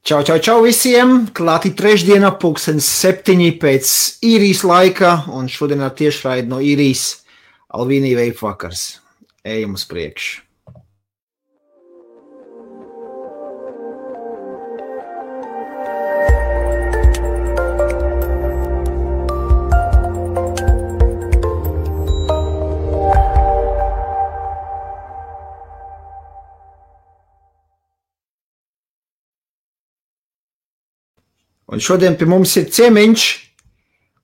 Čau visiem! Klāti trešdiena, 7:00 pēc īrijas laika, un šodien tiešraidi no īrijas Alvīnī Vape vakars. Ejam uz priekšu! Un šodien pie mums ir ciemiņš,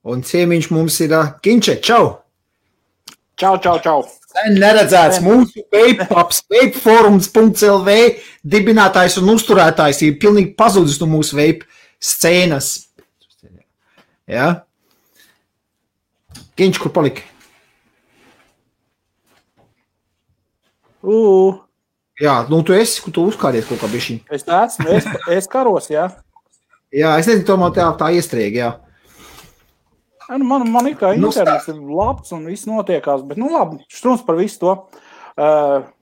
un ciemiņš mums ir Ginče. Čau! Čau! Sen neredzēts mūsu vapepups, vapeforums.lv dibinātājs un uzturētājs ir pilnīgi pazudis no mūsu vape scēnas. Ja? Ginč, kur palika? Jā, nu tu uzkāries kaut kā bišķiņ. Es karos, jā. Jā, es nezinu, tomēr tā iestrēga, jā. Man ir kā internets ir labs un viss notiekās, bet labi, štrums par visu to.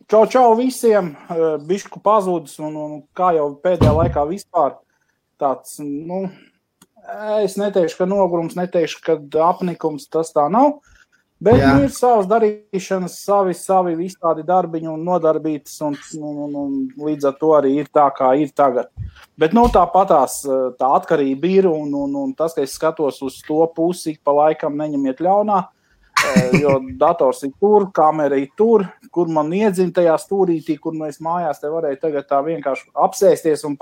Čau visiem, bišku pazudis un kā jau pēdējā laikā vispār tāds, es neteikšu, ka nogurums, neteikšu, ka apnikums, tas tā nav, bet ir savas darīšanas, savi visādi darbiņi un nodarbītas un līdz ar to arī ir tā, kā ir tagad. Bet tāpatās tā atkarība ir un tas, ka es skatos uz to pusi, pa laikam neņemiet ļaunā, jo dators ir tur, kamera ir tur, kur man iedzina tajā stūrītī, kur mēs mājās te varēja tagad tā vienkārši apsēsties un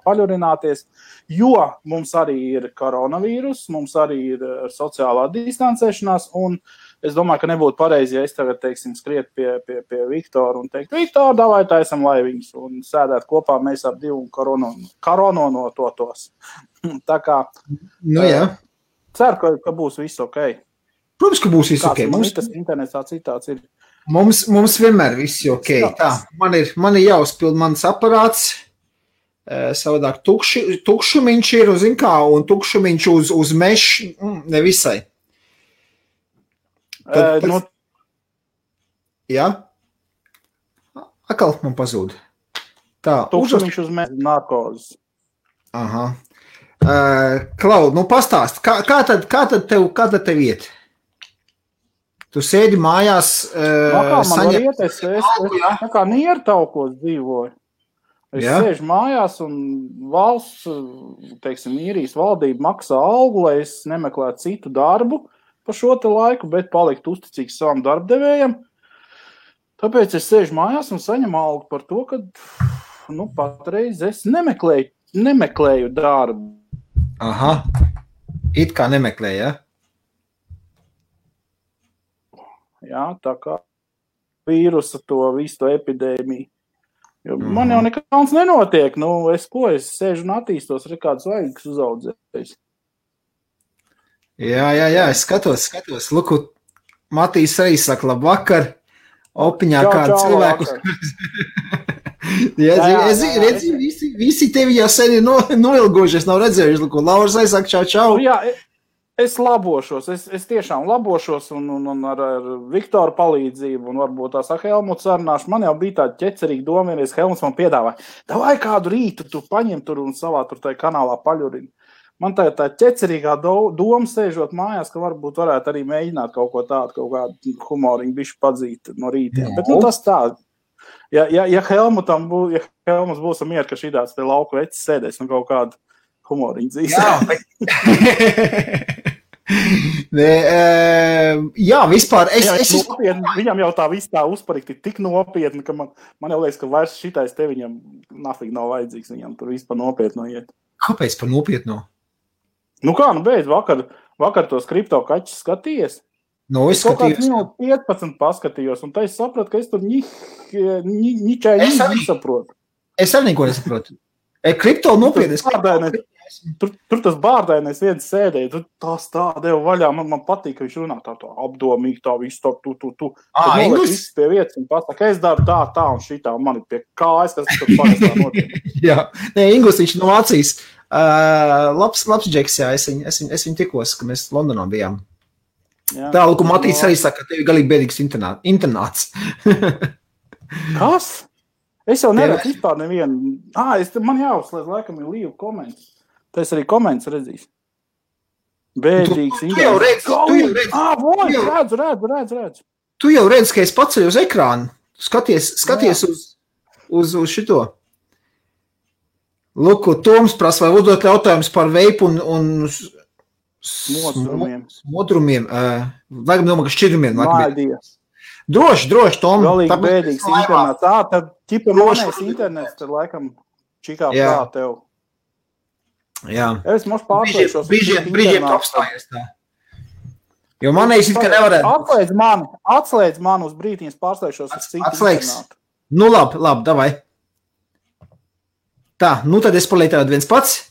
paļurināties, jo mums arī ir koronavīrus, mums arī ir sociālā distancēšanās un es domāju, ka nebūtu pareizi, ja es tagad, skriet pie Viktora un teikt, Viktor, davai taisam laiviņus un sēdēt kopā mēs ap divu korono no totos. Tā kā, ceru, ka būs viss ok. Protams, ka būs viss ok. Mums tas internetā citāds ir. Mums vienmēr viss ir ok. Tā, man ir jāuzpild mans aparāts, savādāk tukšumiņš ir, zin kā, un tukšumiņš uz mešu, nevisai. Jā? Akal man pazūd. Tā, tukšumiņš uz mešu narkozes. Aha. Klau, pastāst, kā tad tev iet? Tu sēdi mājās, es kā niertaukos dzīvoju. Es sēžu mājās un valsts, īrijas valdība maksā algu, lai es nemeklētu citu darbu pa šo te laiku, bet paliktu uzticīgs savam darbdevējam. Tāpēc es sēžu mājās un saņemu algu par to, ka, patreiz es nemeklēju darbu. Aha. It kā nemeklēju, ja? Jā, tā kā vīrusa visu to epidēmiju. Jo man jau nekāds nenotiek. Es sēžu un attīstos, kāds vajag uzaudzējis. Jā, es skatos. Luku, Matīs arī saka, labvakar, opiņā kādu cilvēku. Visi tevi jau sen ir noilgojušies, nav redzējuši, Luku, Lauras aizsaka, čau. Jā, es labošos, es tiešām labošos un ar Viktoru palīdzību un varbūt tās ar Helmutu sarunāšu. Man jau bija tāda ķecerīga doma, vienreiz Helmuts man piedāvāja, davai kādu rītu tu paņem tur un savā tur tai kanālā paļurini. Man tā ķecerīgā doma sēžot mājās, ka varbūt varētu arī mēģināt kaut ko tādu, kaut kādu humoriņu bišķi padzīt no rītiem. Bet tas tā, ja Helmuts būs mier, ka šitās te lauku vecis sēdēs un kaut kādu humoriņu dzīs. Jā, vispār. Viņam jau tā viss tā uzparikti tik nopietni, ka man jau liekas, ka vairs šitais te viņam nafīgi nav vajadzīgs, viņam tur vispār nopietno iet. Kāpēc par nopietno? Beidz, vakar tos kripto kaķis skatījies. Es skatījos. Kaut kāds 15 paskatījos, un tā es sapratu, ka es tur ničai nesaprotu. Es arī neko nesaprotu. Kripto nopietni. Tur tas bārdainais viens sēdēja, tur tās tā deva vaļā, man patīk, ka viņš runā tā apdomīgi, tā visu tu. Inglis? Viss pie vietas un pasaka, es daru tā un šitā, un man ir pie kājas, kas tur parastā notiek. Jā, Inglis, viņš no Vācijas. Labs džeks, jā, es viņu tikos, ka mēs Londonā bijām. Tā, Luku, Matīs arī saka, ka tevi galīgi bēdīgs internāts. Kas? Es jau neredzu vispār nevienu. Man jāuzslēdz, laikam, ir līvu komentus. Tā es arī komentus redzīs. Bēdīgs. Tu jau redzu. Tu jau redzi, ka es paceļu uz ekrānu. Skaties uz šito. Lūk, Toms prasa, vai uzdot jautājumus par veipu un modrumiem. Vajag domāt, ka šķidrumiem. Mādies. Droši, Tom. Galīgi bēdīgs internets. Tad ķipa monēs internets, tad laikam čikā prā tev. Jā. Es mums pārslēgšos. Brīžiem apstājies tā. Jo manējis it, ka nevarētu. Atslēdz man uz brītiņas pārslēgšos. Atslēgs. Nu labi, davai. Tā, tad es palieku viens pats.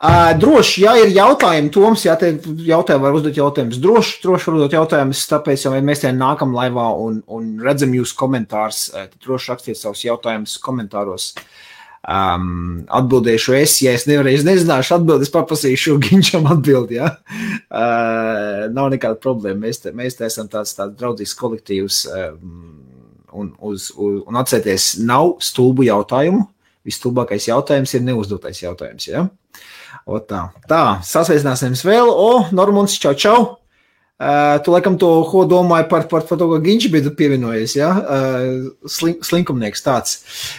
Droši, ja ir jautājumi, Toms, ja te jautājumi var uzdot jautājumus, droši var uzdot jautājumus, tāpēc, ja mēs te nākam laivā un redzam jūs komentārus, tad droši rakstiet savus jautājumus komentāros. Atbildēšu ja es nezināšu atbildi, es paprasīšu Ginčam atbildi, ja? Nav nekāda problēma, mēs te esam tāds draudzīgs kolektīvs, un atcerieties, nav stulbu jautājumu, visstulbākais jautājums ir neuzdotais jautājums, ja? Tā, sasveicināsimies vēl. Normons, čau. Tu laikam to, ko domāji par to, ko Ginči bija pievienojies, ja? Slinkumnieks tāds.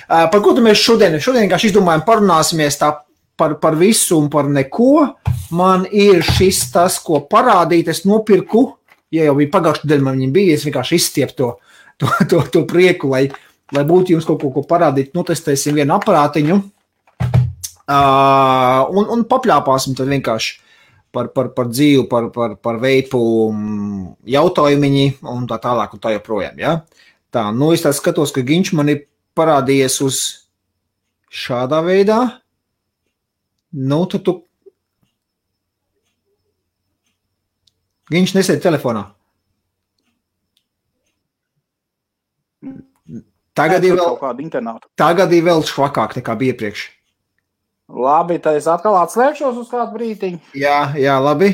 Par ko tu mēs šodien vienkārši izdomājam, parunāsimies tā par visu un par neko. Man ir šis tas, ko parādīt, es nopirku, ja jau bija pagājušajā nedēļā, man viņam bija, es vienkārši izstiepu to prieku, lai būtu jums kaut ko parādīt, notestēsim vienu aparātiņu. Un papļāpāsim tad vienkārši par dzīvi, par veipu jautājumiņi un tā tālāk un tā joprojām, ja? Tā, es tā skatos, ka Ginč man ir parādījies uz šādā veidā. Tad tu... Ginč nesēd telefonā. Tagad ir vēl švakāk nekā bija iepriekš. Labi, tad es atkal atslēgšos uz kādu brītiņu. Jā, labi.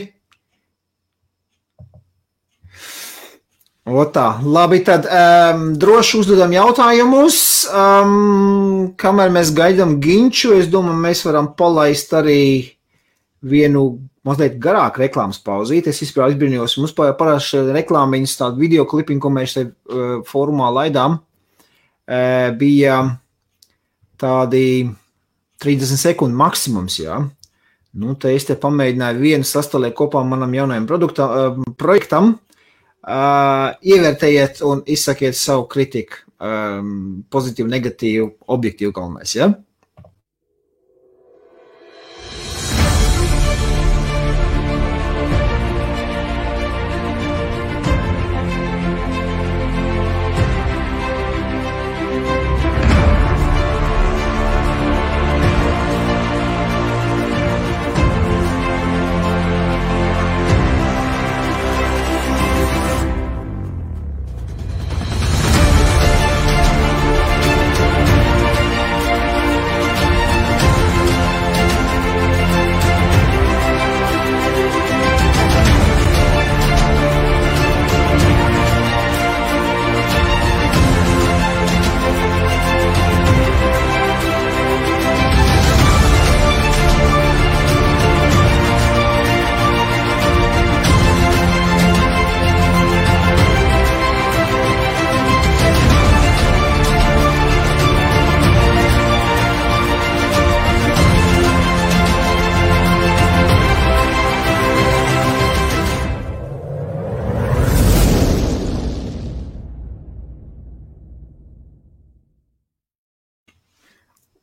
Labi, tad droši uzdodam jautājumus. Kamēr mēs gaidām Ginču, es domāju, mēs varam palaist arī vienu mazliet garāku reklāmas pauzīt. Es vispār izbrīnījos, mums parasti reklāmiņas tādu video klipiņu, ko mēs te fórumā laidām, bija tādi 30 sekundi maksimums, jā. Te es te pamēģināju vienu sastālēt kopā manam jaunajam projektam. Ievērtējiet un izsakiet savu kritiku. Pozitīvu, negatīvu, objektīvu galvenais, jā.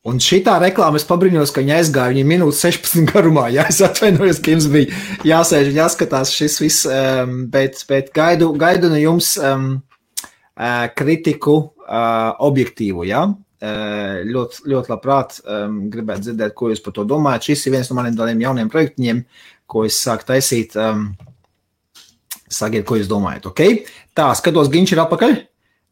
Un šitā reklāma es pabrīņos, ka viņa aizgāja viņa minūtes 16 garumā. Jā, es atvainojos, ka jums bija jāsēž un jāskatās šis viss, bet gaidu no jums kritiku objektīvu, jā. Ļoti labprāt gribētu dzirdēt, ko jūs par to domājat. Šis ir viens no maniem tādiem jauniem projektiņiem, ko es sāku taisīt. Sakiet, ko jūs domājat, ok? Tā, skatos, Ginč ir atpakaļ.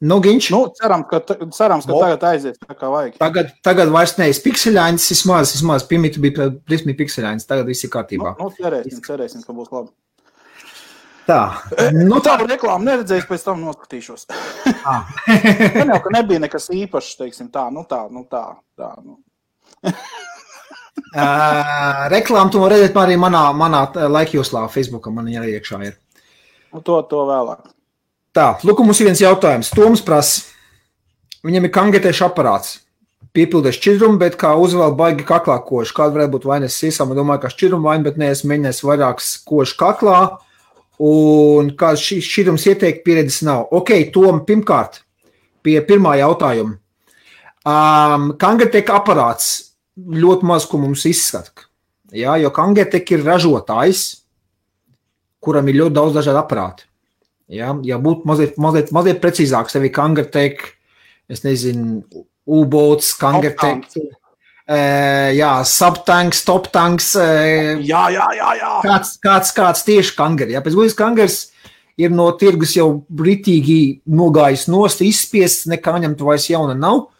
Ginč. Cerams, ka tagad aizies tā kā vajag. Tagad vairs nevis pikseļains, vismaz pirmīt bija prismī pikseļains, tagad viss ir kārtībā. Cerēsim, ka būs labi. Tā. Nu, tādu reklāmu neredzējis, pēc tam noskatīšos. Man jau, ka nebija nekas īpašs, teiksim, tā. Reklāmu tu var redzēt arī manā laikjoslā, Facebookā man arī iekšā ir. To vēlāk. Tā, lūk, mums ir viens jautājums. Toms prasa, viņam ir kangetēšu aparāts. Piepildēs šķidrumu, bet kā uzvēl baigi kaklā koši. Kāda varētu būt vainas sīsām? Domāju, ka šķidrumu vaina, bet neesmu mēģinājis vairākas koši kaklā. Un kāds šķidrums ieteikt pieredzes nav. Ok, Tom, pirmkārt, pie pirmā jautājuma. Kangeteka aparāts ļoti maz, ko mums izskata. Jā, jo Kangeteka ir ražotājs, kuram ir ļoti daudz dažādu aparātu. Jā, ja būtu mazliet precīzāk, sevi Kangeteka, es nezinu, U-boats, Kangeteka, subtanks, toptanks. Jā. Kāds tieši kangeri. Pēc būtības kangers ir no tirgus jau britīgi nogājis nost, izspiests, nekā ņemt vairs jauna nav.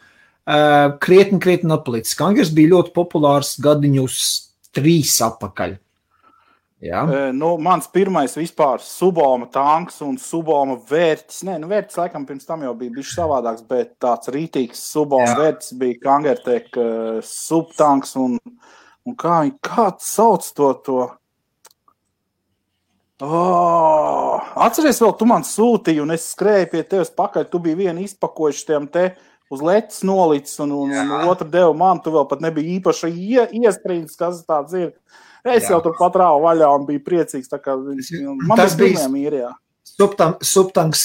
Krietni atpalicis. Kangers bija ļoti populārs gadiņus 3 atpakaļ. Jā. Mans pirmais vispār Suboma tanks un Suboma vērtis. Vērtis laikam pirms tam jau bija bišķi savādāks, bet tāds rītīgs Suboma vērtis bija Kangertek subtanks un kāds sauc to. Atceries vēl, tu man sūtīji un es skrēju pie tevis pakaļ, tu biji vienu izpakojuši tiem te uz letes nolicis un otru devu man, tu vēl pat nebija īpaši iestrīdis, kas tāds ir. Es jau tur patrāvu vaļā un biju priecīgs, tā kā man tas bija mīri, jā. Subtanks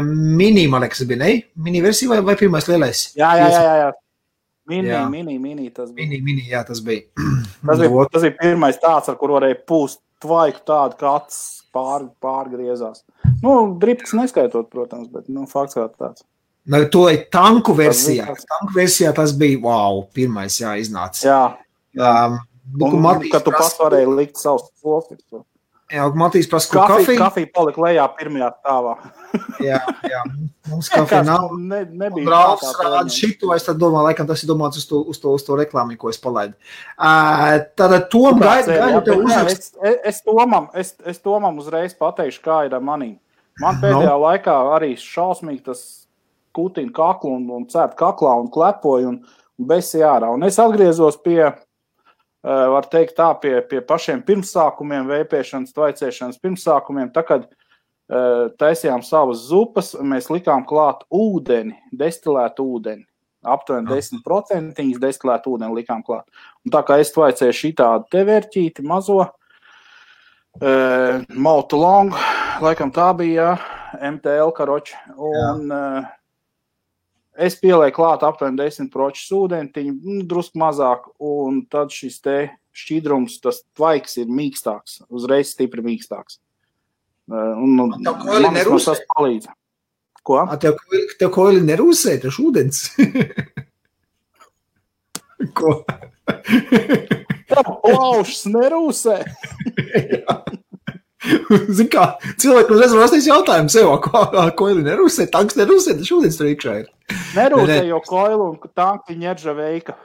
mini, man liekas, bija, ne? Mini versija vai pirmais lielais? Jā. Mini tas bija. Mini, jā, tas bija. Tas bija pirmais tāds, ar kur varēja pūst tvaiku tādu, ka acis pārgriezās. Dripks neskaitot, protams, bet, fakts kā tāds. To ir tanku versijā. Tanku versijā tas bija, wow, pirmais, jā, iznāca. Jā. Kad tu pats varēji likt savus profils. Jā, Matīs prasa, ko kafiju? Kafija palika lejā pirmajā stāvā. Jā, mums kafija nav. Nebija. Brālis rāda šito, es tad domāju, laikam tas ir domāts uz to reklāmi, ko es palaidu. Tātad Tom gaidu tev uzrakst. Es Tomam uzreiz pateikšu, kā ir ar manī. Man pēdējā laikā arī šausmīgi tas kutina kaklu un cērt kaklā un klepoju un besi ārā. Un es atgriezos pie var teikt tā, pie pašiem pirmsākumiem, vēpēšanas, tvaicēšanas pirmsākumiem. Tā, kad taisījām savas zupas, mēs likām klāt ūdeni, destilētu ūdeni. Aptuveni 10% destilētu ūdeni likām klāt. Un tā kā es tvaicēju šitādu te vērķīti mazo, Mautu Long, laikam tā bija, MTL karoči. Un es pielēju klāt aptuveni 10% ūdentiņu, drusku mazāk, un tad šis te šķidrums, tas tvaiks ir mīkstāks, uzreiz stipri mīkstāks. Tev koili nerūsē? Tas palīdz. Ko? Tev koili nerūsē, tas ūdens? Ko? Tev plaušas nerūsē? Jā. Zin kā, cilvēki uzreiz var rastīs jautājumu sev, koili nerūsē, tanks nerūsē, tas ūdens tur iekšā ir. Nerūsē, jo koili un tanki ņerža veika.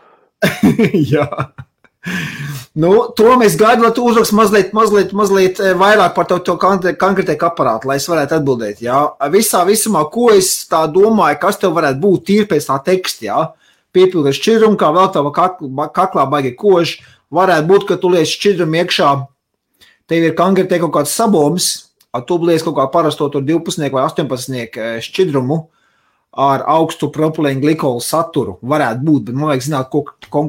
Jā. To mēs gaidu, lai tu uzrakst mazliet vairāk par to konkrētēku aparātu, lai es varētu atbildēt, jā. Visumā, ko es tā domāju, kas tev varētu būt tīri pēc tā teksta, jā. Piepildēt šķidrumu, kā vēl tava kaklā baigi koži, varētu būt, ka tu liec šķidrumu iekšā. Tev ir kangertē kaut kāds saboms, tu liec kaut kā parasto tur 12 vai 18 šķidrumu ar augstu propilēnu glikolu saturu. Varētu būt, bet man vajag zināt,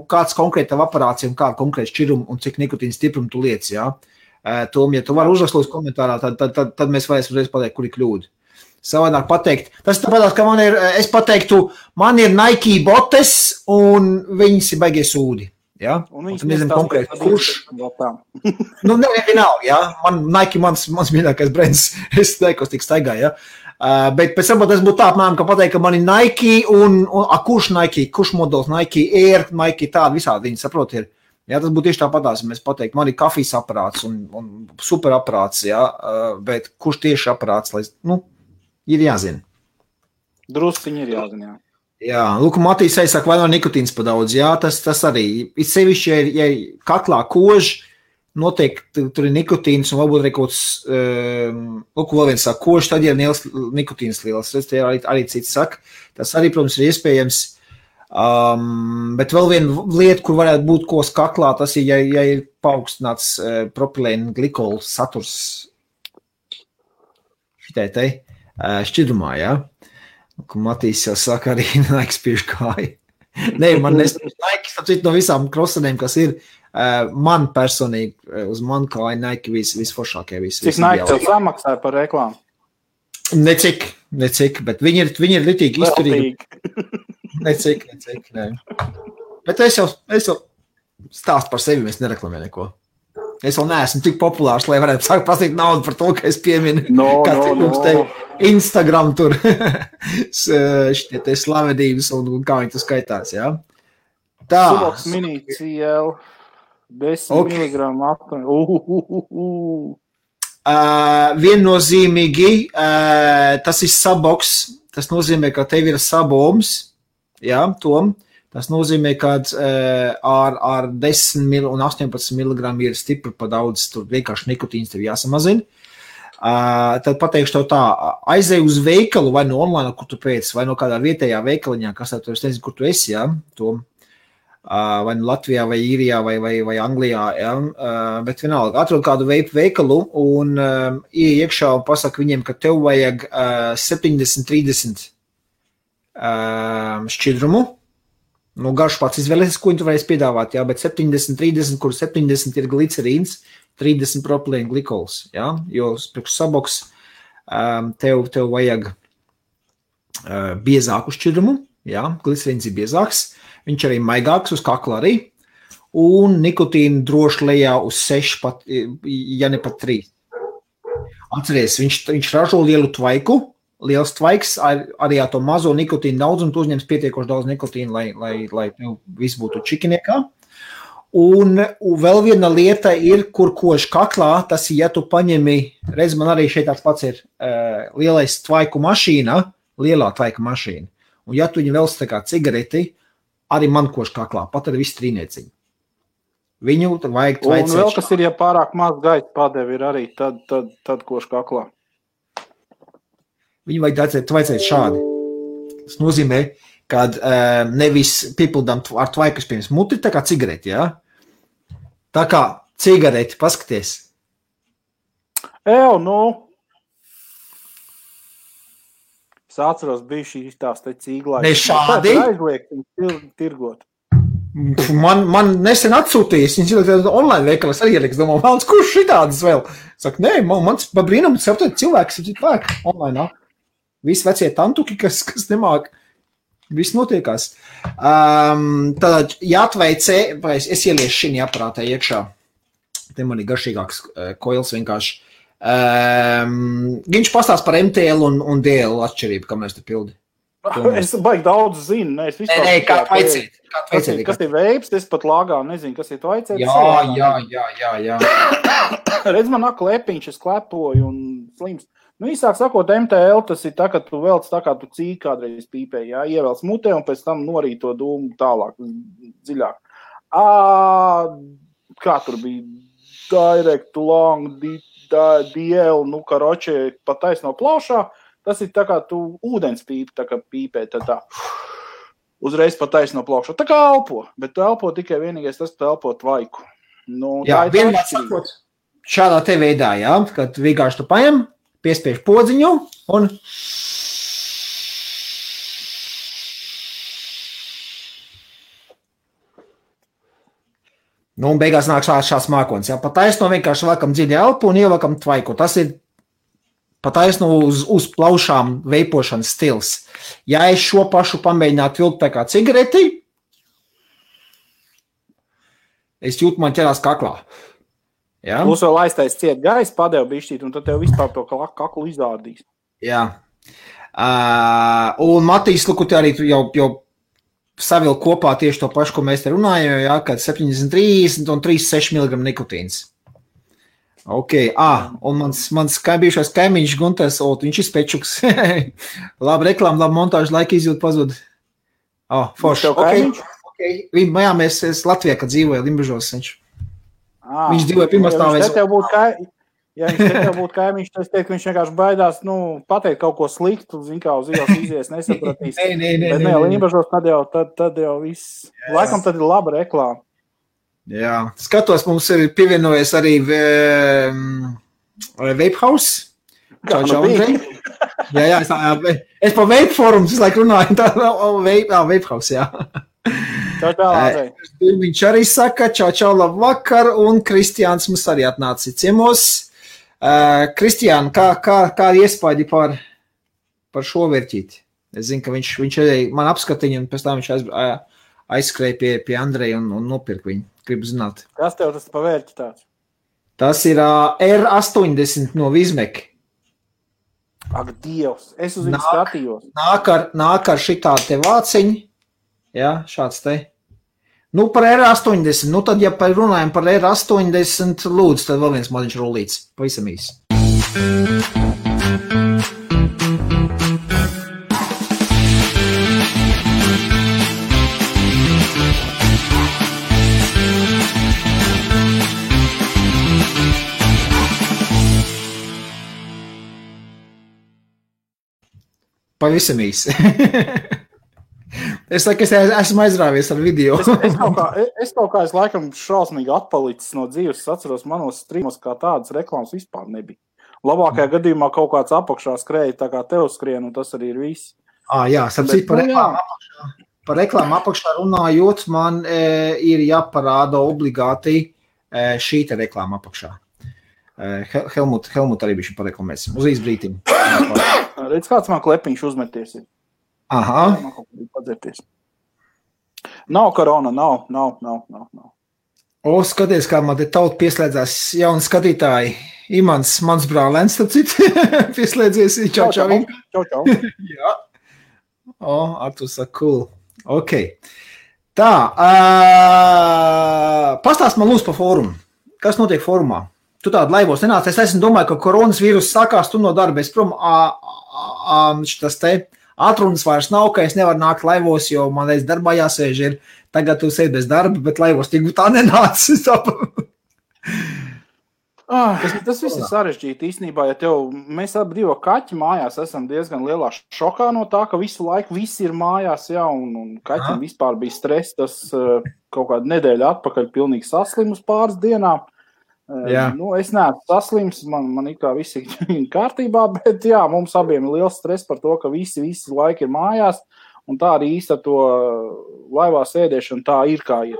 kāds konkrēta aparācija un kāda konkrēta šķidruma un cik nikotīna stiprumu tu liec, jā. Tom, ja tu vari uzrakst komentārā, tad mēs varēsim uzreiz pateikt, kur ir kļūda. Savādāk pateikt. Tas tāpēc, ka es pateiktu, man ir Nike botes un viņas ir baigie sūdi. Ja? Un viņš nezinu konkrēti, kurš. Vienalga, ja? Nike mans mīļākais brands, es neikos tik staigā, ja? Bet pēc tam tas būtu tā, apmēram, ka pateikt, ka man ir Nike un kurš Nike, kurš modelis Nike Air, Nike tādi visādi viņi saprot ir. Ja, tas būtu tieši tāpatās, mēs pateikt, man ir kafijas aparāts un super aparāts, ja? Bet kurš tieši aparāts, lai, ir jāzina. Drusciņi ir jāzina, jā. Jā, lūk, Matīs saka, vai nav nikotīns pa daudz, jā, tas arī, it sevišķi, ja kaklā koži, noteikti tur ir nikotīns un varbūt arī kaut kāds, vēl viens saka, koši, tad ir liels nikotīns liels. Tas arī cits saka. Tas arī, protams, ir iespējams. Bet vēl viena lieta, kur varētu būt kos kaklā, tas ir, ja ir paaugstināts propilēna glikola saturs šitai te šķidrumā, jā. Kur Matīs jau saka arī Nike spiež kāju. Nē, man Nike, no visām krosanēm, kas ir, man personīgi, uz man kāju Nike visforšākie. Cik Nike tev samaksāja par reklāmu? Necik, bet viņi ir litīgi izturīgi. Necik, nē. Bet es jau stāstu par sevi, es nereklamēju neko. Es vēl neesmu tik populārs, lai varētu sākt prasīt naudu par to, ka es pieminu, te Instagram tur šitie te slavedības un kā viņi tu skaitās, jā. Tā. Suboks mini CL 10 miligramu aptuveni. Viennozīmīgi, tas ir saboks, tas nozīmē, ka tev ir saboms, jā, Tom. Tas nozīmē, ka ar 10 un 18 mg ir stipri pa daudz, tur vienkārši nikotīns tev jāsamazina. Tad pateikšu tev tā, aizej uz veikalu vai no online, kur tu pēc, vai no kādā vietējā veikaliņā, kas tev, es nezinu, kur tu esi, jā, Tom. Vai no Latvijā, vai Īrijā, vai Anglijā, jā, bet vienalga, atrod kādu veikalu un iekšā un pasaka viņiem, ka tev vajag 70-30 šķidrumu. Nu, garš pats izvēlēsies, ko viņi tu varēs piedāvāt, jā, bet 70-30, kur 70 ir glicerīns, 30 propilēna glikols, jā, jo priekš saboks tev vajag biezāku šķidrumu, jā, glicerīns ir biezāks, viņš arī maigāks uz kakla arī, un nikotīnu droši lejā uz 6, pat, ja ne pat 3. Atceries, viņš ražo lielu tvaiku, liels tvaiks, arī ar to mazo nikotīnu daudzumu, tu uzņems pietiekoši daudz nikotīnu, lai viss būtu čikiniekā. Un vēl viena lieta ir, kur koši kaklā, tas ir, ja tu paņemi, redz, man arī šeit tāds pats ir lielais tvaiku mašīna, lielā tvaika mašīna. Un ja tu viņu vēl tā kā cigareti, arī man koši kaklā, pat ar visu trīnieciņu. Viņu vajag tvaicēt. Un vēl kas ir, ja pārāk maz gaita padevi ir arī, tad koši kaklā. Viņu vajag tvaicēt šādi. Tas nozīmē, ka nevis piepildām ar tvaikas pirms muti, tā kā cigareti, jā? Tā kā cigareti, paskaties. Nu. Es atceros, bija šīs tās te cīglājas. Ne šādi? Aizliegt tirgot. Man nesen atsūtījis, viņš ir online veikalas arī ieliks, domā, vēlams, kurš šitādas vēl? Saka, nē, mans pa brīnumu saptot cilvēks online. Visi vecie tantuki, kas nemāk, viss notiekās. Tad jāatveicē, es ieliešu šī aparātā iekšā. Te man ir garšīgāks koils vienkārši. Viņš pastāst par MTL un DL atšķirību, kā mēs te pildi. Es baigi daudz zinu. Nē, kā tvaicēt. Kas ir veips, es pat lāgā nezinu, kas ir tvaicēt. Jā. Redz, man nāk klepiņš, es klepoju un slims. Nu, īsāk sakot, MTL tas ir tā, ka tu velc tā, kā tu cīki kādreiz pīpē, jā, ievelc mutē un pēc tam norīt to dūmu tālāk, dziļāk. Kā tur bija? Direct, long, DL, nu, karoči, pa taisno plaušā, tas ir tā, kā tu ūdens pīpi, tā kā pīpē, tā uzreiz pa taisno plaušā. Tā kā elpo, bet tu elpo tikai vienīgais tas, tu elpo tvaiku. Nu, jā, vienmēr sakot, šādā te veidā, jā, kad vienkārši tu paņem, piespiež podziņu un un beigās nāk šāds mākonis. Jā. Pataisno vienkārši vēlkam dziļi elpu un ievelkam tvaiku. Tas ir pataisno uz plaušām veipošanas stils. Ja es šo pašu pamēģinātu vilkt tā kā cigareti, es jūtu, man ķerās kaklā. Ja? Plus vēl aiztais ciet gaisa, padev bišķīt, un tad tev vispār to kaklu izārdīs. Jā. Un Matīs, luku, te arī jau savil kopā tieši to pašu, ko mēs te runājam, jā, kad 70-30 un 3,6 mg nikotīns. Ok, un mans bijušais kaimiņš Gunters, viņš ir spečuks. Labi reklāma, labi montāžu, laika izjūt pazud. Forši. Okay. Mēs Latvijā, kad dzīvoja Limbažos, viņš. Viņš dzīvoja pirmā stāvēs. Ja viņš te tev būtu kaimiņš, tad es teiktu, ka viņš vienkārši baidās, pateikt kaut ko sliktu, zin kā uz ielas izies, nesapratīs. Bet Lībažos tad jau viss. Laikam tad ir laba reklāma. Jā, skatos, mums ir pievienojies arī Vape House. Čau, Andrej. Jā, es pa Vape Forums visu laiku runāju, tā Vape House, jā. Čau, Andrej. Viņš arī saka, čau, labvakar, un Kristiāns mums arī atnāca ciemos. Kristiāna, kā iespaidi par šo vērķīti? Es zinu, ka viņš arī man apskatīja, un pēc tam viņš aizskrēja pie Andreja un nopirka viņu. Gribu zināt. Kas tev tas pa vērķi tāds? Tas ir R80 no Vizmek. Ak, Dievs, es uz viņu skatījos. Nāk ar šitā te vāciņu. Jā, šāds te. Par R80, tad, ja runājam par R80, lūdzu, tad vēl viens maziņš rullīts, pavisam īsi. Pavisam īsi. Es saku, es esmu aizrāvies ar video. Es kaut kā es laikam šausmīgi atpalicis no dzīves. Es atceros, manos streamos kā tādas reklāmas vispār nebija. Labākajā gadījumā kaut kāds apakšā skrēja, tā kā tev skrien, un tas arī ir viss. Jā, sapcīt par reklāmu apakšā runājot, man ir jāparāda obligāti šī te reklāma apakšā. Helmut arī bišķi pareklamēsim. Uz īsbrītiņu. Redz, kāds man klepiņš uzmeties ir. Aha. Nav korona, nav. Skaties, kā man te tauta pieslēdzās jauni skatītāji. Imants, mans brālēns, tad citi pieslēdzies. Čau. Jā. Arturs saka, cool. Ok. Tā, pastāst man lūdzu par fórumu. Kas notiek fórumā? Tu tādu laivos nenāc. Es esmu domāju, ka koronas vīrus sākās, tu no darba. Es prom, šitas te atrunas vairs nav, ka es nevaru nākt laivos, jo man reiz darbā jāsēž ir. Tagad tu sēdi bez darba, bet laivos tik tā nenāc. Tas viss ir sarežģīti īstenībā, ja mēs abi divi kaķi mājās esam diezgan lielā šokā no tā, ka visu laiku visi ir mājās, jā, un kaķim vispār bija stress, tas kaut kādu nedēļu atpakaļ pilnīgi saslimus pāris dienām. Es neesmu saslims, man it kā viss ir kārtībā, bet jā, mums abiem ir liels stress par to, ka visi laiki ir mājās, un tā arī īsti ar to laivā sēdēšanu tā ir kā ir.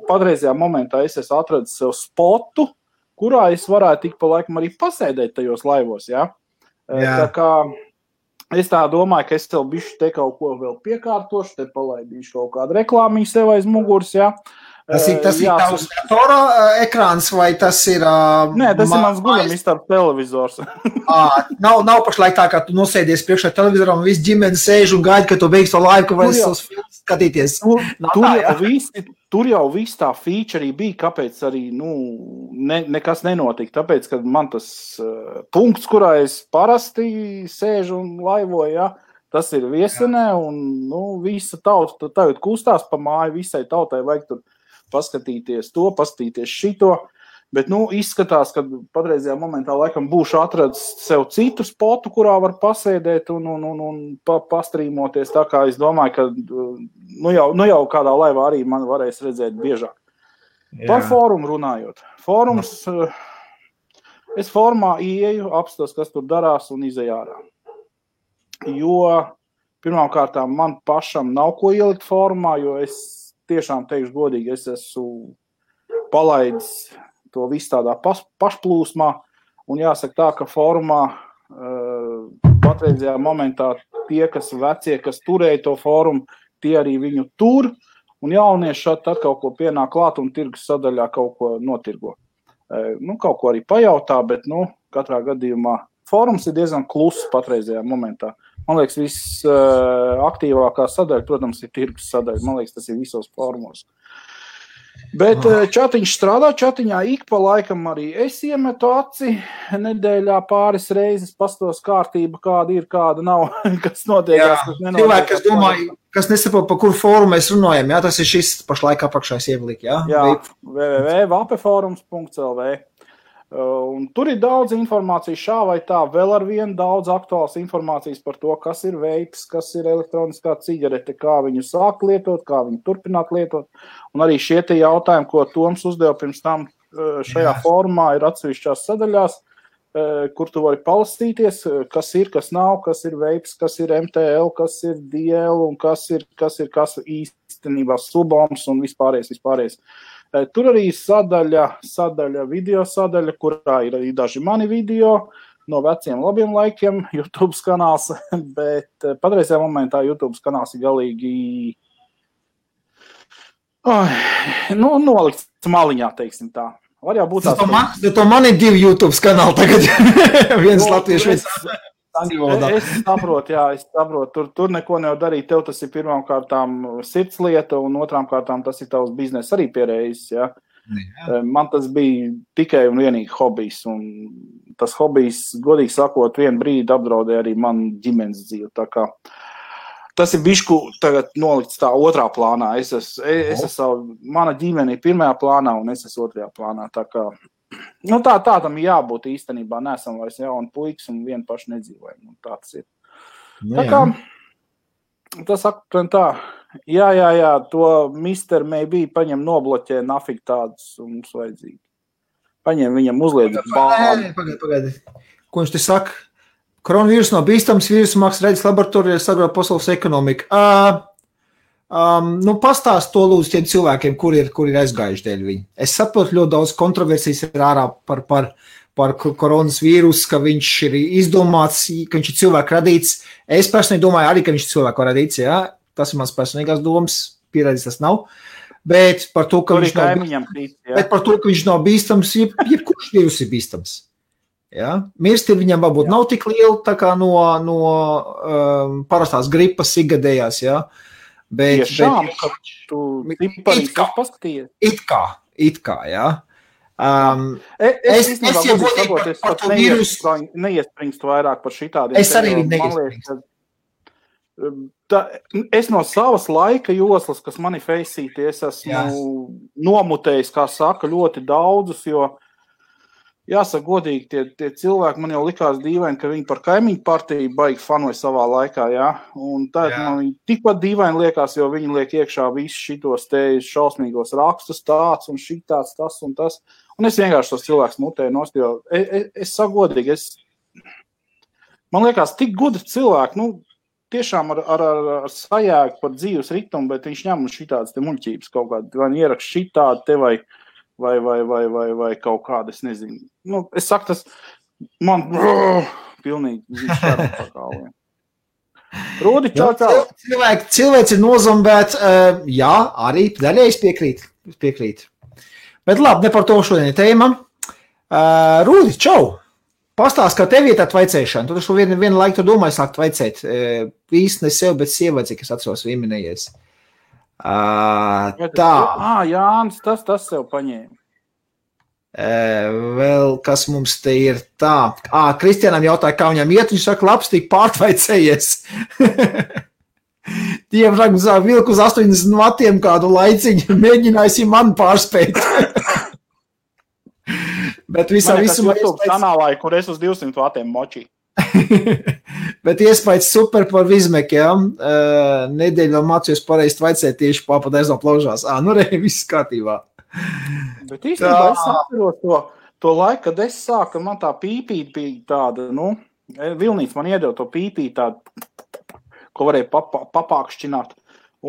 Patreizajā momentā es esmu atradis sev spotu, kurā es varētu tik pa laikam arī pasēdēt tajos laivos, jā. Tā kā es tā domāju, ka es tev bišķi te kaut ko vēl piekārtošu, te palaidīšu kaut kādu reklāmiņu sev aiz muguras, jā. Tas ir tavs datora ekrāns vai tas ir... Nē, tas ir mans guļamistabas televizors. Nav pašlaik tā, ka tu nosēdies priekšā televizoram un viss ģimene sēž un gaida, ka tu beigsi to laivu, ka vairs savus filmus skatīties. Tur jau viss tā feature bija, kāpēc arī nekas nenotika. Tāpēc, ka man tas punkts, kurā es parasti sēžu un laivoju, ja, tas ir Viesenē un visa tauta tagad kustās pa māju, visai tautai vajag tur paskatīties to, paskatīties šito, bet, izskatās, ka patreizajā momentā laikam būšu atradis sev citu spotu, kurā var pasēdēt un pastrīmoties, tā kā es domāju, ka jau kādā laivā arī man varēs redzēt biežāk. Jā. Par fórumu runājot. Fórums, es fórumā ieeju, apstos, kas tur darās un izēju ārā. Jo pirmām kārtām man pašam nav ko ielikt fórumā, jo es tiešām teikšu godīgi, es esmu palaidis to visu tādā pašplūsmā, un jāsaka tā, ka fórumā patreizajā momentā tie, kas vecie, kas turēja to fórumu, tie arī viņu tur, un jaunieši tad kaut ko pienāk klāt un tirgus sadaļā kaut ko notirgo. Kaut ko arī pajautā, bet, katrā gadījumā fórums ir diezgan kluss patreizajā momentā. Man liekas, viss aktīvākā sadaļa, protams, ir tirgus sadaļa. Man liekas, tas ir visos fórumos. Bet čatiņš strādā, čatiņā ik pa laikam arī es iemetu aci nedēļā pāris reizes, pastos kārtība, kāda ir, kāda nav, kas notiekās, kas nenotiekās. kas nesaprot, par kuru fórumu mēs runājam, jā, tas ir šis pašlaik apakšais ievlik, jā? Jā, www.vapeforums.lv. Un tur ir daudz informācijas šā vai tā, vēl ar vienu daudz aktuāls informācijas par to, kas ir veips, kas ir elektroniskā cigarete, kā viņu sākt lietot, kā viņu turpināt lietot. Un arī šie tie jautājumi, ko Toms uzdeva pirms tam šajā formā, ir atsevišķās sadaļās, kur tu vari palastīties, kas ir, kas nav, kas ir veips, kas ir MTL, kas ir DL un kas īstenībā suboms un vispārējais. Tur arī sadaļa, video sadaļa, kurā ir arī daži mani video no veciem labiem laikiem, YouTube kanāls, bet patreizajā momentā YouTube kanāls ir galīgi nolikts maliņā, teiksim tā. Var jau būt tāds. To man ir 2 YouTube kanāli tagad. Viens latviešu, viens angļu valodā. Es saprotu. Tur neko nevar darīt. Tev tas ir pirmām kārtām sirds lieta un otrām kārtām tas ir tavs bizness arī pierējis, ja. Man tas bija tikai un vienīgi hobijs. Un tas hobijs, godīgi sakot, vienu brīdi apdraudēja arī man ģimenes dzīvi. Tā kā tas ir bišku tagad nolikts tā otrā plānā. Mana ģimene ir pirmajā plānā un es esmu otrajā plānā. Tā kā, tā tam jābūt īstenībā. Nesam vairs jauni puikas un vien paši nedzīvojam. Tā tas ir. Tā kā, tas aptuveni tā. Jā, to Mr. Maybe paņem nobloķē nafik tādus un mums vajadzīgi. Paņem viņam uzliedz bāli. Pagaidi. Ko viņš te saka? Koronavīrus nav bīstams, vīrusu mākslas redzes laboratorijā sagrauj pasaules ekonomiku. Pastāst to lūdzu tiem cilvēkiem, kur ir aizgājuši dēļ viņi. Es saprotu, ļoti daudz kontroversijas ir ārā par koronas vīrusu, ka viņš ir izdomāts, ka viņš ir cilvēku radīts. Es personīgi domāju arī, ka viņš ir cilvēku radīts, jā. Tas ir mans personīgās domas, pierādīts tas nav. Bet par to, ka viņš nav bīstams, jebkurš vīrus ir bīstams. Ja? Mirstība viņam varbūt nav tik liela tā kā no parastās gripas ikgadējās, ja? Bet it kā, ja? Es neiespringstu vairāk par šitādiem. Es arī neiespringstu. Es no savas laika joslas, kas mani feisīti, es esmu nomutējis, kā saka, ļoti daudzus, jo jāsaka godīgi, tie cilvēki man jau likās dīvaini, ka viņi par kaimiņu partiju baigi fanoja savā laikā, jā. Un tā man viņi tikpat dīvaini liekas, jo viņi liek iekšā visus šitos te šausmīgos rakstus tāds un šitāds, tas un tas. Un es vienkārši tos cilvēkus mutēju nost, jo es saku godīgi, man liekas tik gudri cilvēki, tiešām ar sajēgu par dzīves ritumu, bet viņš ņem šitādas te muļķības kaut kādi, vai ierakst šitādi te vai kaut kāda, es nezinu. Es saku, tas man pilnīgi šķēram par kāliem. Rūdi, čau. Cilvēks ir nozombēts, jā, arī daļai es piekrīt. Bet labi, ne par to šodien tēma. Rūdi, čau. Pastāst, kā tev ir tā vaicēšana. Tu taču vienu laiku domāji sākt vaicēt. Īsti ne sev, bet sievai, cik es atceros vienminējies. Tā. Jānis, tas sev paņēma. Vēl kas mums te ir tā. Kristianam jautāja, kā viņam iet, viņš saka, labs, tik pārtvaicējies. Diemžēl vilku uz 80 vatiem kādu laiciņu, mēģinājusi man pārspēt. Bet visā visumā YouTube kanālā, kur es uz 200 vatiem močī. Bet iespējas super par Vizmek, jā. Nedēļu vēl mācījos pareizi vaicēt tieši pārpat aiz no plaužās. Viss kārtībā. Bet īstenībā es atceros to laiku, kad es sāku, man tā pīpīt bija tāda, Vilnīts man iedeva to pīpīt tādu, ko varēja papākšķināt.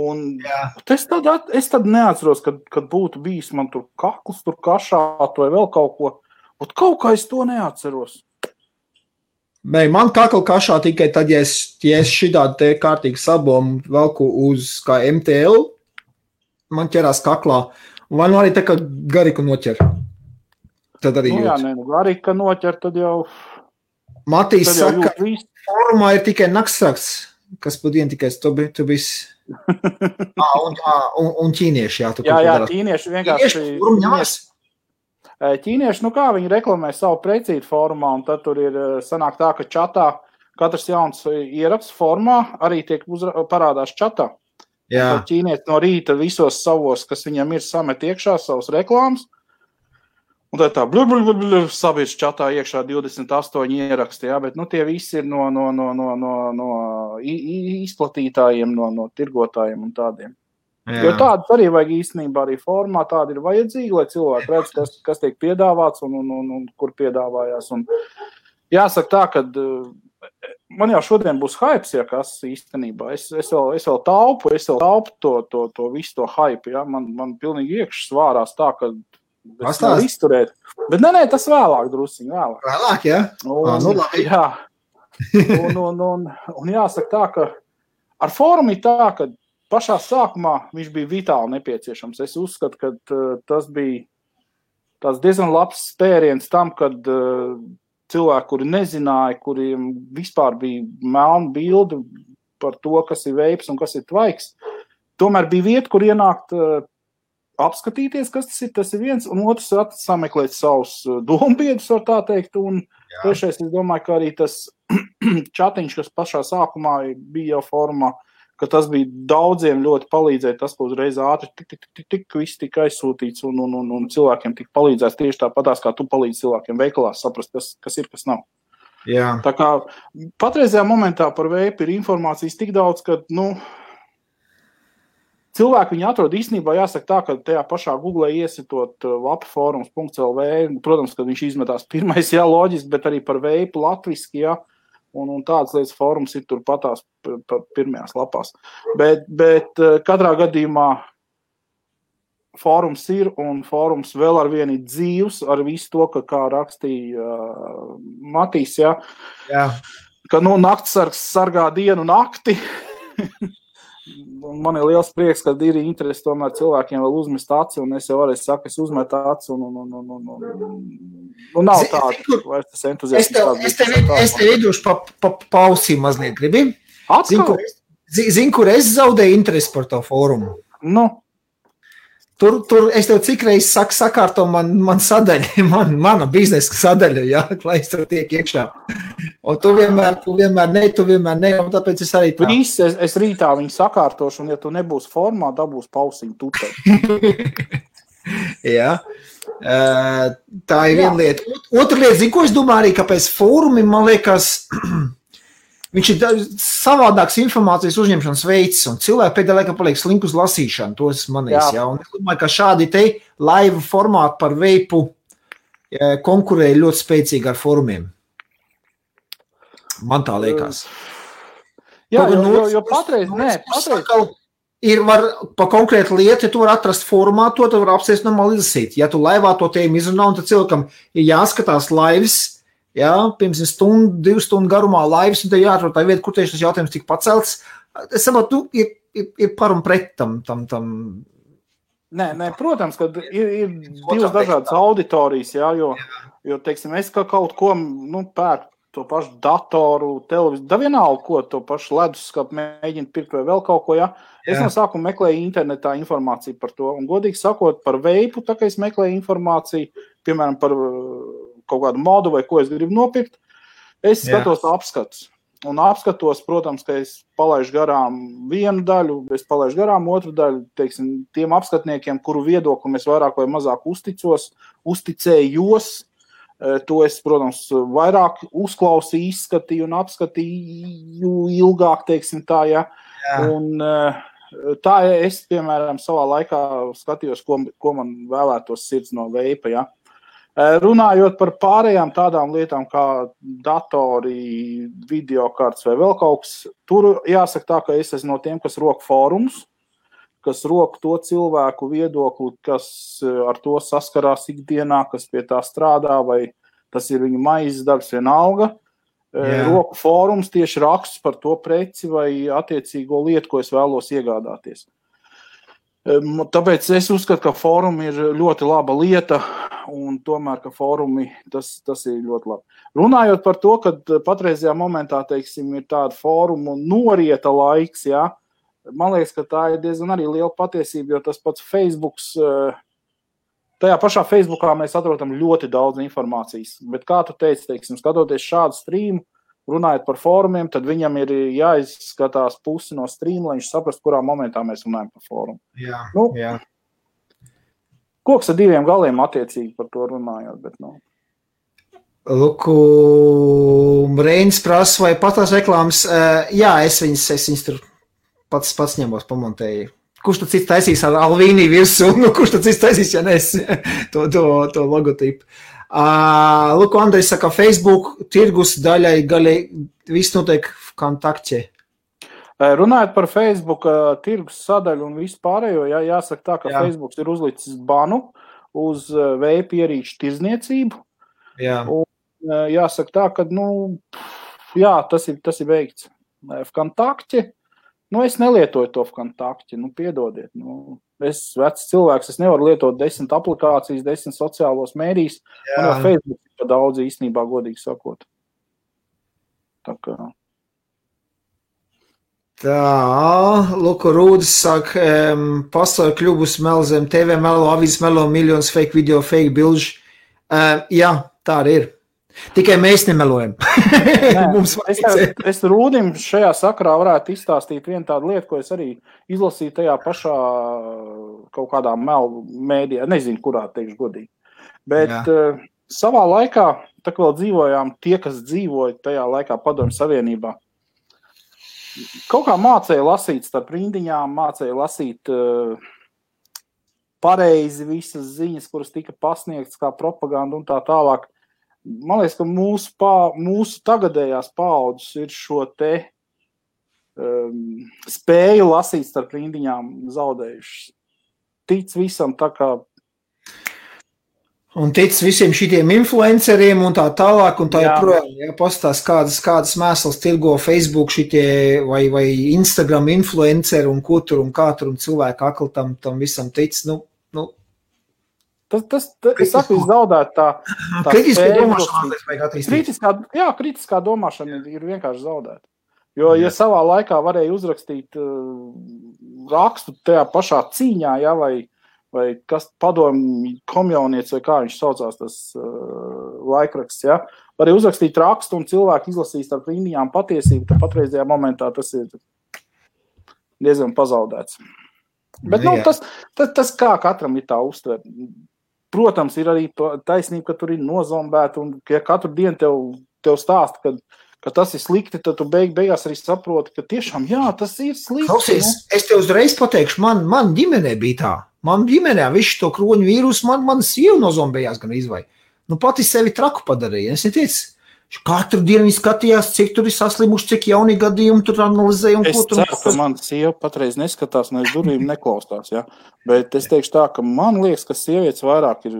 Un es tad neatceros, kad būtu bijis man tur kakls, tur kašāt vai vēl kaut ko. Un kaut kā es to neatceros. Man kakla kašā tikai tad, ja es šitādu te kārtīgi sabomu velku uz kā MTL, man ķerās kaklā. Vai arī tā kā garika noķer. Tad arī jūt. Garika noķer, tad jau... Matīs saka, ka formā ir tikai naktsrakts, kas padien tikai tu bisi... un ķīnieši, jā. Jā, ķīnieši vienkārši... Ķīnieši, kā viņi reklamē savu precītu formā, un tad tur ir sanāk tā, ka čatā katrs jauns ieraksts formā arī tiek parādās čatā. Tad ķīnietis no rīta visos savos, kas viņam ir, samet iekšā savus reklāmas. Un tad tā sabiedrs čatā iekšā 28 ieraksti, jā, bet tie visi ir no izplatītājiem, no tirgotājiem un tādiem. Jā. Jo tādas arī vajag īstenībā arī formā, tāda ir vajadzīga, lai cilvēki redz, kas tiek piedāvāts un kur piedāvājās. Un jāsaka tā, ka man jau šodien būs hypes, ja kas īstenībā. Es vēl taupu to visu to hype, ja. Man pilnīgi iekšas svārās tā, ka es nevaru izturēt. Bet nē, tas vēlāk drusciņ, vēlāk. Vēlāk, ja? Labi. Jā. Un jāsaka tā, ka ar fórumu ir tā, ka pašā sākumā viņš bija vitāli nepieciešams. Es uzskatu, ka tas bija tāds diezgan labs spēriens tam, kad cilvēki, kuri nezināja, kuriem vispār bija melna bilde par to, kas ir veips un kas ir tvaiks, tomēr bija vieta, kur ienākt apskatīties, kas tas ir viens, un otrs sameklēt savus dombiedus, var tā teikt, un trešais, es domāju, ka arī tas čatiņš, kas pašā sākumā bija jau formā, ka tas bija daudziem ļoti palīdzēt, tas, ko uzreiz ātri tik viss tika aizsūtīts un cilvēkiem tika palīdzēts tieši tāpatās, kā tu palīdzi cilvēkiem veikalās saprast, kas ir, kas nav. Jā. Tā kā patreizajā momentā par veipu ir informācijas tik daudz, ka, cilvēki viņu atrod īstenībā, jāsaka tā, ka tajā pašā Google iesitot vapaforums.lv, protams, kad viņš izmetās pirmais, jā, loģiski, bet arī par veipu latviski, jā, un tādas lietas fórums ir tur patās pirmajās lapās. Bet katrā gadījumā fórums ir, un fórums vēl ar vienu ir dzīvs, ar visu to, kā rakstīja Matīs, jā, ka naktsargs sargā dienu nakti. Man ir liels prieks, ka ir interesi tomēr cilvēkiem vēl uzmest aci, un es jau varēju saka, es uzmetu aci, un nav tāda, vai tas entuziasms. Es tev iedošu pausī mazliet, gribi? Atkal? Zinu, kur es zaudēju interesi par to fórumu. Tur es tev cik reiz sakārto man sadaļa, mana biznesa sadaļa, jā, lai es tur tiek iekšā. Un tu vienmēr ne, un tāpēc es arī tā. Es rītā viņu sakārtošu, un ja tu nebūs formā, dabūs pausiņu tutē. Jā. Tā ir viena lieta. Otra lieta, zinu, ko es domāju arī, kāpēc fórumi, man liekas, viņš ir savādāks informācijas uzņemšanas veids, un cilvēki pēdējā laikā paliek slinki uz lasīšanu, tos manīs, jā. Un es domāju, ka šādi te live formāti par veipu konkurēja ļoti spēcīgi ar fórumiem. Man tā liekas. Jā, jo patreiz. Ir pa konkrētu lietu, ja tu var atrast formā, to tu var apsēst normāli izlasīt. Ja tu laivā to tēmu izrunā, un tad cilvēkam ir jāskatās lives, jā, pirms 2 stundu garumā laivas, un te jāatrod tā vieta, kur tieši tas jautājums tika pacelts. Es saprotu, ir par un pret tam. Nē, protams, ka ir divas dažādas auditorijas, jā, jo teiksim, es kaut ko, pērku to pašu datoru, televiziju, da vienalga, ko to pašu leduskapu mēģina pirkt vai vēl kaut ko, jā. Es no sākuma meklēju internetā informāciju par to, un godīgi sakot, par veipu, tā kā es meklēju informāciju, piemēram, par kaut kādu modu vai ko es gribu nopirkt, es skatos apskatus. Un apskatos, protams, ka es palaišu garām vienu daļu, es palaišu garām otru daļu, teiksim, tiem apskatniekiem, kuru viedokli es vairāk vai mazāk uzticējos, to es, protams, vairāk uzklausīju, izskatīju un apskatīju ilgāk, teiksim tā, jā. Un tā es, piemēram, savā laikā skatījos, ko man vēlētos sirds no veipa, jā. Runājot par pārējām tādām lietām kā datori, videokartes vai vēl kaut kas, tur jāsaka tā, ka es esmu no tiem, kas rok fórumus, kas rok to cilvēku viedokli, kas ar to saskarās ikdienā, kas pie tā strādā, vai tas ir viņu maizes darbs vienalga. Roku fórums tieši rakstus par to preci vai attiecīgo lietu, ko es vēlos iegādāties. Tāpēc es uzskatu, ka fórumi ir ļoti laba lieta, un tomēr, ka fórumi tas ir ļoti labi. Runājot par to, ka patreizajā momentā, teiksim, ir tāda fórumu norieta laiks, jā, man liekas, ka tā ir diezgan arī liela patiesība, jo tas pats Facebooks, tajā pašā Facebookā mēs atrodam ļoti daudz informācijas, bet kā tu teici, teiksim, skatoties šādu streamu, runājot par fórumiem, tad viņam ir jāizskatās pusi no stream, lai viņš saprast, kurā momentā mēs runājam par fórumu. Jā, nu, jā. Koks ar diviem galiem attiecīgi par to runājot, bet Luku, Reinis prasa, vai patās reklāmas, jā, es viņas tur pats ņemos, pamontēju. Kurš tad cits taisīs ar Alvīnī virsū, kurš tad cits taisīs, ja nes to logotipu. Luku, Andrejs saka, Facebook tirgus daļai viss notiek kontaktie. Runājot par Facebook tirgus sadaļu un visu pārējo, jāsaka tā, ka Facebook ir uzlicis banu uz veipa ierīču tirzniecību. Jā. Un jāsaka tā, ka, tas ir veikts. Vkontakti, es nelietoju to Vkontakti, piedodiet. Es vecs cilvēks, es nevaru lietot 10 aplikācijas, 10 sociālos mēdījus, un jau Facebook ir pa daudz īstenībā, godīgi sakot. Tā kā... Luku Rūdis saka, pasauli kļubus melo zem TV, melo, avīzes melo, miljonus fake video, fake bilži. Jā, tā arī ir. Tikai mēs nemelojam. Es Rūdim šajā sakarā varētu izstāstīt vienu tādu lietu, ko es arī izlasīju tajā pašā kaut kādā melu mēdījā, nezinu, kurā teikšu godīgi. Bet savā laikā, tā kā vēl dzīvojām, tie, kas dzīvoja tajā laikā Padomju Savienībā, kaut kā mācēja lasīt starp rindiņām, mācēja lasīt pareizi visas ziņas, kuras tika pasniegtas kā propaganda un tā tālāk. Man liekas, ka mūsu tagadējās paaudzes ir šo te spēju lasīt starp rindiņām zaudējušas. Tic visam tā kā... Un tic visiem šitiem influenceriem un tā tālāk, un tā joprojām, pastās kādas mēslas tirgo Facebook šitie vai Instagram influenceri un ko tur un kā tur un cilvēku akli tam visam tic, Es saku, zaudēt tā kritiskā domāšana vajag attīstīt. Kritiskā domāšana ir vienkārši zaudēta. Jo, ja savā laikā varēja uzrakstīt rakstu tajā pašā cīņā, vai kas padomju komjaunietis, vai kā viņš saucās tas laikraksts, varēja uzrakstīt rakstu un cilvēki izlasīs ar rindiņām patiesību, tad patreizajā momentā tas ir diezgan pazaudēts. Bet tas kā katram ir tā uztver. Protams, ir arī taisnība, ka tur ir nozombēta, un ja katru dienu tev stāsta, ka tas ir slikti, tad tu beigās arī saproti, ka tiešām, tas ir slikti. Klausies, es tev uzreiz pateikšu, man ģimenē bija tā. Man ģimenē visu to kroņu vīrusu, man sieva nozombējās gan izvai. Pati sevi traku padarīja. Es neteicu, katru dienu viņi skatījās, cik tur ir saslimuši, cik jauni gadījumi tur analizēja. Es ceru, ka man sieva patreiz neskatās, un aiz durvīm neklaustās, Bet es teikšu tā, ka man liekas, ka sievietes vairāk ir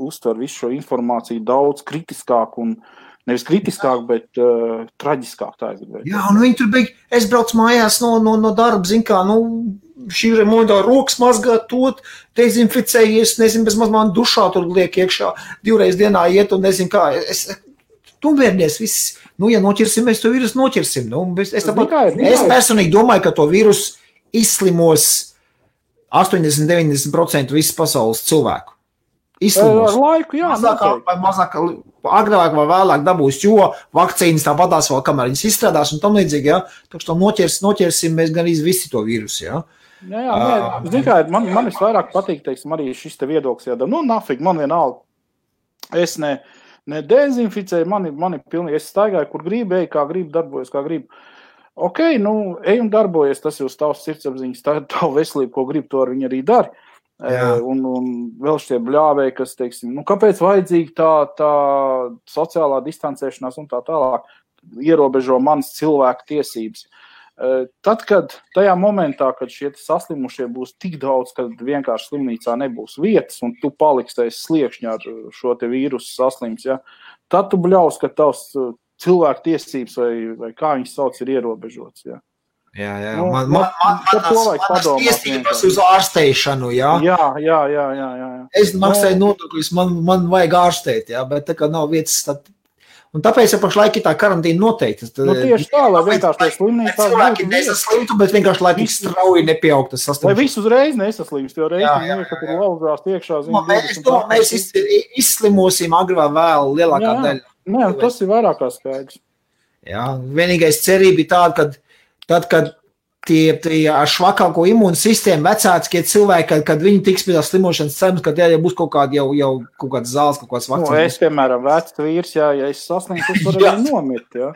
uztver visu šo informāciju daudz kritiskāk un nevis kritiskāk, bet traģiskāk tā es gribēju. Jā, un viņi tur bija, es braucu mājās no darba, zin kā, šī remondā rokas mazgāt tot, dezinficējies, nezinu, bez maz man dušā tur liek iekšā, 2 reizes dienā iet un nezinu kā, Tumvērnies viss, ja noķersim, mēs to vīrusu noķersim. Es personīgi domāju, ka to vīrusu izslimos 80-90% visas pasaules cilvēku. Izslimos. Ar laiku, Mazāk, agrāk vai vēlāk dabūs, jo vakcīnas tāpatās vēl, kamēr viņas izstrādās un tam līdzīgi, Tā kā noķersim, mēs gan visi to vīrusu, Zin kā, man visvairāk patīk, teiksim, arī šis te viedoklis, nafig, man vienalga. Es ne dezinficēju, mani pilnīgi, es staigāju, kur gribu, kā gribu, darbojos, kā gribu. Ok, ej un darbojies, tas jūs tavs sirdsapziņas, tavu veselību, ko gribu, to ar viņu arī dari. Un vēl šie bļāvēji, kas, teiksim, kāpēc vajadzīga tā sociālā distancēšanās un tā tālāk ierobežo manas cilvēku tiesības. Tad, kad tajā momentā, kad šie saslimušie būs tik daudz, kad vienkārši slimnīcā nebūs vietas un tu paliksi aiz sliekšņa ar šo te vīrusu saslims, tad tu bļaus, ka tavs cilvēku tiesības vai kā viņas sauc ir ierobežots, Jā. Manas tiesības uz ārsteišanu, Jā. Es maksāju nodokļus, man vajag ārstēt, bet tā kā nav vietas, un tāpēc pašlaik ir tā karantīna noteikti. Tieši tā, lai vienkārši tie slimnīcās cilvēki nesaslimtu, bet vienkārši, lai tik strauji nepieaugtu tas saslimšana. Lai visu uzreiz nesaslimst, jo reiz, ka tur lauzās iekšā. Mēs izslimosim agri vai vēl lielākā daļa. Tas ir vairāk kā skaidrs. Jā, vienīgais cerība ir tāda, kad tie ar švakāko imūnu sistēmu vecākie cilvēki, kad viņi tiks pie tās slimošanas cenas, kad jau būs kaut kāda jau kaut kāds zāles, kaut kāds vakcīnas. Es, piemēram, vecs vīrs, ja es sasniegtu, es varu arī nomirt, jā.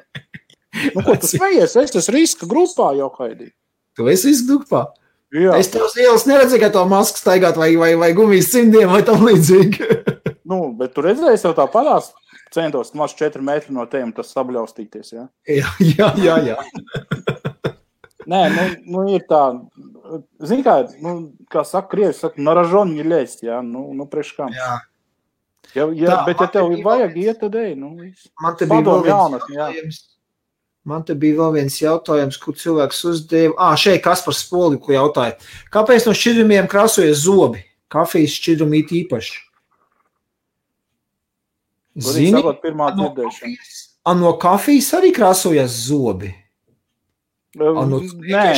Ko tu smejies? Es esmu riska grupā jau, Haidī. Tu esi riska grupā? Jā. Es tev uz ielas neredzēju, ka to masku staigāt vai gumijas cimdiem vai tam līdzīgi. Bet tu redzēji, es jau tā padās centos maz 4 metri no tiem, tas sabļaustīties, jā? Jā. Nē, ir tā, zini kā saka, krievi saka, naražon не лезть, jā, priekš kam. Jā. Bet ja tev vajag iet, tad ej, viss. Man te bija vēl viens jautājums, kur cilvēks uzdeva. Šeit Kaspars Spoliku jautāja. Kāpēc no šķidrumiem krāsojas zobi? Kafijas šķidrumi it īpaši. Zini, no kafijas arī krāsojas zobi? Nē,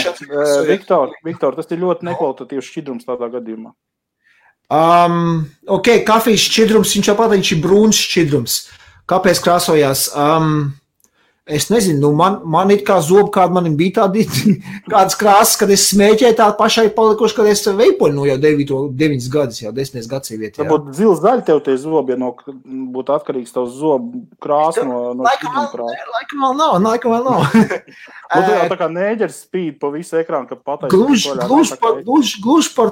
Viktor, tas ir ļoti nekvalitatīvs šķidrums tādā gadījumā. Kafijas šķidrums, viņš ir brūns šķidrums. Kāpēc krāsojās? Es nezinu, man it kā zobi, kāda manim bija tādi kādas krāsas, kad es smēķēju tādu pašai palikuši, kad es veipoļu jau 9 gadus, jau 10 gadsimtā. Varbūt zils zaļi tev tie zobi, ja būtu atkarīgs tavs zobu krāsa no šķidruma krāsa. Laikam vēl nav. Tā kā nēģers spīd pa visu ekrānu, kad pateic. Gluži par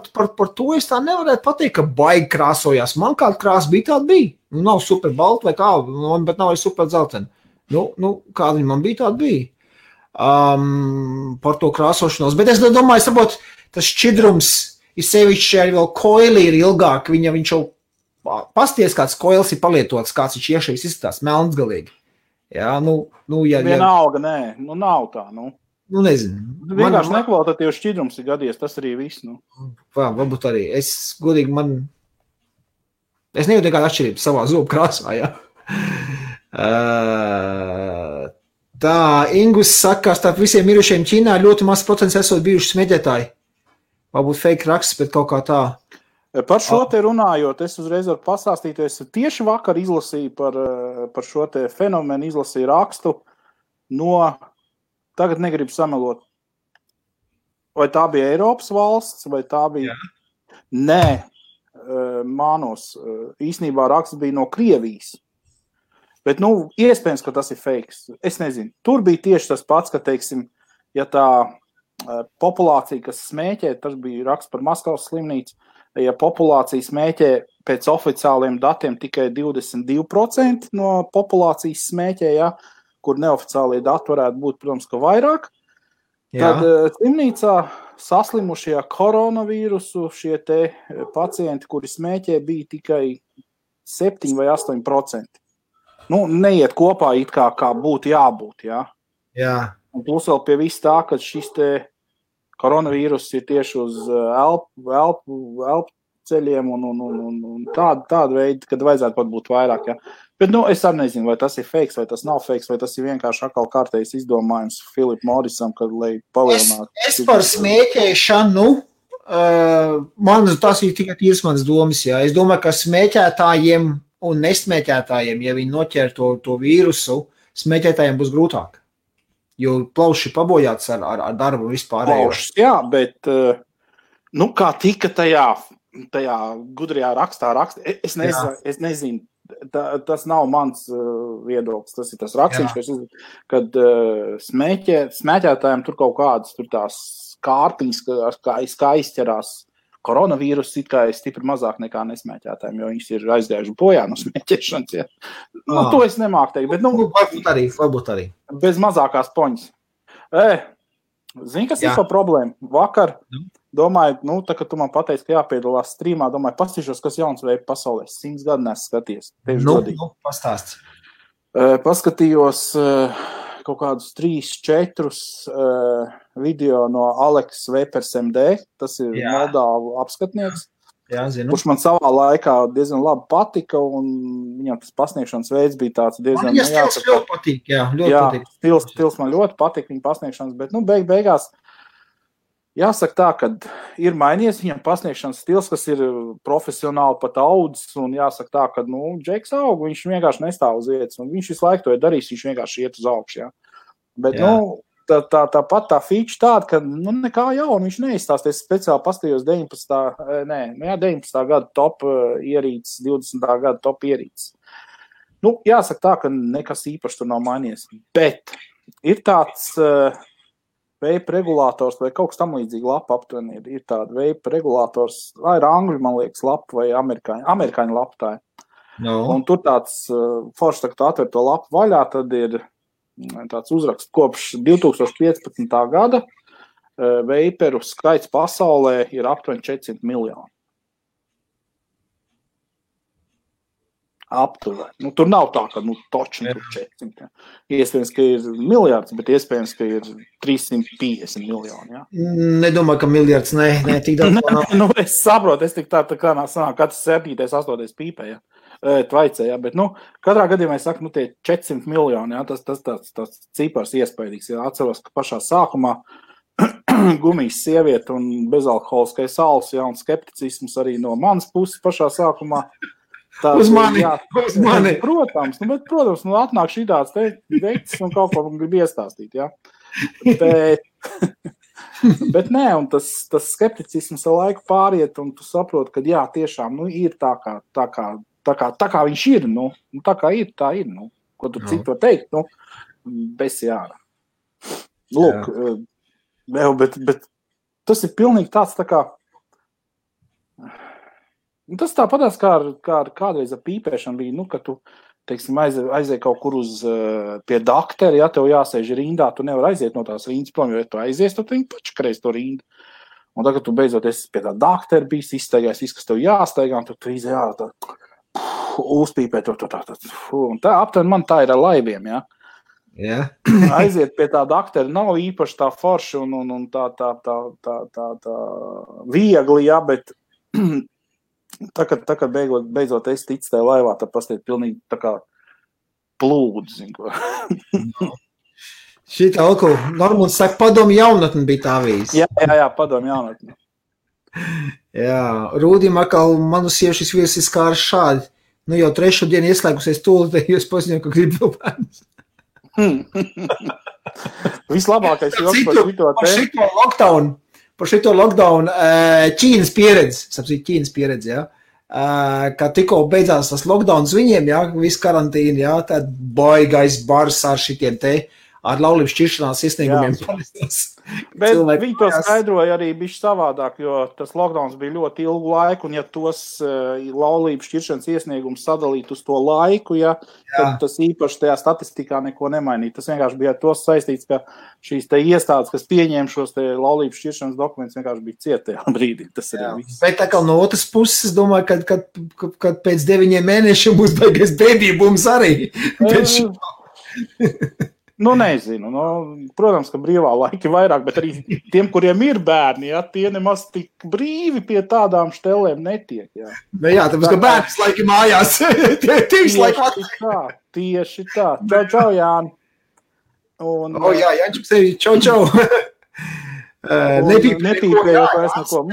to es tā nevarētu pateikt, ka baigi krāsojās. Man kāda krāsa bija, tāda bija. Nav super balta vai kā, bet nav arī super dzeltena. Kāda viņa man bija, tāda bija. Par to krāsošanos. Bet es domāju, saprot, tas šķidrums ir sevišķi arī vēl koili ir ilgāk. Viņš jau pasties, kāds koils ir palietots, kāds viņš iešais izskatās, melns galīgi. Jā, vienalga, nē, nav tā, nezinu. Vienkārši nekvalitatīvs šķidrums ir gadies, tas arī viss, Varbūt arī. Es nejūtu nekādu atšķirību savā zobu krāsā, jā. Tā, Ingus saka, starp visiem mirušiem Ķīnā ļoti maz procents esot bijuši smēķētāji. Varbūt fake raksts, bet kaut kā tā. Par šo te runājot, es uzreiz varu pastāstīt, es tieši vakar izlasīju par šo te fenomenu, izlasīju rakstu tagad negribu samelot. Vai tā bija Eiropas valsts, vai tā bija... Jā. Nē, mānos, īsnībā raksts bija no Krievijas. Bet, iespējams, ka tas ir fakes. Es nezinu. Tur bija tieši tas pats, ka, teiksim, ja tā populācija, kas smēķē, tas bija raksts par Maskavas slimnīcu, ja populācija smēķē pēc oficiāliem datiem tikai 22% no populācijas smēķē, ja, kur neoficiālie dati varētu būt, protams, ka vairāk, tad slimnīcā saslimušie koronavīrusu šie te pacienti, kuri smēķē, bija tikai 7 vai 8%. Neiet kopā it kā būtu jābūt, jā. Jā. Un plus vēl pie viss tā, ka šis te koronavīrus ir tieši uz elpu ceļiem un tāda veida, kad vajadzētu pat būt vairāk, jā. Bet, es arī nezinu, vai tas ir fakes, vai tas nav fakes, vai tas ir vienkārši atkal kārtējs izdomājums Philip Morrisam, kad, lai palielinātu. Es par smēķēšanu, tas ir tikai tīrs manas domas, jā. Es domāju, ka smēķētājiem un nesmēķētājiem, ja viņi noķer to vīrusu, smēķētājiem būs grūtāk. Jo plauši pabojāts ar darbu vispārējo. Plaušas, jā, bet, kā tika tajā gudrajā rakstā, es nezinu, tas nav mans viedoklis, tas ir tas rakstīns, kad smēķētājiem tur kaut kādas tur tās kārtiņas, kā izķerās koronavīrus, it kā ir stipri mazāk nekā nesmēķētājiem, jo viņas ir aizgājuši bojā no smēķēšanas. Ja. To es nemāku teikt, bet varbūt arī. Bez mazākās poņas. Zini, kas ir par problēmu? Vakar, domāju, tā, ka tu man pateici, ka jāpiedalās strīmā, domāju, pastīšos, kas jauns veids pasaulē. 100 gadu nesu skaties. Pastāst. Paskatījos kaut kādus 3-4 video no Aleks Vepers MD, tas ir Moldāvu apskatnieks, kurš man savā laikā diezgan labi patika, un viņam tas pasniegšanas veids bija tāds diezgan... Man stils ļoti patīk, ļoti patīk. Stils man ļoti patīk viņa pasniegšanas, bet, beigās jāsaka tā, ka ir mainījies viņam pasniegšanas stils, kas ir profesionāli pat audzis, un jāsaka tā, ka, Džeks aug, viņš vienkārši nestāv uz vietas, un viņš visu laiku to ir darījis, viņš vienkārši iet uz augšu, jā. Bet, tāpat tā feature tāda, ka nekā jauna viņš neizstāsties. Speciāli pastījos 19. gada top ierīces, 20. gada top ierīces. Jāsaka tā, ka nekas īpaši tur nav mainījies. Bet ir tāds vape regulators vai kaut kas tam līdzīgi lapa aptuveni. Ir tāda vape regulators, vai ir angļu, man liekas, lapa vai amerikāņu lapa tā. Un tur tāds forši, tā, atver to lapu vaļā, tad ir tāds uzraksts kopš 2015. gada veiperu skaits pasaulē ir aptuveni 400 miljoni. Aptuveni. Tur nav tā, ka točni tur 400. Iespējams, ka ir miljards, bet iespējams, ka ir 350 miljoni. Ja? Nedomāju, ka miljards, ne tik daudz. Es saprotu, es tik tā kā sanāk, katrs 7. 8. pīpē, ja. Tvaicē, ja, bet, katrā gadījumā es saku, tie 400 miljoni, ja, tas cipars iespējīgs, ja, atceros, ka pašā sākumā gumijas sieviete un bezalkoholiskais alus, ja, un skepticisms arī no manas puses pašā sākumā. Uz mani. Protams, atnāk šī tāds veikts un kaut ko grib iestāstīt, ja. Bet nē, un tas skepticisms ar laiku pāriet, un tu saproti, ka jā, tiešām, ir tā kā viņš ir, tā kā ir, tā ir, ko tu citu var teikt, bez jāra. Lūk, bet tas ir pilnīgi tāds tā kā, tas tāpatās kā kādreiz ar pīpēšanu bija, ka tu, teiksim, aizēji kaut kur pie dakteri, ja tev jāsēž rindā, tu nevar aiziet no tās rindas prom, jo ja tu aizies, tad viņi pačakreiz to rindu. Un tagad tu beidzot esi pie tā dakteri bijis, izstaigājis, viss, kas tev jāstaigā, un tu izēj, tā uzpīpēt un tā aptuveni man tā ir ar laiviem, ja. Yeah. Aiziet pie tā daktera nav īpaši tā forši un tā viegli, ja, bet tā kad beidzot es ticu tajā laivā, tad pastiet pilnīgi tā kā plūdu, zin ko. Šitā Normons saka, padomu jaunatni bija tā vīz. Jā, padomu jaunatni. Jā, Rūdim atkal manu sievšas viesis kā ar šādi. Jau 3. dienu ieslēgusies tūlīt, jūs paziņoju, ka grib vēl bērnus. Vislabākais joks par šito lockdown Ķīnas pieredze, jā. Kā tikko beidzās tas lockdowns viņiem, jā, viss karantīna, jā, tad baigais bars ar šitiem te, ar laulības šķiršanās iesniegumiem. Bet viņi to skaidroja arī bišķi savādāk, jo tas lockdowns bija ļoti ilgu laiku, un ja tos laulības šķiršanas iesniegumus sadalīt uz to laiku, ja, tad tas īpaši tajā statistikā neko nemainīt. Tas vienkārši bija ar to saistīts, ka šīs te iestādes, kas pieņēma šos te laulības šķiršanas dokumentus, vienkārši bija cietajā brīdī. Tas arī viss. Bet tā kā no otras puses, es domāju, kad pēc 9 mēnešiem būs baigais bēdībums arī. Nezinu. Protams, ka brīvā laika vairāk, bet arī tiem, kuriem ir bērni, ja, tie nemaz tik brīvi pie tādām štelēm netiek. Ja. Jā, tāpēc, ka bērns laiki mājās. Tieši tā. Čau, Jāni. Jā, Jāņš, čau. Nepīpējot vairs neko.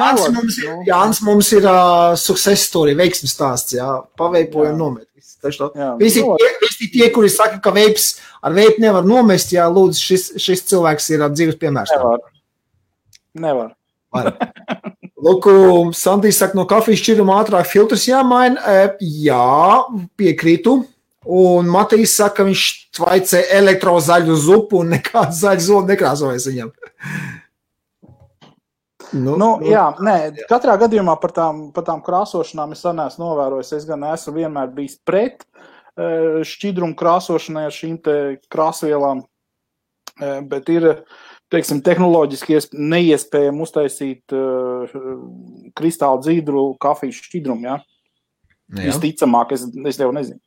Jānis mums ir success story, veiksmes stāsts, jā. Paveipojam nomet. Visi tie, kuri saka, ka ar veipu nevar nomest, jā, lūdzu, šis cilvēks ir dzīves piemērs. Nevar. Lūk, Sandijs saka, no kafijas šķiruma ātrāk filtrs jāmaina. Jā, piekrītu. Un Matīs saka, viņš tvaicē elektrozaļu zupu un nekāds zaļu zolu nekrāsojas viņam. Katrā gadījumā par tām krāsošanām es neesmu novērojis. Es gan esmu vienmēr bijis pret šķidrumu krāsošanai ar šīm te krāsvielām, bet ir, teiksim, tehnoloģiski neiespējami uztaisīt kristāli dzīdru kafijas šķidrumu, ja? Visticamāk, es jau nezinu.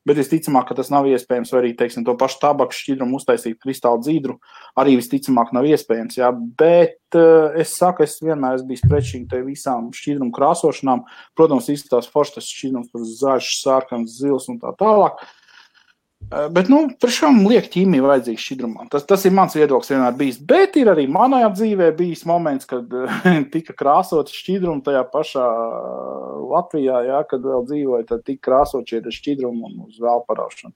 Bet visticamāk, ka tas nav iespējams, vai arī, teiksim, to pašu tabaku šķidrumu uztaisīt kristāli dzīdru, arī visticamāk nav iespējams, jā. Bet es saku, es vienmēr esmu bijis pret šīm te visām šķidrumu krāsošanām. Protams, izskatās forši tas šķidrums, zaļš, sārkans, zils un tā tālāk. Bet, priekšām liek ķīmija vajadzīga šķidrumā. Tas ir mans viedoklis vienmēr bijis. Bet ir arī manajā dzīvē bijis moments, kad tika krāsot šķidrumu tajā pašā Latvijā, jā, kad vēl dzīvoja, tad tika krāsot šie šķidrumu un uz vēl paraušanu.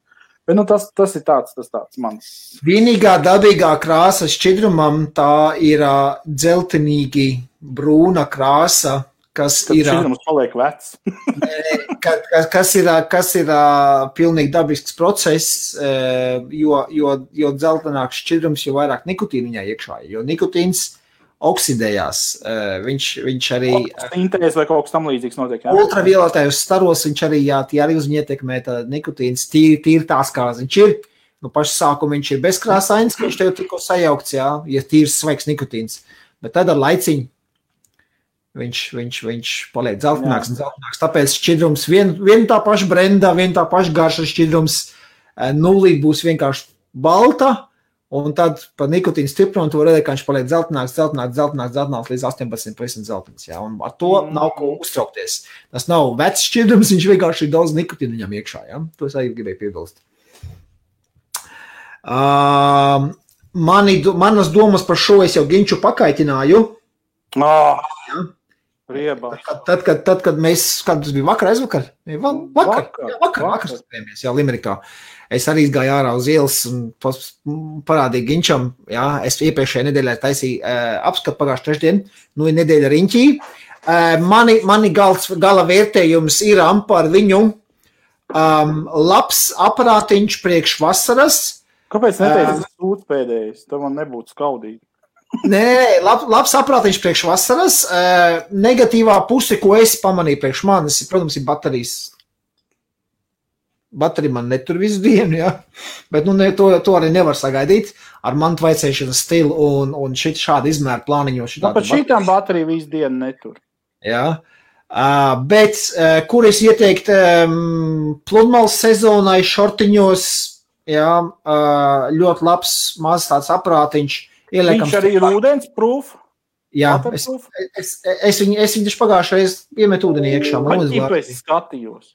Bet nu, tas ir tāds mans. Vienīgā dabīgā krāsa šķidrumam tā ir dzeltenīgi brūna krāsa, kas Tad ir... šķidrums paliek vecs. kas ir pilnīgi dabisks process, jo dzeltenāks šķidrums, jo vairāk nikotīna viņā iekšā, jo nikotīns oksidējās. Viņš arī... Sintēzes vai kaut kas tam līdzīgs notiek, jā? Ultravioletajos staros viņš arī, tie arī uz viņu ietekmē tā nikotīns, tīri tās, kā viņš ir. Nu, pašu sākumu viņš ir bezkrāsains, ka viņš tev tikko sajaukts, jā, ja tīrs svaigs nikotīns. Bet tad ar laiciņu viņš paliek dzeltenāks un dzeltenāks. Tāpēc šķidrums vien tā paša brendā, vien tā paša garša šķidrums nulīt būs vienkārši balta, un tad pa nikotīnu stiprumu tu var redzēt, ka viņš paliek dzeltenāks līdz 18% dzeltens. Ja? Un ar to nav ko uztraukties. Tas nav vecs šķidrums, viņš vienkārši ir daudz nikotīnu viņam iekšā. Ja? To es arī gribēju piebilst. Manas domas par šo es jau Ginču pakaitināju. Ja? Tad, kad mēs, kad tas bija aizvakar? Vakar spējamies, jā, Limerikā. Es arī gāju ārā uz ielas un parādīju Ginčam, jā, es iepriekšējā nedēļā taisīju apskatu pagājušu trešdien, nu ir nedēļa riņķī. Mani gala vērtējums ir par viņu labs aparātiņš priekš vasaras. Kāpēc neteicis sūds pēdējais? Tam man nebūtu skaudīgi. Nē, labs aparātiņš priekš vasaras. Negatīvā puse, ko es pamanīju priekš manis, protams, ir baterijas. Baterija man netur visu dienu, ja? Bet to arī nevar sagaidīt ar mantu vaicēšanas stilu un šādu izmēru plāniņu. Pat šitām baterija visu dienu netur. Jā, bet kur es ieteikt pludmales sezonai šortiņos, jā, ļoti labs maz tāds aparātiņš. Viņš arī ir ūdens proof? Jā, es viņu taču pagājušreiz iemetu ūdenī iekšā. Vai tīpa es skatījos?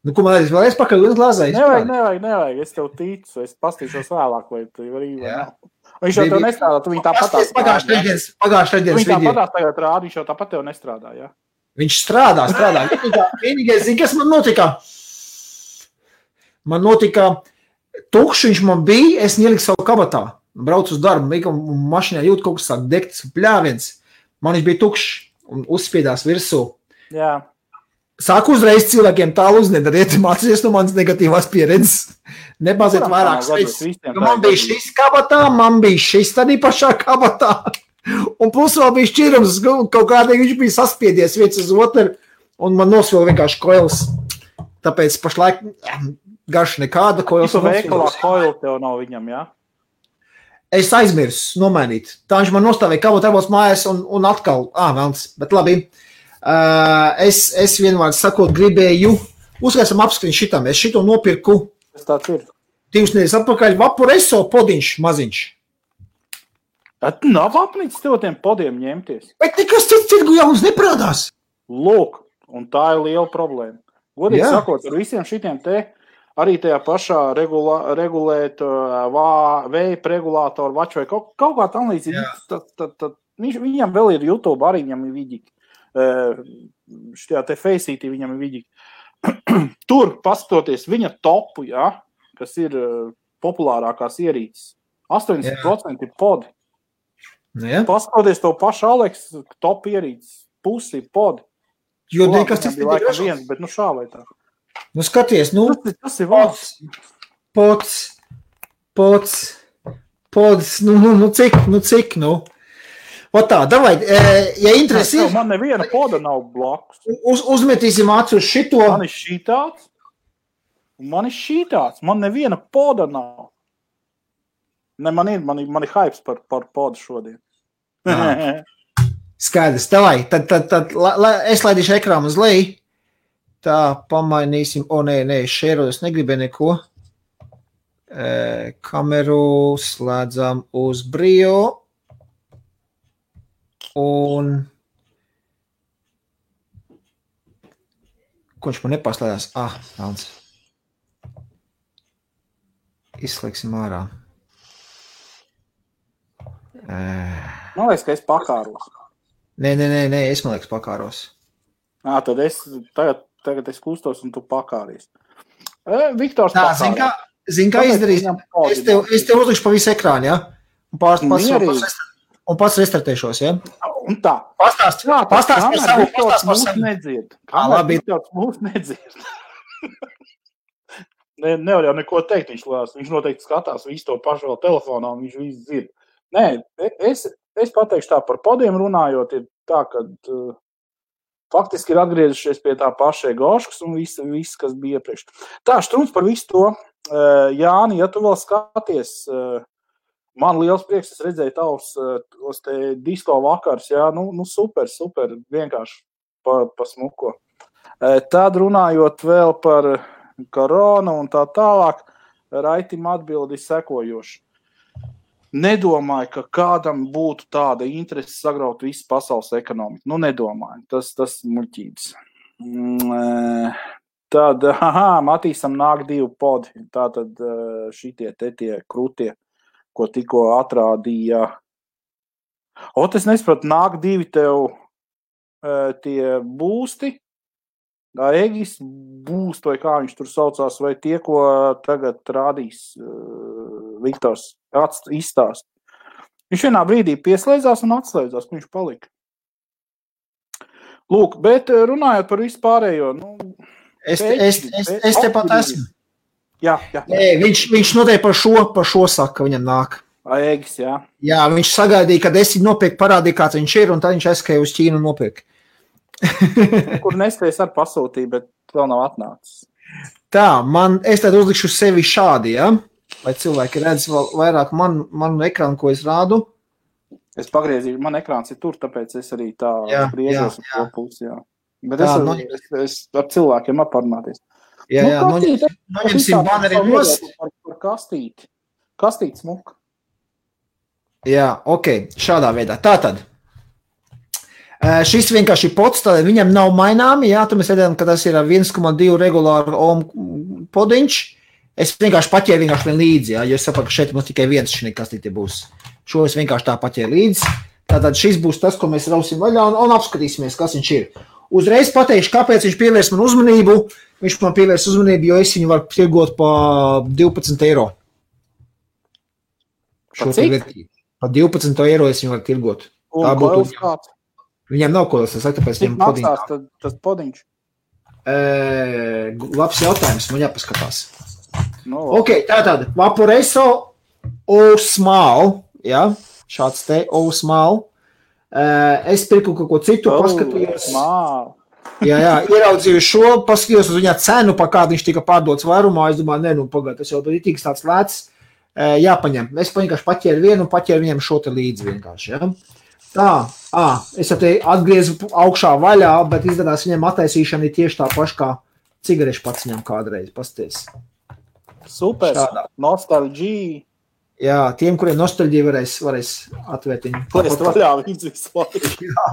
Nu, ko man vēl es pakaļ ūdens glāzē? Nevajag, es tev ticu, es pastīšos vēlāk, vai tu var īvā nav. Viņš jau tev nestrādā, tu viņu tāpatās. Pagājušais video. Viņš tāpatās tagad rāda, viņš jau tāpat tev nestrādā, jā? Viņš strādā. Vienīgais, kas man notika? Man notika tukšs, viņš man bija, es ieliku savu kabatā. Braucu uz darbu, un mašīnā jūt kaut kas sāk degt, pļāviens. Man viņš bija tukšs un uzspiedās virsū. Jā. Sāku uzreiz cilvēkiem tālu uznedariet, mācīties no manas negatīvās pieredzes. Nebaziet vairāk spēc. Man bija šis kabatā, man bija šis tādī pašā kabatā. Un plus vēl bija šķirums, kaut kādīgi viņš bija saspiedies viens uz otru, un man nosvilga vienkārši koils. Tāpēc pašlaik garš nekāda koils. Visu veikalā koilu tev nav viņam, jā? Es aizmirsu nomainīt. Tā viņš man nostāvēja kabatā mājās un atkal, velns, bet labi. Es vienvārds sakot gribēju, uzskaisam apskriņu šitam, es šito nopirku. Tas tāds ir. 2 nedēļas atpakaļ Vaporeso podiņš maziņš. Nav apnicis tev tiem podiem ņemties. Bet nekas cits tirgu jauns neprādās. Lūk, un tā ir liela problēma. Godīgi sakot, ar visiem šitiem te arī tajā pašā regulēt veipa regulātoru vaču vai kaut kā tam līdzīgi. Viņam vēl ir YouTube, arī viņam ir vidīgi. Šajā te Faceitī viņam ir vidīgi. Tur, paskatoties viņa topu, ja, kas ir populārākās ierīces, 80% ir podi. Ja. Paskatoties to pašu Aleks, top ierīces, pusi ir podi. Jo nekas tas bija laikam viens, bet šā vai tā. Nu skaties, tas ir valsts. Pods, cik. Otā, davai, ja interesi ir... Man neviena poda nav blakus. Uzmetīsim acu uz šito. Man ir šitāds, un man ir šitāds. Man neviena poda nav. Ne, man ir hypes par podu šodien. Skaidrs, davai, tad es laidīšu ekrānu uz leju. Tā, pamainīsim. Nē, šērojos negribēju neko. Kameru slēdzam uz Brio. Un ko viņš man nepaslēdās? Velns. Izslēgsim ārā. Man liekas, ka es pakāros. Nē, es man liekas pakāros. Tad tagad es kustos un tu pakāries. Viktors pakāros. Zini, kā izdarīs? Es tev uzlikšu pa visu ekrānu, ja? Un pats restartēšos, ja? Un tā. Pastāst par savu. Nedzird. Mūs nedzird. Nevar jau neko teikt, viņš noteikti skatās visu to pašu vēl telefonā, un viņš visu dzird. Nē, es pateikšu tā par podiem runājot, ir tā, ka faktiski ir atgriezušies pie tā paša Goškas un viss, kas bija iepriekš. Tā, Štruns par visu to. Jāni, ja tu vēl skaties, man liels prieks, es redzēju tavs te disko vakars, jā, nu super, vienkārši pa smuko. Tad runājot vēl par koronu un tā tālāk, Raitim atbildi sekojoši. Nedomāju, ka kādam būtu tāda interese sagraut visu pasaules ekonomiku. Nu, nedomāju. Tas muļķības. Tad, Matīsam nāk 2 podi. Tātad šitie tie krutie, ko tikko atrādīja. Es nesapratu, nāk 2 tev tie būsti. Egis būst, vai kā viņš tur saucās, vai tie, ko tagad rādīs Viktors izstāst. Viņš vienā brīdī pieslēdzās un atslēdzās, ka viņš palika. Lūk, bet runājot par visu pārējo, Es tepat esmu. Jā. Viņš noteikti par šo saka, viņam nāk. Egis, jā. Jā, viņš sagaidīja, kad es viņu nopirku, parādīja, kāds viņš ir, un tad viņš aizskrēja uz Ķīnu un nopirka. Kur nespējas ar pasūtīju, bet vēl nav atnācis. Tā, es tad uzlikšu sevi šādi, ja? Lai cilvēki redz vēl vairāk manu ekrānu, ko es rādu. Es pagriezīju, man ekrāns ir tur, tāpēc es arī tā griežos uz to pusi, jā. Bet es ar cilvēkiem parunāties. Jā, noņemsim baneri nost. Par kastīti. Kastīti smuka. Jā, ok, šādā veidā. Tātad. Šis vienkārši pods, tad viņam nav maināmi, jā, tu mēs redzējām, ka tas ir 1,2 regulāru ohm podiņš. Es vienkārši paķēru vien līdzi, jā, jo es saprotu, ka šeit mums tikai viens šī kastīte būs. Šo es vienkārši tā paķēru līdzi. Tātad šis būs tas, ko mēs rausim vaļā un apskatīsimies, kas viņš ir. Uzreiz pateikšu, kāpēc viņš pievērs man uzmanību. Viņš man pievērs uzmanību, jo es viņu varu tirgot pa 12 eiro. Pa cik? Pa 12 eiro es viņu varu tirgot. Un koils kāds? Viņam nav koils, es saku, tāpēc viņam podiņš. Cik maksās tas podiņš? Labs jautājums, man jāpaskatās. Ok, tātad, Vaporeso O-Small, jā, šāds te O-Small. Es pirku kaut ko citu, paskatījos. Jā, ieraudzīju šo, paskatījos uz viņā cenu, pa kādu viņš tika pārdots vairumā. Es domāju, pagād, tas jau ir tiks tāds lēts. Jāpaņem. Es vienkārši paķēru vienu un paķēru viņam šo te līdzi vienkārši, jā. Tā, es jau te atgriezu augšā vaļā, bet izdarās viņam attaisīšana ir tieši tā paša kā cigarešu pats viņam kādreiz, pasties. Super, nostalģija. Jā, tiem, kuriem nostalģija varēs atvērt viņu. Plēst vaļā viņus visu laiku. Jā,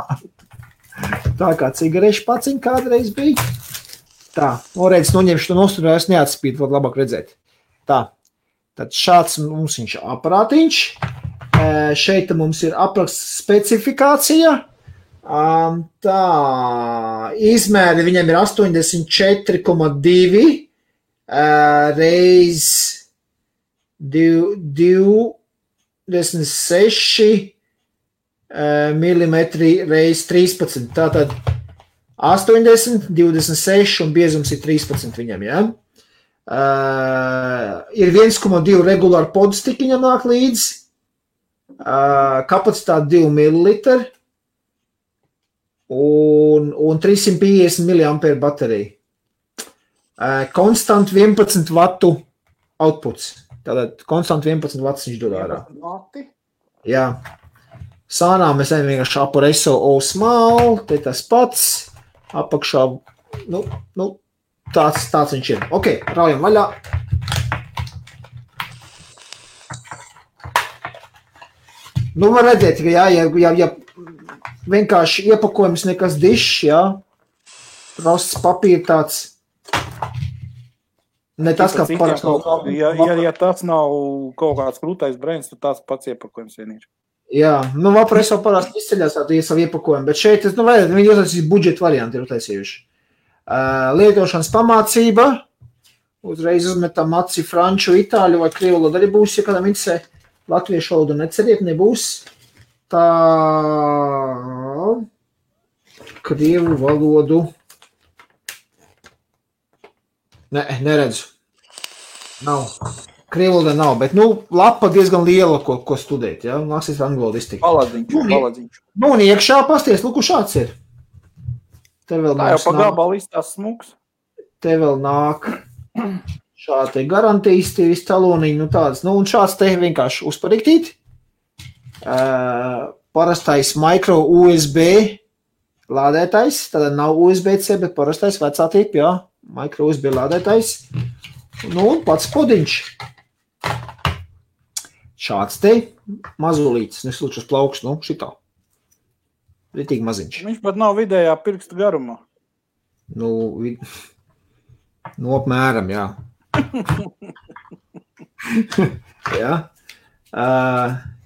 tā kā cigarešu paciņ kādreiz bija. Tā, redz, noņemšu to nostalģiju, es neatspīdu, var labāk redzēt. Tā, tad šāds mums viņš aparātiņš. Šeit mums ir apraksts specifikācija. Tā, izmēri viņam ir 84,2 reiz 26 millimetri reiz 13. Tātad 80, 26 un biezums ir 13 viņam, jā. Ir 1,2 regulāri podstiki viņam nāk līdzi. Kapacitāte 2 ml un 350 mAh baterija. Konstant 11 vatu outputs. Tātad konstant 11 vatus viņš dod ārā. Jā. Sānā mēs ejam vienkārši Vaporeso O-Small, te tas pats. Apakšā, tāds viņš ir. Ok, raujam vaļā. Var redzēt, ka ja vienkārši iepakojums nekas dišs, jā, prosts papīra tāds, ne tas, kā parasti. Ja tas nav kaut kāds krūtais brēns, tad tāds pats iepakojums vien ir. Jā, Vaporeso parasti izceļās tādu savu iepakojumu, bet šeit, viņi uztaisīs budžeta varianti ir uztaisījuši. Lietošanas pamācība, Uzreiz uzmetam aci franču, itāļu vai krievu valodu arī būs, ja kādam interesē. Latviešu valodu neceriet, nebūs. Tā krievu valodu. Neredzu. Nav. Krievu valoda nav, bet, lapa diezgan liela, ko studēt, ja? Nāksies angļu valodu iztikt. Paladziņš. Un iekšā pasties, lūku šāds ir. Te vēl tā jau pa gabalu izstās smuks. Te vēl nāk šādi te garantijas, tie visi taloniņi, tādas. Un šāds te vienkārši uzpariktīt. Parastais micro USB lādētais, tad nav USB-C, bet parastais vecā tipa, jā. Micro USB lādētais. Un pats podiņš. Šāds te mazulītis, neslūčas plauks, šitā. Ritīgi maziņš. Viņš pat nav vidējā pirksta garumā. Apmēram, jā. Jā.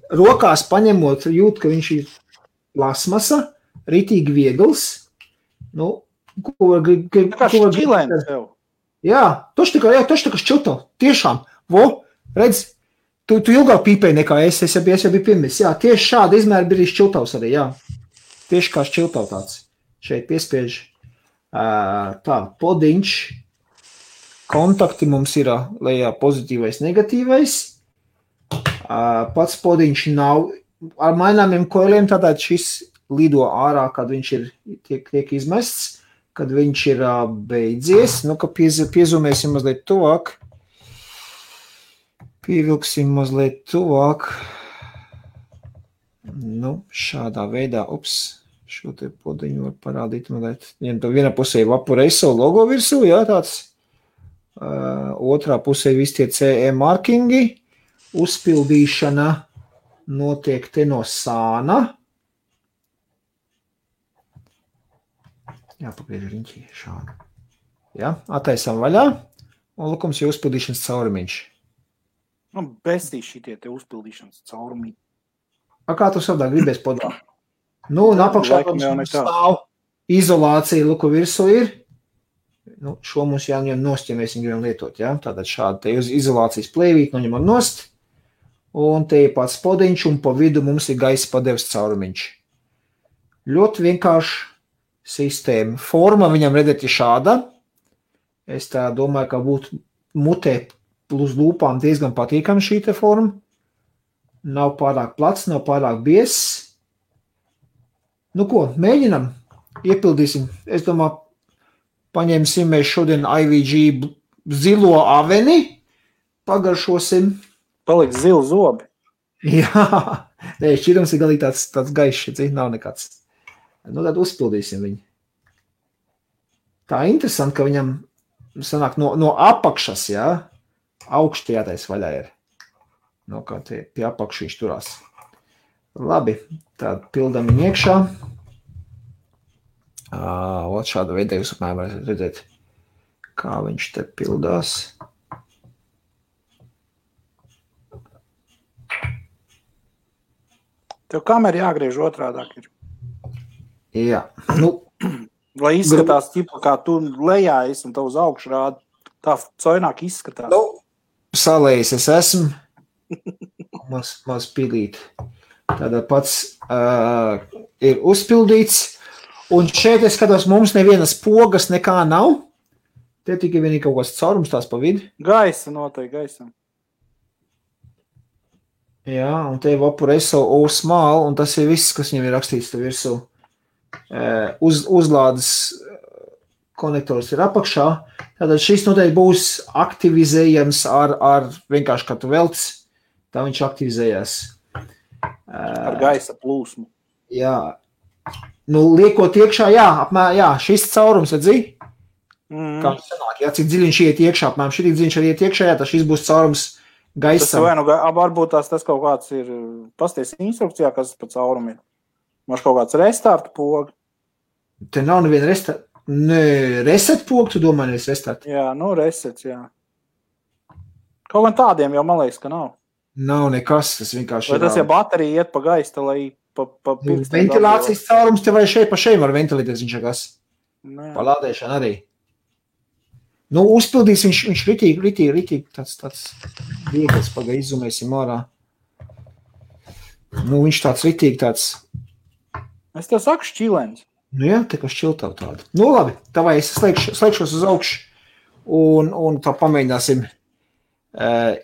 Rokās paņemot, jūt, ka viņš ir plasmasa, ritīgi viegls. Kā šķilēns tev. Jā, toši tā kā šķilto. Tiešām. Redz, tu ilgāk pīpēji nekā es jau biju pirmis. Jā, tieši šāda izmēra bija šķiltavs arī, jā. Tieši kā šķiltav tāds. Šeit piespiež. Tā, podiņš. Kontakti mums ir lejā pozitīvais, negatīvais. Pats podiņš nav ar maināmiem koiliem, tātad šis lido ārā, kad viņš tiek izmests, kad viņš ir beidzies. Ka piezumēsim mazliet tuvāk. Pievilksim mazliet tuvāk. Šādā veidā, šo te podiņu var parādīt, viņam to vienā pusē Vaporeiso logo virsū, jā, tāds, otrā pusē visi tie CE markingi, uzpildīšana notiek te no sāna, jāpagriež riņķī šādu, jā, attaisam vaļā, un lukums ir uzpildīšanas caurumiņš. Bestīs šitie te uzpildīšanas caurumiņi. Kā tu savdā gribēs podā? Un apakšā stāv izolācija, luku virsū ir. Šo mums jāņem nost, ja mēs viņu gribam lietot, jā. Tātad šādi te izolācijas plēvīt, noņemam nost. Un te ir pats podiņš, un pa vidu mums ir gaisa padeves caurumiņš. Ļoti vienkārši sistēma. Forma viņam redzēt ir šāda. Es tā domāju, ka būtu mutē plus lūpām diezgan patīkami šī te forma. Nav pārāk plats, nav pārāk biezs. Mēģinam, iepildīsim. Es domāju, paņemsim mēs šodien IVG zilo aveni, pagaršosim. Paliks zili zobi. Jā, šķirums ir galīgi tāds gaišs, nav nekāds. Tad uzpildīsim viņu. Tā interesanti, ka viņam sanāk no apakšas, jā, augšti jātais vaļā ir. Kā tie pie apakšu viņš turās. Labi, tad pildam viņu iekšā. Šāda veida jūs apmēram varat redzēt, kā viņš te pildās. Tev kamera jāgriež otrādāk ir. Jā. Lai izskatās, kā tu lejā esi un tev uz augšu rāda, tā coināk izskatās. Salējis es esmu. Maz pilīt. Tātad pats ir uzpildīts. Un šeit es skatos, mums nevienas pogas nekā nav. Te tikai vienīgi kaut kāds caurums tās pa vidu. Gaisa noteikti, gaisam. Jā, un te ir Vaporeiso O-Small, un tas ir viss, kas viņam ir rakstīts te virsū. Uzlādes konektors ir apakšā. Tātad šis noteikti būs aktivizējams ar vienkārši, kad tu velc, tā viņš aktivizējās. Ar gaisa plūsmu. Jā. Liekot iekšā, jā, šis caurums, redzi? Kā viņš sanāk, jā, cik dziļiņš iet iekšā, apmēram šī dziļiņš arī iet iekšā, jā, tad šis būs caurums gaisam. Varbūt tas kaut kāds ir, pasties instrukcijā, kas pa caurumu ir. Maš kaut kāds restarta poga. Te nav neviena reset poga, tu domā, nevis restart? Jā, resets, jā. Kaut gan tādiem jau man liekas, ka nav. Nav nekas, tas vienkārši vai tas, ja baterija iet pa gaista, lai pa ventilācijas caurums te vai šeit pa šeit var ventilēties viņš kas. Palādēšana arī. Nu, uzpildīs viņš ritīgi tāds viegls, pagai izzumēsim ārā. Nu, viņš tāds ritīgi tāds. Es tev saku šķilens. Nu jā, tā kā šķiltav tāda. Nu labi, tavai es slēgšos uz augšu un tā pamēģināsim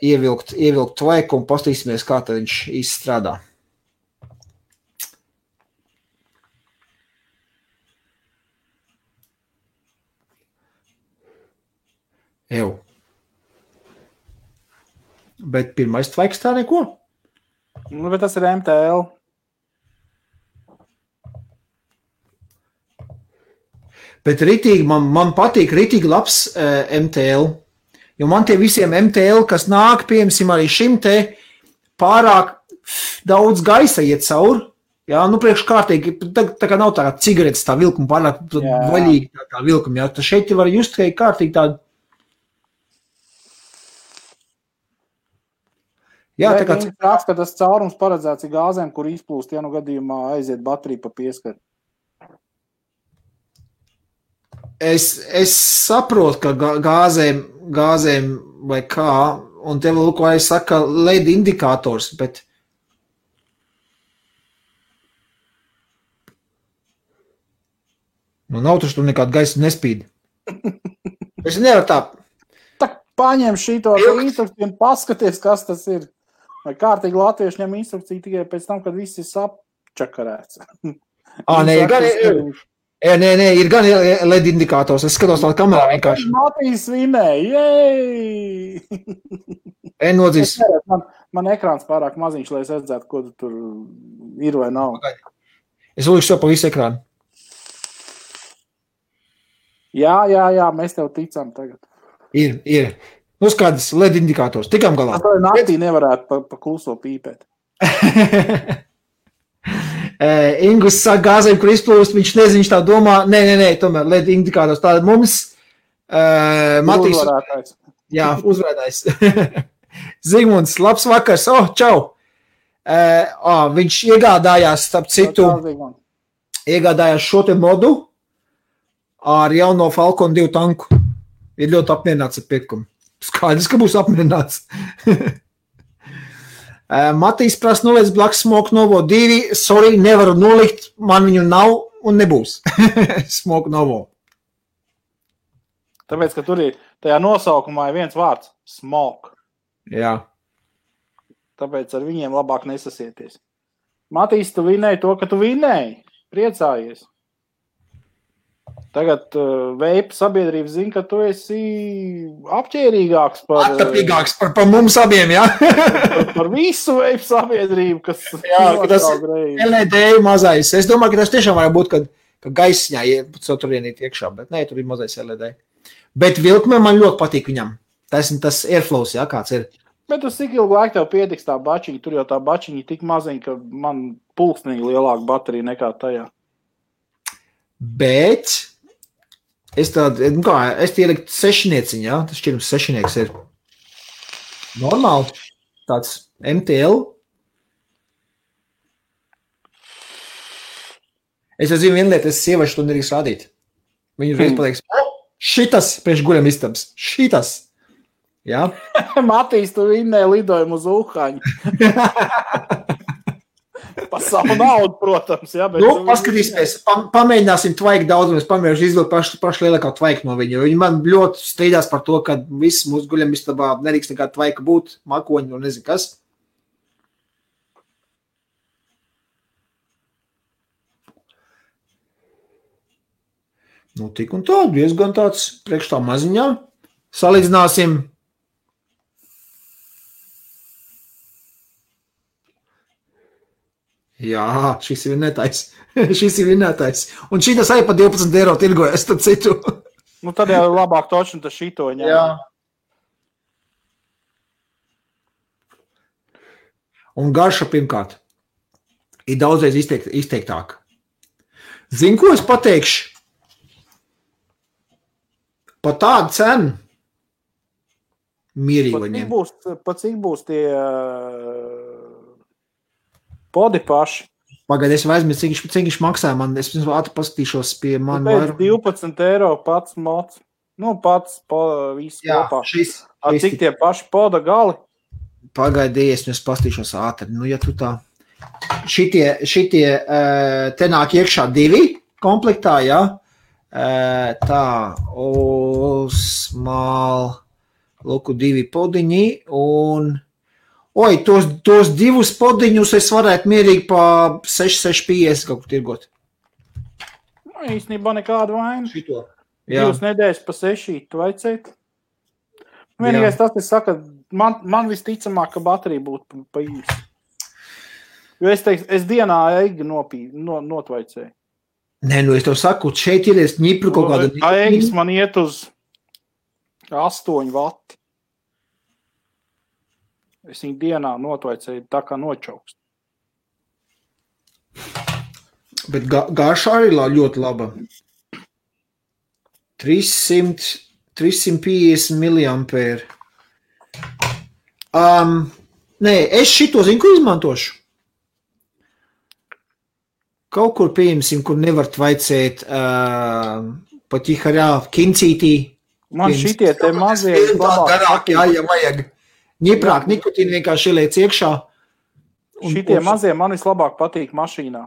ievilkt tvaiku un pastīsimies, kā tad viņš izstrādā. Ew. Bet pirmais tvaiks tā neko? Nu, bet tas ir MTL. Bet ritīgi, man patīk ritīgi labs MTL, jo man tie visiem MTL, kas nāk, piemēram, arī šim te pārāk daudz gaisa iet cauri, jā, nu priekškārtīgi, tā kā nav tā cigaretes tā vilkuma, pārāk vaļīgi tā vilkuma, jā, tad šeit var just kārtīgi tādu. Jā, tā kā... Raksta, ka tas caurums paredzēts ir gāzēm, kur izplūst, ja nu gadījumā aiziet baterija pa pieskaru. Es saprotu, ka gāzēm vai kā, un tev lūk, vai es saka LED indikators, bet nu nav taču tur nekāda gaisa nespīd. Es nevaru tā. Tak paņem šito instrukciju un paskaties, kas tas ir. Vai kārtīgi latvieši ņem instrukciju tikai pēc tam, kad viss ir sapčakarēts. Nē, ir gan LED indikators. Es skatos tā kamerā vienkārši. Matīs vinēja, jej! Nodzīs. Man ekrāns pārāk maziņš, lai es redzētu, ko tur ir vai nav. Es uzlikšu to pa visu ekrānu. Jā, mēs tev ticam tagad. Ir. Nu, kādas LED indikators. Tikām galā. Tā naktī nevarētu pa kluso pīpēt. Ingus saka gāzēm, kur izplūst, viņš nezin, viņš tā domā, nē, tomēr LED indikators. Tāda mums Matīs. Uzvarētājs. Jā, uzvarētājs. Zigmunds, labs vakars. Čau. Viņš iegādājās, starp citu, iegādājās šo te modu ar jauno Falcon 2 tanku. Ir ļoti apmierināts ar pirkumu. Skaidrs, ka būs apmierināts. Matīs prasa noliec Black Smoke Novo 2. Sorry, nevaru nolikt, man viņu nav un nebūs. Smoke Novo. Tāpēc, ka tur ir tajā nosaukumā ir viens vārds – smoke. Jā. Tāpēc ar viņiem labāk nesasieties. Matīs, tu vinēji to, ka tu vinēji. Priecājies. Tagad veipa sabiedrība zina, ka tu esi apķērīgāks par... Attapīgāks par mums abiem, jā? Par visu veipa sabiedrību, kas... Jā, ka tas LED mazais. Es domāju, ka tas tiešām var būt, ka gaisņā tur ienīt iekšā, bet nē, tur ir mazais LED. Bet vilkme man ļoti patīk viņam. Tas airflows, jā, kāds ir. Bet uz cik ilgu laiku tev pietiks tā bačiņa? Tur jau tā bačiņa tik maziņa, ka man pulksnīgi lielāka baterija nekā tajā. Bet... Es ielikt sešnieciņu, jā? Tas šķirums sešnieks ir normāli. Tāds MTL. Es zinu vienu lietu, es sieviešu to nedrīkst rādīt. Viņu reiz pateiks, šitas priekš guļam istabas. Šitas. Jā? Matīs, tu vinnēji lidojumu uz Uhaņu. Pa savu naudu, protams. Jā, bet paskatīsimies, pamēģināsim tvaiku daudz, un es pamēģināšu izvilkt pašu lielākā tvaiku no viņa. Viņi man ļoti strīdās par to, ka viss mūsu guļamistabā nedrīkst nekāda tvaika būt, makoņi un nezinu kas. Nu, tik un tā, diezgan tāds priekš tā maziņā. Salīdzināsim. Jā, šis ir vinnētais. Un šitas arī pa 12 eiro tirgojas, tad citu. Nu, tad jau labāk toču, tas šito ņem. Jā. Un garša pirmkārt ir daudzreiz izteiktāk. Zini, ko es pateikšu? Pa tādu cenu mierīgi var ņemt. Pa cik būs tie... Podi paši. Pagaid, es aizmirsu, cik viņš maksāja man. Es ātri paskatīšos pie man. Pēc 12 eiro pats mods. Nu, pats viss Jā, kopā. šis Cik tie paši poda gali? Pagaidies, es pastīšos ātri. Nu, ja tu tā. Šitie te nāk iekšā 2 komplektā, jā. Tā, Osmal, lūku 2 podiņi un, tos 2 podiņus es varētu mierīgi pa 6,50 kaut kur tirgot. Nu, īstenībā nekādu vainu. Šito. Jā. 2 nedēļas pa 6 vajadzētu. Vienīgais tas, es saku, man visticamāk, ka baterija būtu pa īsi. Jo es teiktu, es dienā eigu notvaicēju. Nē, nu es tev saku, šeit ir ņipru kaut kāda... Eigas man iet uz 8 vati. Es viņu dienā notvaicēju tā kā nočaukst. Bet garša arī ļoti laba. 350 miliampēri. Nē, es šito zinu, ko izmantošu. Kaut kur pieņemsim, kur nevar tvaicēt pat iharā kincītī. Man šitie te mazie labāk. Jā, vajag. Ņiprāk nikotīni vienkārši ieliec iekšā. Šitie mazie man vislabāk patīk mašīnā.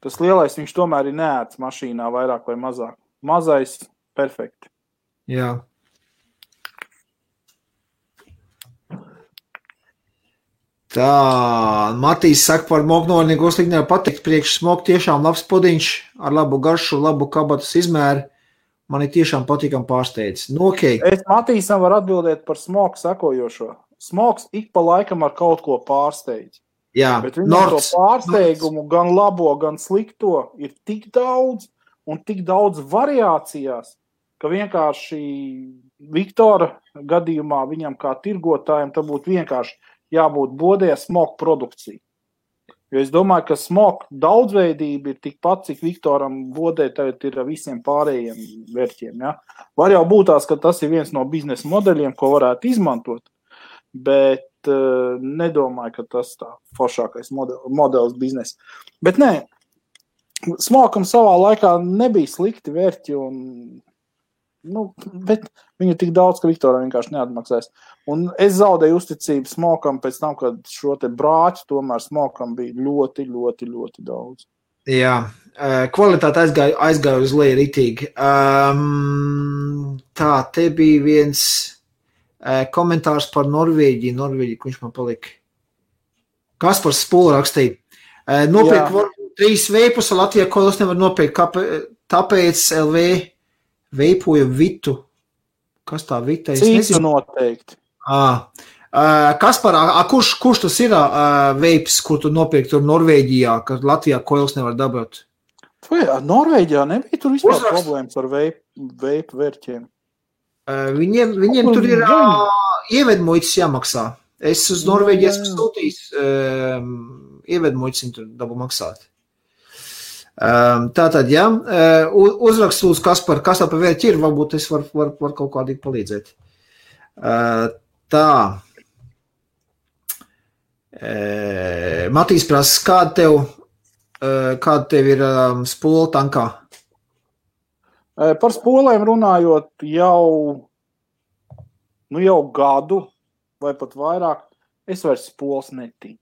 Tas lielais viņš tomēr ir neēts mašīnā vairāk vai mazāk. Mazais perfekti. Jā. Tā, Matīs saka par moknolnieku sliknē patikt priekš smok tiešām labs podiņš ar labu garšu, labu kabatas izmēru. Man ir tiešām patīkam pārsteidz. Nu, okay. Es Matīsam var atbildēt par smoku sakojošo. Smoks ik pa laikam ar kaut ko pārsteidz. Jā, bet viņam to pārsteigumu gan labo, gan slikto ir tik daudz un tik daudz variācijās, ka vienkārši Viktora gadījumā viņam kā tirgotājiem tā būtu vienkārši jābūt bodē smoku produkcija. Jo es domāju, ka smoku daudzveidība ir tikpat, cik Viktoram bodē tagad ir visiem pārējiem vērķiem. Ja? Var jau būt tās, ka tas ir viens no biznesa modeļiem, ko varētu izmantot, bet nedomāju, ka tas tā foršākais modelis biznesa. Bet nē, smokam savā laikā nebija slikti vērķi, bet viņu tik daudz, ka Viktoram vienkārši neatmaksās. Un es zaudēju uzticību smokam pēc tam, kad šo te brāķu tomēr smokam bija ļoti, ļoti, ļoti daudz. Jā, kvalitāte aizgāja uz leju ritīgi. Tā, te bija viens komentārs par Norvēģiju, viņš man palika. Kaspars Spūla rakstīja. Nopirkt 3 veipus, Latvijā kolos nevar nopirkt, tāpēc LV veipoja Vitu. Kas tā Vita? Cīta noteikti. Kaspar, kurš tas ir veips, kur tu nopirkt tur Norvēģijā, ka Latvijā koils nevar dabūt? Vai Norvēģijā nebija tur vispār problēmas ar veipu vērķiem? Viņiem tur ir ievedmuitas jāmaksā. Es uz Norvēģiju esmu sūtījis ievedmuitas, viņi tur dabu maksāt. Tātad, jā, uzrakst lūdzu, kas par vērķi ir, varbūt es var kaut kādīgi palīdzēt. Tā. Matīs prasa, kāda tev ir spola tankā? Par spolēm runājot jau gadu vai pat vairāk, es vairs spolas netīju.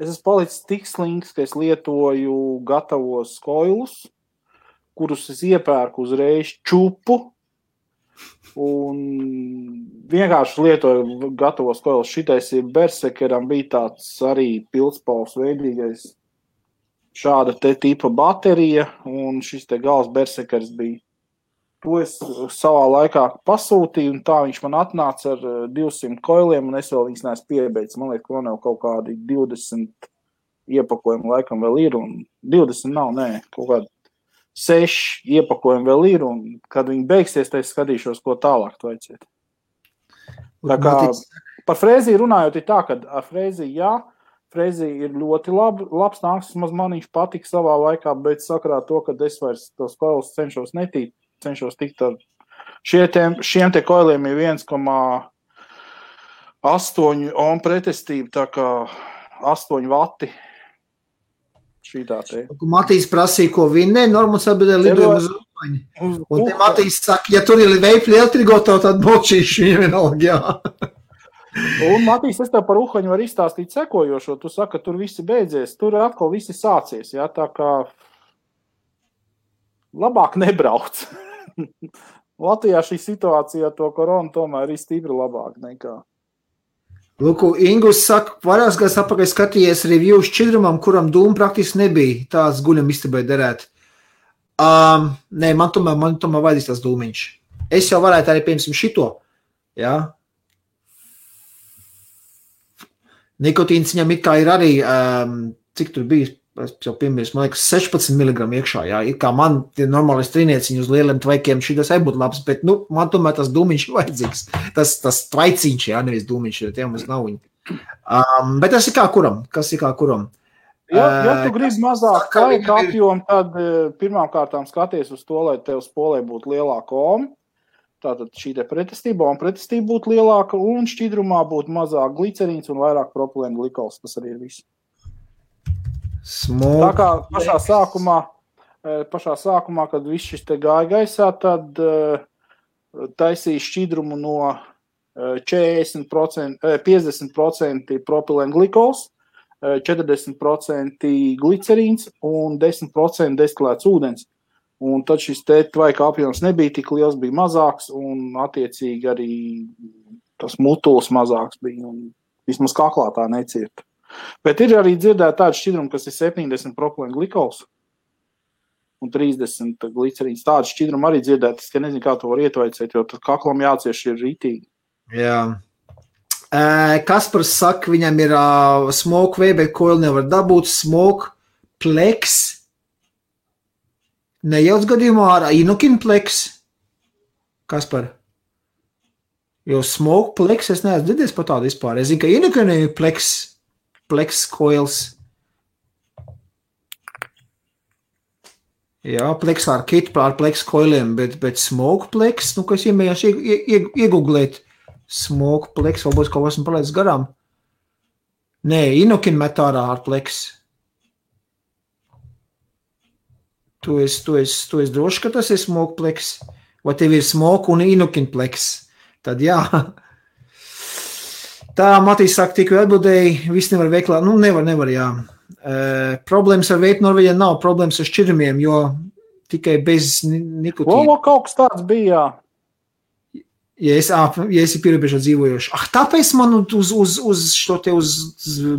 Es esmu palicis tik slinks, ka es lietoju gatavos koilus, kurus es iepērku uzreiz čupu un vienkārši lietoju gatavos koilus. Šitais ir Bersekeram bija tāds arī pildspalvs veidīgais šāda te tipa baterija un šis te gals Bersekers bija. To es savā laikā pasūtīju un tā viņš man atnāca ar 200 koiliem un es vēl viņas neesmu piebeidz. Man liekas, ka man jau kaut kādi 20 iepakojumi laikam vēl ir un 20 nav, nē, kaut kādi 6 iepakojumi vēl ir un kad viņi beigsies, tad es skatīšos, ko tālāk vajadzēt. Tā kā par frēziju runājot ir tā, ka ar frēziju jā, frēzija ir ļoti labs nāks, man viņš patika savā laikā, bet sakarā to, ka es vairs tos koilus cenšos tikt ar šiem te koiliem ir 1,8 ohm pretestība, tā kā 8 vati. šitā te. Matīs prasīja, ko vinnē, Normans atbildēja lidojumu uz Uhaņu. Un te Matīs saka, ja tur ir veipļi elektrigotavu, tad bočīši viņam vienalga, jā. Un, Matīs, es tev par Uhaņu var izstāstīt sekojošo. Tu saka, ka tur viss beidzies. Tur atkal viss sācies, jā, tā kā labāk nebrauc. Latvijā šī situācija to koronu tomēr ir stipri labāk nekā. Lūk, Ingus saka, vairākas gadus atpakaļ skatījies review šķidrumam, kuram dūma praktiski nebija. Tāds guļam istabai derēt. Nē, man tomēr vajadzīs tās dūmiņš. Es jau varētu arī, piemēram, šito. Jā. Nikotīns viņam it kā ir arī, cik tur bija, es jau piemērs, man liekas, 16 mg iekšā. Jā. It kā man normālais trīnieciņš uz lieliem tvaikiem šitas arī būtu labs, bet man tomēr tas dūmiņš ir vajadzīgs. Tas tvaiciņš, jā, nevis dūmiņš, tie mums nav viņi. Bet tas ir kā kuram. Kas ir kā kuram? Ja tu gribi mazāk laika apjomu, tad pirmām kārtām skaties uz to, lai tev spolē būtu lielāka oma. Tātad šī te pretestība būtu lielāka un šķidrumā būtu mazāk glicerīns un vairāk propilēna glikols. Tas arī ir viss. Tā kā pašā sākumā, kad viss šis te gāja gaisā, tad taisīja šķidrumu no 50% propilēna glikols, 40% glicerīns un 10% destilēts ūdens. Un tad šis te tvaika apjoms nebija tik liels, bija mazāks un attiecīgi arī tas mutuls mazāks bija un vismaz kaklā tā necirta. Bet ir arī dzirdēta tāda šķidruma, kas ir 70 propilēna glikols un 30 glicerīns. Tāda šķidruma arī dzirdēta, es nezinu, kā to var ietvaicēt, jo tad kaklam jācieš ir ritīgi. Jā. Kaspars saka, viņam ir smoke way, bet coil nevar dabūt, smoke plex. Nejauc gadījumā ar inokinplex. Kaspar? Jo smoke plex es neesmu dzirdējis par tādu vispār. Es zinu, ka inokinplex coils. Jā, plex ar kit ar plex coiliem, bet smoke plex, kas iemējās iegooglēt. Smoke plex, varbūt kaut esmu palaidis garām. Nē, inokin metārā ar plex. Tu esi droši, ka tas ir smoke plex? Vai tev ir smoke un inokin plex? Tad jā. Tā, Matīs saka, tikko atbildēji, viss nevar veiklā. Nevar, jā. Problēmas ar veipu Norvēģijā nav, problēmas ar šķidrumiem, jo tikai bez nikotīna. Kaut kas tāds bija, jā. Ja esi pierobežā dzīvojoši. Tāpēc man uz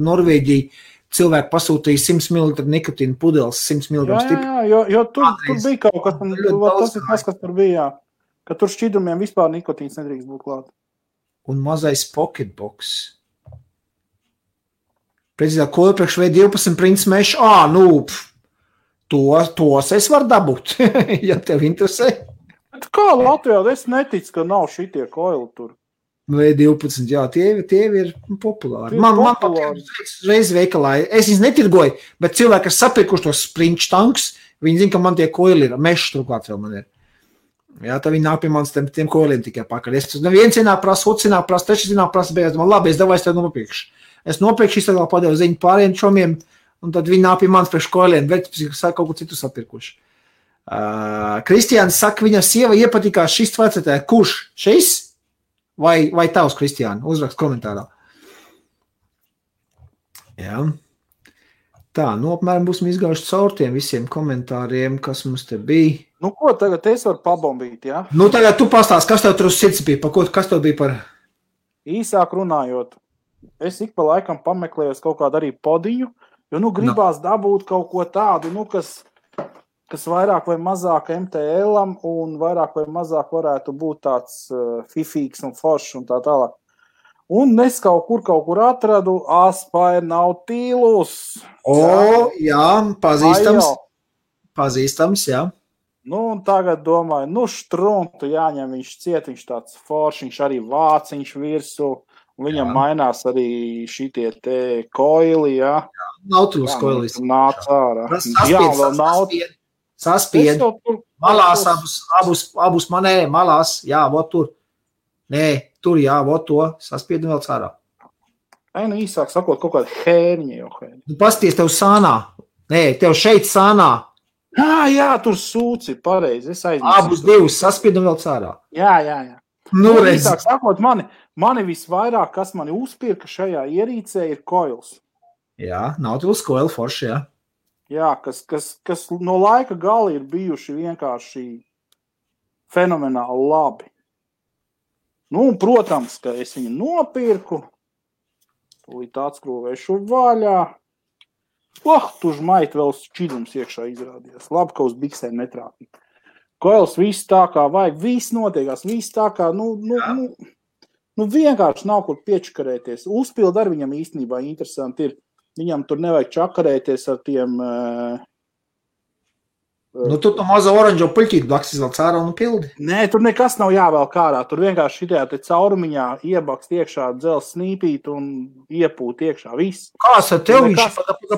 Norvēģiju cilvēku pasūtīja 100 ml nikotīna pudeles, 100 mg stipri. Jā, jo tur bija kaut kas, tas ir tas, kas tur bija, jā. Ka tur šķidrumiem vispār nikotīns nedrīkst būt klāt. Un mazais pocketbox. Precīzāk, ko priekš V12 prints mesh, tos es varu dabūt, ja tev interesē. Bet kā Latvijā, es neticu, ka nav šitie koili tur. V12, jā, tie ir populāri. Man reiz veikalā, es viņus netirgoju, bet cilvēki, kas sapirkuši tos sprint tanks, viņi zina, ka man tie koili ir, mešs turklāt vēl man ir. Jā, tā viņi nāk pie manis tiem koiliem tikai pakaļ. Viens ienāk prasa, otrs ienāk prasa, trešais ienāk prasa, bet man labi, es tev nopirkšu. Es nopirkšu, iztādālu padevu ziņu pāriem čomiem, un tad viņi nāk pie manis priekš koiliem, bet kaut ko citu sapirkuši. Kristiāns saka, viņa sieva iepatikās šis tvecetē. Kurš? Šis? Vai tavs, Kristiāna? Uzrakst komentārā. Jā. Tā, apmēram būsim izgājuši caur tiem visiem komentāriem, kas mums te bija. Ko tagad es varu pabombīt, jā? Tagad tu pastāst, kas tev tur uz sirds bija, kas tev bija par? Īsāk runājot, es ik pa laikam pameklējos kaut kādu arī podiņu, jo, gribās dabūt kaut ko tādu, kas vairāk vai mazāk MTL-am un vairāk vai mazāk varētu būt tāds fifīgs un foršs un tā tālāk. Un es kaut kur atradu Aspire Nautilus. Jā, pazīstams, jā. Un tagad domāju, štruntu jāņem, viņš ciet, viņš tāds foršs, viņš arī vāciņš virsu, un viņam mainās arī šitie te koili, jā. Nautilus koilis. Nāc ārā. Jā, vēl Nautilus. Saspied, malās abus manē, malās, jā, vot tur. Nē, tur, jā, vot to, saspied un vēl cārā. Īsāk sakot, kaut kāda hērņa jau hērņa. Pasties tev sānā, Nē, tev šeit sānā. Jā, tur sūci, pareizi, es aizmirsu. Abus divus saspied un vēl cārā. Jā. Nu, redz. Īsāk sakot, mani visvairāk, kas mani uzpirka šajā ierīcē, ir koils. Jā, Nautilus koili forši, jā. Jā, kas no laika gala ir bijuši vienkārši fenomenāli labi. Nu, un, protams, ka es viņu nopirku, tūlīt atskrūvēšu vaļā. Tu žmait vēl šķidrums iekšā izrādījās. Labi, ka uz biksēm netrāpīja. Koils viss tā kā vajag, viss notiekās, viss tā kā, vienkārši nav kur piečkarēties. Uzpild ar viņam īstenībā interesanti ir. Viņam tur nevajag čakarēties ar tiem... Tu mazo oranžo puļķīti blaks izvēl cārā un pildi. Nē, tur nekas nav jāvēl kārā. Tur vienkārši šitajā te caurumiņā iebakst iekšā dzels snīpīt un iepūt iekšā. Viss. Kāds ar tev viņš?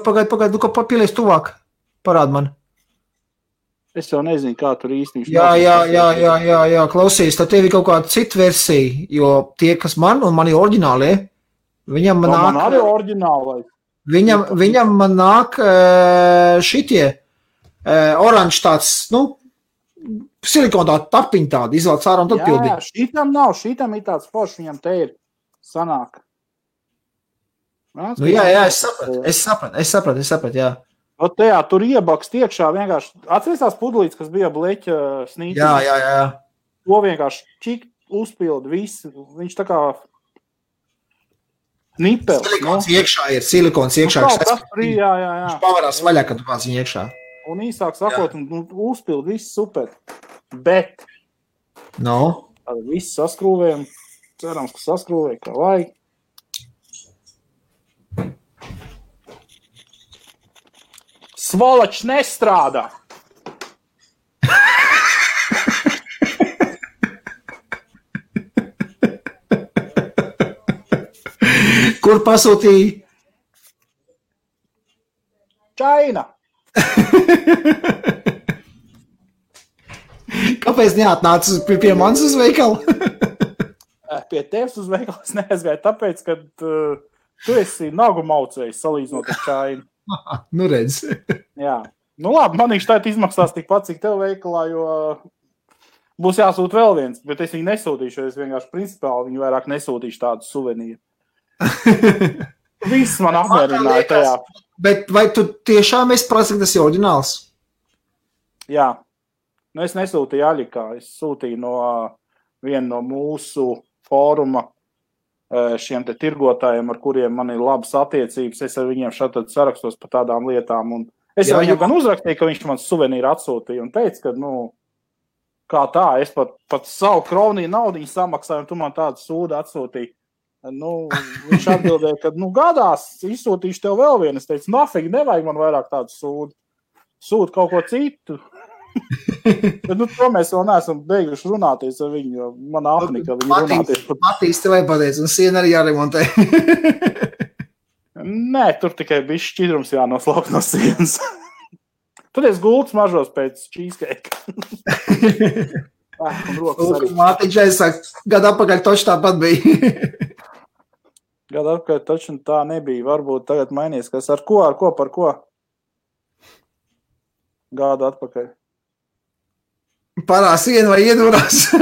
Pagaid, kā papilies tuvāk. Parād man. Es jau nezinu, kā tur īsti viņš. Jā, klausies, tad tev ir kaut kāda cita versija, jo tie, kas man un mani oriģināli, viņam man nāk... Man arī oriģināli. Viņam man nāk šitie oranži tāds, silikona tāda tapiņa tāda, izvēl cārā un tad pildīt. Jā, šitam nav, šitam ir tāds foršs, viņam te ir sanāk. Es sapratu, jā. Tajā tur iebakst iekšā vienkārši, atceries tās pudlītes, kas bija bleķa snīcī? Jā. To vienkārši čik uzpildu visu, viņš tā kā nipelis. Silikons iekšā. Jā. Viņš pavarās vaļā, kad tu pats viņu iekšā. Un īsāk sakot, uzpild viss super. Bet tad viss saskrūvējam. Cerams, ka saskrūvēja, kā vajag. Svalačs nestrādā. Kur pasūtīja? Čaina. Kāpēc neatnāc pie manis uz veikalu? Pie tevis uz veikalu es neaizgāju, tāpēc, ka tu esi nagu maucējis salīdzinot ar Čainu. Nu redz. Jā. Nu labi, man viņš tēt izmaksās tikpat, cik tev veikalā, jo būs jāsūt vēl viens, bet es viņu nesūtīšu, jo es vienkārši principāli viņu vairāk nesūtīšu tādu suvenīru. Viss man apmierināja tajā. Bet vai tu tiešām esi prasa, ka tas ir oriģināls? Jā. Nu, es nesūtīju Aļikā. Es sūtīju no viena no mūsu fóruma šiem te tirgotājiem, ar kuriem man ir labas attiecības. Es ar viņiem šādi sarakstos par tādām lietām. Un es viņam gan uzrakstīju, ka viņš man suvenīru atsūtīja un teica, ka, kā tā, es pat savu kroniju naudiņu samaksāju un tu man tādu sūdu atsūtīji. Viņš atbildēja, ka, gadās, izsūtīšu tev vēl vienu. Es teicu, nafīgi, nevajag man vairāk tādu sūdu. Sūdu kaut ko citu. Bet, to mēs vēl neesam beiguši runāties ar viņu, jo man apnika viņu runāties. Matīs tev pateic, un siena arī jāremontē. Nē, tur tikai bišķi šķidrums jānoslaukt no sienas. Tad es gultas mažos pēc cheesecake. Mātiņš aizsāk, gadu apakaļ toči tāpat bija. Gadu apakaļ toči tā nebija. Varbūt tagad mainies, kas par ko? Gadu atpakaļ. Parā siena vai iedūrās?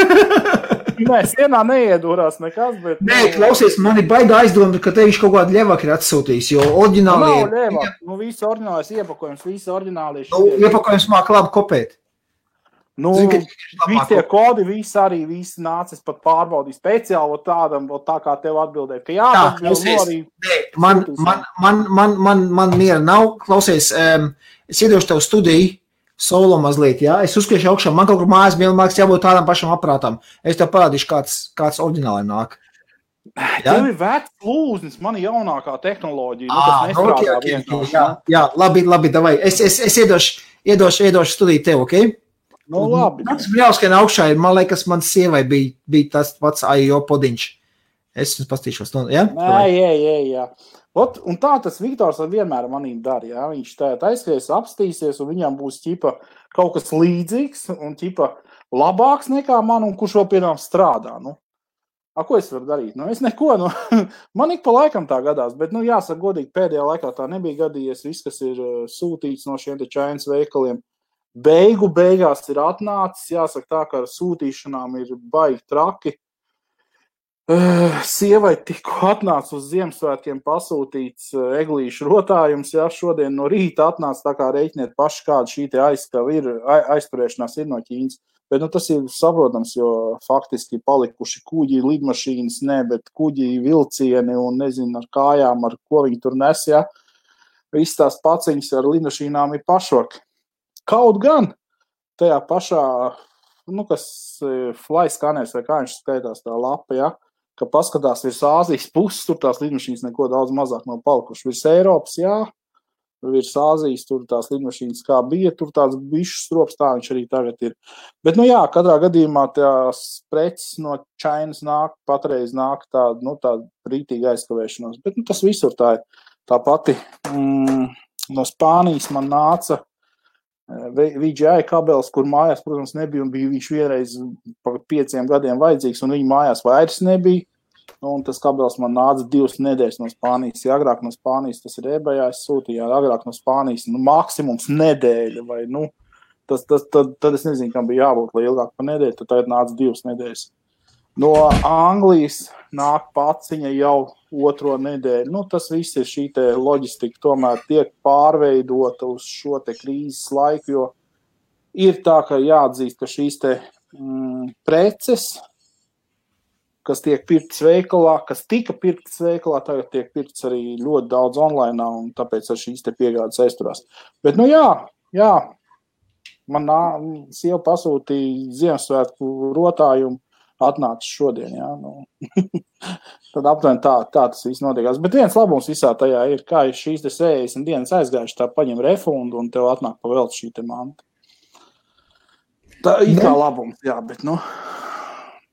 Nē, sienā neiedūrās nekas, bet... Nē, klausies, man ir baigā aizdomta, ka te viņš kaut kādu ļevāk ir atsūtījis, jo oriģināli... Nav ļevāk, visi oriģinālais iepakojums, visi oriģināli... Iepakojums māk labi kopēt. Visi tie kodi, visi nācis pat pārbaudīt speciāli tādam, tā kā tev atbildēt, ka jā, tas bija arī... Man miera nav, klausies, es iedošu tev studiju, solo mazliet, jā, es uzkriešu augšā, man kaut kur mājas vienmēr jābūt tādam pašam aparātam. Es tev parādīšu, kāds oriģināli nāk. Tev ir vecs lūznis, man ir jaunākā tehnoloģija, tas nestrādā vienkārši. Jā, labi, davai. Es iedošu studiju tev, ok? Labi. Tas jāuzskien augšā ir, man liekas, man sievai bija tas pats AIO podiņš. Es pastīšos, jā? Jā. Un tā tas Viktors vienmēr manīm dara, jā. Viņš aizskries, apstīsies, un viņam būs kaut kas līdzīgs un labāks nekā man, un kurš vēl piedām strādā. Ko es varu darīt? Es neko, man ik pa laikam tā gadās, bet, jāsaka godīgi, pēdējā laikā tā nebija gadījies. Viss, kas ir sūtīts no šiem te Chainas veikaliem, beigās ir atnācis. Jāsaka tā, ka ar sūtīšanām ir baigi traki. Sievai tikko atnāca uz Ziemassvētkiem pasūtīts eglīšu rotājums, šodien no rīta atnāca, tā kā reiķiniet paši, kāda šī te aizturēšanās ir no Ķīnas. Bet tas ir saprotams, jo faktiski palikuši kuģi, lidmašīnas, bet kuģi, vilcieni un nezinu ar kājām, ar ko viņi tur nes, Viss tās paciņas ar lidmašīnām ir pašvaki. Kaut gan tajā pašā, kas flyskaners vai kā viņš skaitās tā lapa, ka paskatās virs Āzijas puses, tur tās lidmašīnas neko daudz mazāk nav palikuši. Virs Eiropas, virs Āzijas, tur tās lidmašīnas kā bija, tur tāds bišķis strops, tā viņš arī tagad ir. Bet, katrā gadījumā tās preces no Chainas patreiz nāk tāda rītīga aizkavēšanos. Bet, tas visur tā ir. Tā pati no Spānijas man nāca VGI kabelis, kur mājās, protams, nebija un bija viņš vienreiz pa 5 gadiem vajadzīgs un viņa mājās vairs nebija. Un tas kabelis man nāca 2 nedēļas no Spānijas. Agrāk no Spānijas tas ir eBayā, es sūtīju, agrāk no Spānijas maksimums nedēļa vai, tad es nezinu, kam bija jābūt, lai ilgāk pa nedēļu, tad tagad nāca 2 nedēļas. No Anglijas nāk paciņa jau 2. nedēļu. Tas viss ir šī te loģistika tomēr tiek pārveidota uz šo te krīzes laiku, jo ir tā, ka jāatzīst, ka šīs te preces, kas tiek pirktas veikalā, kas tika pirktas veikalā, tagad tiek pirktas arī ļoti daudz online, un tāpēc ar šīs te piegādes aizturās. Bet, man sieva pasūtīja Ziemassvētku rotājumu, atnāca šodien, Tad aptuveni tā tas viss notiekās. Bet viens labums visā tajā ir, kā šīs te 60 dienas aizgājuši, tā paņem refundu un tev atnāk pa velti šī te manta. Tā ir kā labums, bet,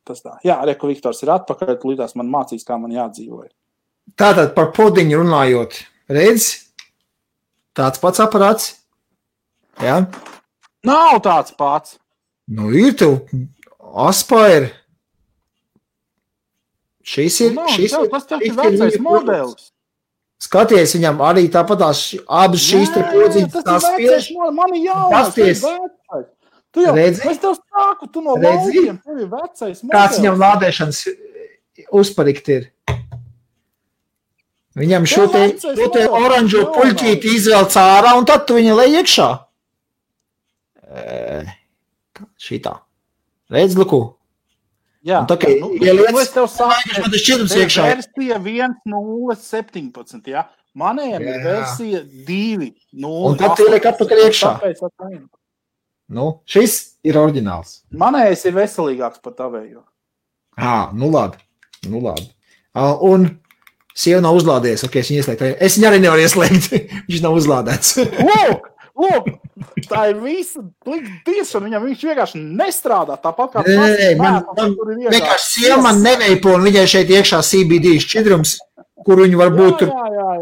tas tā. Reku Viktors ir atpakaļ, līdās man mācīs, kā man jādzīvoja. Tātad par podiņu runājot, redz, tāds pats aparāts, Nav tāds pats. Ir tev Aspire. Šis ir vecais modelis. Skaties, viņam arī tāpatās abas šīs te podziņas tās spiež. Man ir jaunais, es tev sāku, tu no laukiem, tev ir vecais modelis. Kāds viņam lādēšanas uzparikt ir? Viņam šo te oranžo puļķīti izvelc ārā un tad tu viņu lej iekšā. Šitā. Redz, luku. Jā, es tev saku, versija 1.0.17, manējam ir versija 2.0. Un tad tu ieliek atpakaļ iekšā. Šis ir oriģināls. Manējais ir veselīgāks par tavējo. Labi. Un sieva nav uzlādējies, es viņu ieslēgtu. Es viņu arī nevaru ieslēgt, viņš nav uzlādēts. Lūk, tā ir visa tiešana, viņam viņš vienkārši nestrādā tāpat kā vienkārši sieva man neveipo un viņai šeit iekšā CBD šķidrums, kur viņu varbūt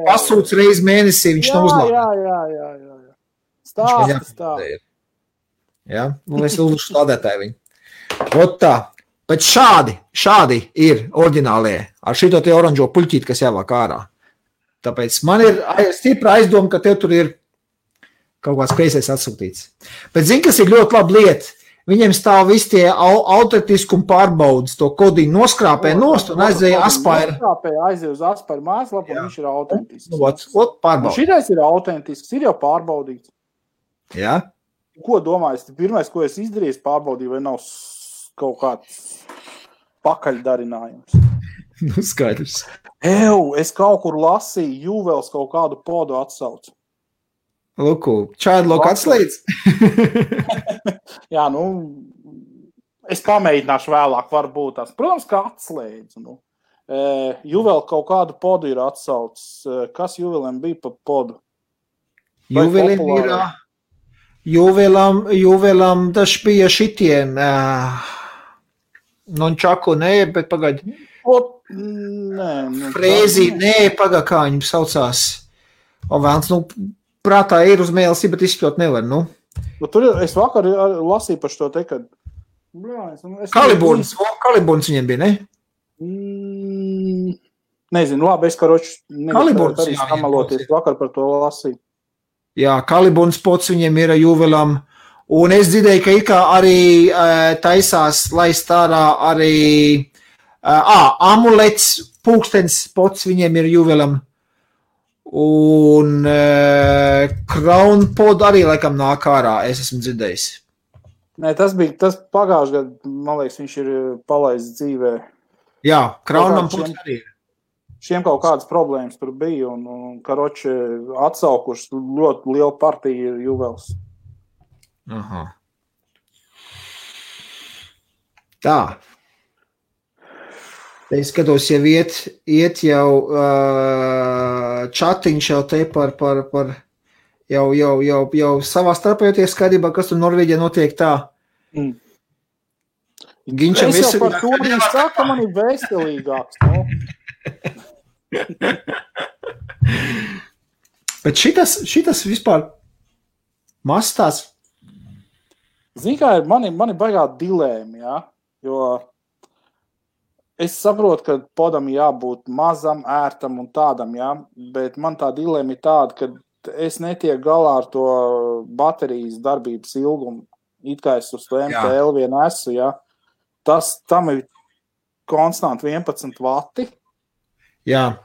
pasūc reiz mēnesī, viņš nav uzlādēts. Stāsta. Es uzlušu lādētāju viņu. Tā, bet šādi ir oriģinālie ar šito te oranžo puļķīti, kas jāvāk ārā. Tāpēc man ir stipra aizdoma, ka tev tur ir kaut kāds kreisais atsūtīts. Bet zini, kas ir ļoti laba lieta? Viņiem stāv visi tie autentiskuma pārbaudas, to kodiņu noskrāpē nost un aizēja Aspire. Aizēja uz Aspire mājaslapu, un viņš ir autentisks. Pārbauda. Šitais ir autentisks, ir jau pārbaudīts. Jā. Ko domāju? Pirmais, ko es izdarīju, pārbaudīju, vai nav kaut kāds pakaļdarinājums. Skaidrs. Es kaut kur lasīju, Juvels kaut kādu podu atsaucu. Luku, Childlock atslēdz? Jā, es pamēģināšu vēlāk, varbūt tās. Protams, ka atslēdz. Juvel kaut kādu podu ir atsaucis. Kas Juvelam bija pa podu? Juvelam tas bija šitien. Nončaku, bet pagaidi. Frēzi, pagaidi, kā viņam saucās. Vēlns, prātā ir uz mēlesi, bet izspļot nevar, Tur es vakar lasīju par šo te, kad... Kaliburns viņiem bija, ne? Nezinu, labi, es karoči Kaliburns, arī samaloties vakar par to lasīju. Jā, Kaliburns pots viņiem ir juvelam. Un es dzirdēju, ka ikā arī taisās laist ārā arī amulets, pūkstens pots viņiem ir juvelam. Un Crown pod arī laikam nāk ārā, es esmu dzirdējis. Nē, tas pagājuši gadu, man liekas, viņš ir palaists dzīvē. Jā, Crownam pods arī ir. Šiem kaut kādas problēmas tur bija, un karoči atsaukuši ļoti lielu partiju juvels. Aha. Tā. Es skatos, jau iet jau čatiņš jau te par jau savā starpējoties skaidrībā, kas tur Norvēģijā notiek tā. Ginčam es jau par to viņš saka, man ir veselīgāks, no? Bet šitas vispār mastās. Zini, kā ir, mani baigā dilēma, ja? Jo es saprotu, ka podam jābūt mazam, ērtam un tādam, ja? Bet man tā dilēma ir tāda, ka es netieku galā ar to baterijas darbības ilgumu. It kā es uz to MTL vien esmu, ja? Tam ir konstanti 11 vati. Jā.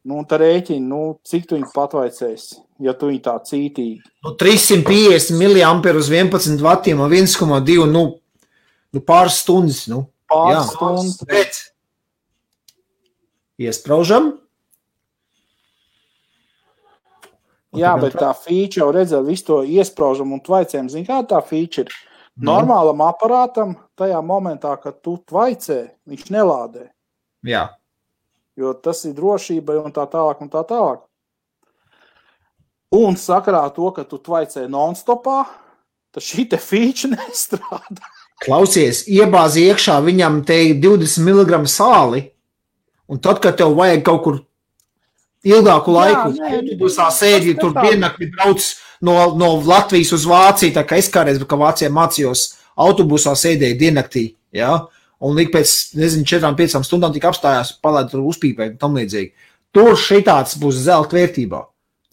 Nu, un tā rēķina, cik tu viņu patvaicēs, ja tu viņu tā cītīgi. 350 mAh uz 11 vatiem un 1,2, pāris stundas, Pāris stundas. Bet iespraužam. Jā, bet tā feature jau redzēja visu to iespraužam un tvaicēm. Zini, kā tā feature? Normālam aparātam tajā momentā, kad tu tvaicē, viņš nelādē. Jā. Jo tas ir drošība un tā tālāk un tā tālāk. Un sakarā to, ka tu tvaicē non-stopā, tad šī te feature nestrādā. Klausies, iebāzi iekšā viņam te 20 mg sāli, un tad, kad tev vajag kaut kur ilgāku laiku, autobusā sēdi, tur diennakti brauc no Latvijas uz Vāciju, tā kā es kādreiz, ka Vācijā mācījos, autobusā sēdēju diennaktī, jā, un līdz pēc, 4-5 stundām tik apstājās, palaid tur uzpīpēt un tam līdzīgi. Tur šitāds būs zelta vērtībā.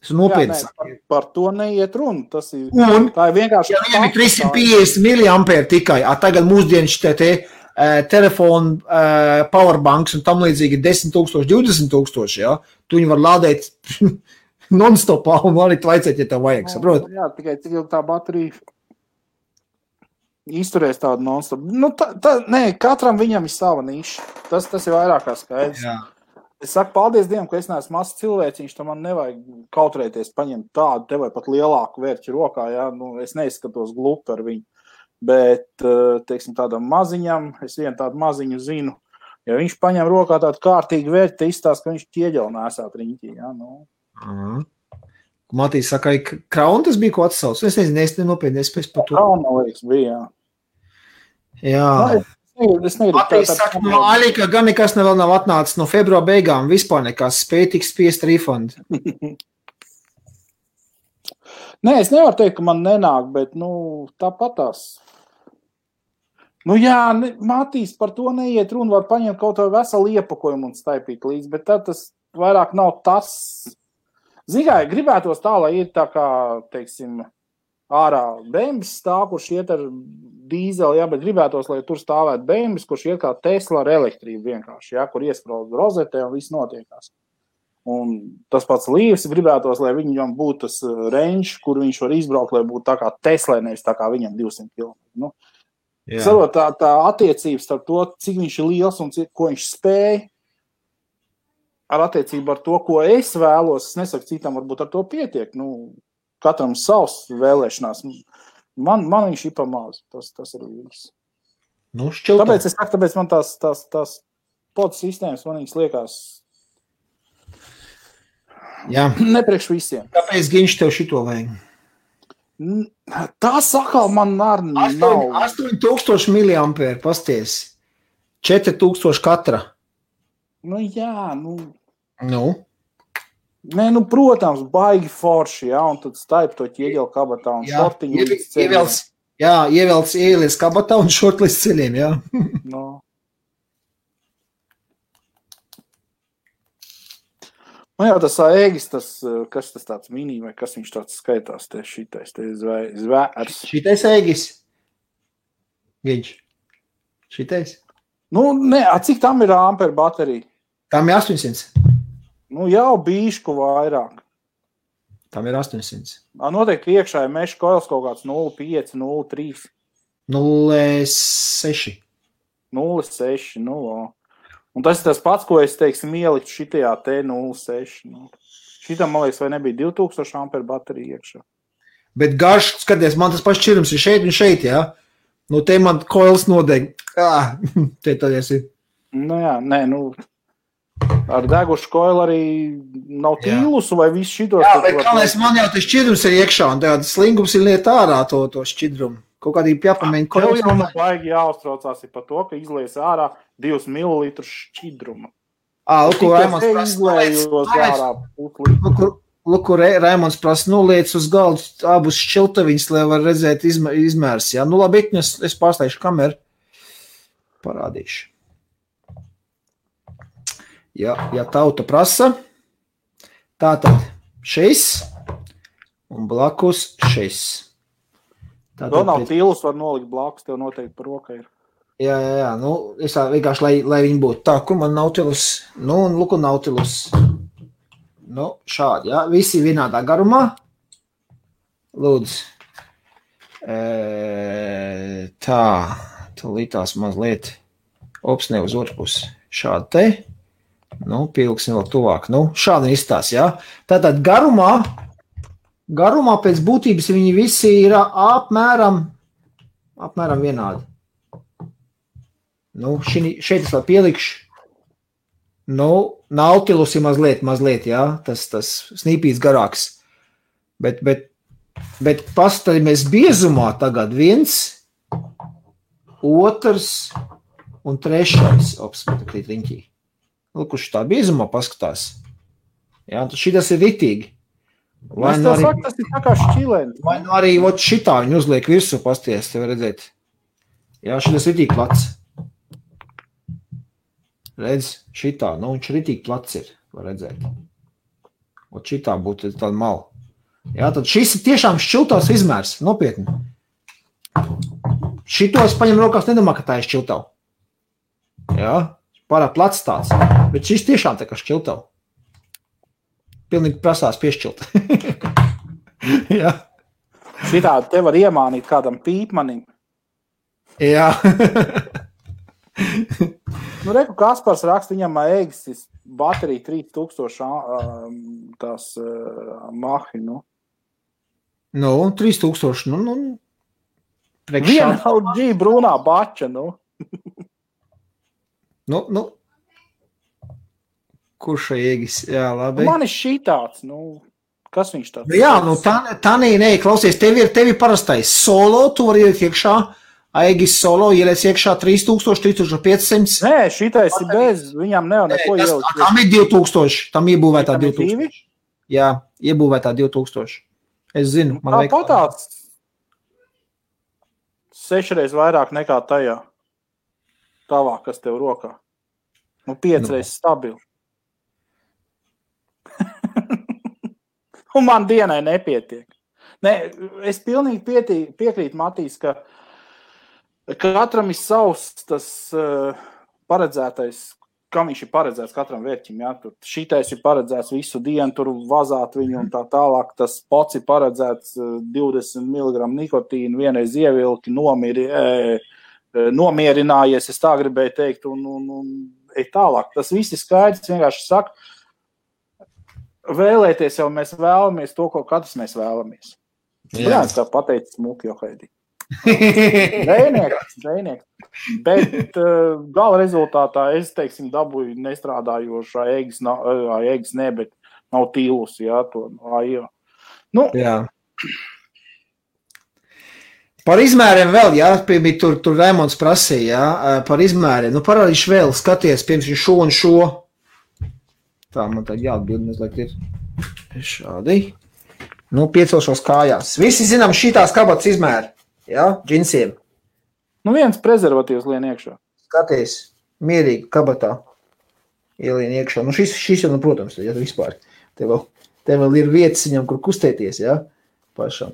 Tas ir nopietns. Par to neiet runa. Tas ir, tā ir vienkārši... Ja viņam ir 350 mAh tikai, tagad mūsdienas telefonu powerbanks un tam līdzīgi 10,000, 20,000, ja? Tu viņu var lādēt non-stopā un arī tvaicēt, ja tev vajag, saprot? Jā, tikai cik jau tā baterija izturēs tādu non-stop. Nē, katram viņam ir sava niša. Tas ir vairāk kā skaidrs. Jā. Es saku, paldies Dievam, ka es neesmu mazs cilvēciņš, tam man nevajag kautrēties paņemt tādu, te vai pat lielāku vērķi rokā, ja? Es neizskatos glupi ar viņu. Bet, teiksim, tādam maziņam, es vienu tādu maziņu zinu, ja viņš paņem rokā tādu kārtīgu vērķi, te izstāst, ka viņš ķieģeli nesāt riņķī, ja? Matīs saka, ka Crown tas bija ko atsauc. Es nezinu, es nenopietni, es pēc par to. Crown, liekas, bija, jā. Matīs saka, no Alika gan nekas vēl nav atnācis no februāra beigām, vispār nekas, spēj tik spiest refund. Nē, es nevaru teikt, ka man nenāk, bet, tāpatās. Jā, Matīs, par to neiet runa, var paņemt kaut vai veselu iepakojumu un staipīt līdz, bet tad tas vairāk nav tas. Zinām, gribētos tā, lai ir tā kā, teiksim, ārā bēmbis stāv, kurš iet ar dīzeli, jā, bet gribētos, lai tur stāvētu bēmbis, kurš iet kā Tesla ar elektrību vienkārši, jā, kur iesprauž rozetē un viss notiekās. Un tas pats Līvs gribētos, lai viņam būtu tas range, kur viņš var izbraukt, lai būtu tā kā Tesla, nevis tā kā viņam 200 km. Sarot, tā attiecības ar to, cik viņš ir liels un ko viņš spēj, ar attiecību ar to, ko es vēlos, es nesaku citam, varbūt ar to pietiek. Katram savs vēlēšanās. Man viņš ir pamāz. Tas ir viss. Tāpēc es saku, tāpēc man tās pod sistēmas man viņas liekas nepriekš visiem. Kāpēc viņš tev šito vajag? Tā sakal man nav. 8,000 mAh, pasties. 4,000 katra. Jā, Nē, protams, baigi forši, jā, un tad staip to ķieģeli kabatā un šortiņu līdz ceļiem. Ieliec kabatā un šort līdz ceļiem, jā. Nu jau tas ēgis, kas tas tāds mini, vai kas viņš tāds skaitās, šitais zvērs. Šitais ēgis? Viņš? Šitais? Nu, ne, cik tam ir amperu baterija? Tam ir 800. Nu, jau bīšku vairāk. Tam ir 800. Noteikti iekšā ir meša koils kaut kāds 0,5, 0,3. 0,6. 0,6, nu, un tas ir tas pats, ko es, teiksim, ieliktu šitajā T0,6. Nu. Šitam, man liekas, vai nebija 2000 amperu baterija iekšā. Bet garš, skaties, man tas pats šķirums ir šeit un šeit, jā? Nu, te man koils nodeg. Te tad esi. Nu, jā, nē, nu, ar degušu koilu arī nav tīlusu vai visu šitos. Jā, bet kāpēc man jau tas šķidrums ir iekšā, un tāds slingums ir liet ārā to šķidrumu. Kaut kādīgi jāpamēģina koils. Tev jau baigi jāuztraucās par to, ka izlies ārā 2 ml šķidruma. Lūk, Raimonds prasa, liec uz galdu abus šķiltaviņus, lai var redzēt izmērs. Jā, nu labi, es pārstājuši kameru. Parādīšu. Ja tauta prasa, tātad šis un blakus šis. Vēl nav tīlus, var nolikt blakus, tev noteikti par roka ir. Jā, nu, es vienkārši, lai viņi būtu tā, kur man Nautilus, nu, un luku Nautilus. Nu, šādi, jā, visi vienādā garumā. Lūdzu. Tā, lītās mazliet, ne uz otru pusi. Šādi te, nu, pieliksim vēl tuvāk, nu, šādi izstās, jā. Tātad garumā pēc būtības viņi visi ir apmēram vienādi. Nu, šeit es vēl pielikšu. Nu, Nautilus ir mazliet, jā, tas snīpīts garāks. Bet pastaļamies biezumā tagad 1, 2 un 3. Opsmetakrīt riņķī. Kurš tā biezumā paskatās. Jā, tad šitas ir ritīgi. Vai nu arī, tas ir tā kā šķilēni. Vai nu arī šitā viņi uzliek virsū pasties, tev redzēt. Jā, šitas ritīgi plats. Redz, šitā, nu viņš ritīgi plats ir, var redzēt. Šitā būtu tāda mala. Jā, tad šis ir tiešām šķiltavs izmērs, nopietni. Šito es paņem rokās, nedomā, ka tā ir šķiltava. Jā, pārāk plats tāds, bet šis tiešām tā kā šķiltava. Pilnīgi prasās piešķilt. Jā. Šitā te var iemānīt kādam pīpmanim. Jā. Nu, reku Kaspars raksta, viņam ēgis baterija 3000 tās mahi, nu. Nu, 3000, nu. Viena LG brūnā bača, nu. Nu. Kurš ēgis? Jā, labi. Man ir šitāds, nu, kas viņš tāds? Jā, nu, tā nē, klausies, tevi parastais solo, tu vari ielikt iekšā, ēgis solo, ieliec iekšā 3000, 3500. Nē, šitais ir bez, viņam neko ielikt. Tam ir 2000, tam iebūvētā 2000. Jā, iebūvētā 2000. Es zinu, man vajag. Tāpat 6 reizes vairāk nekā tajā. Tavā, kas tev rokā. Nu, 5 reizes stabili. Un man dienai nepietiek. Nē, es pilnīgi piekrītu, Matīs, ka katram ir savs tas paredzētais, kam viņš ir paredzēts katram vērķim. Jā? Tur šitais ir paredzēts visu dienu, tur vazāt viņu un tā tālāk. Tas pots ir paredzēts 20 mg nikotīnu, vienreiz ievilki, nomierinājies, es tā gribēju teikt, un ej tālāk. Tas viss ir skaidrs, vienkārši saka, vēlēties jau mēs vēlamies to, ko katrs mēs vēlamies. Jā, kā pateicis Smuki Johaidī. Dzejnieks. Bet gala rezultātā es, teiksim, dabūju nestrādājošā ēgis ne, bet nav tīlus, jā, to jā. Nu. Jā. Par izmēriem vēl, jā, tur Raimonds prasīja, jā, par izmēriem. Nu, parādīšu vēl, skaties, piemēram, šo un šo. Tā, man tā jāatbild, mazliet ir šādi. Nu, piecelšos kājās. Visi zinām šitās kabatas izmēri, jā, džinsiem. Nu, viens prezervatīvs lien iekšā. Skaties, mierīgi kabatā ielien iekšā. Nu, šis jau, nu, protams, ja vispār. Te vēl ir vietas viņam, kur kustēties, jā, pašam.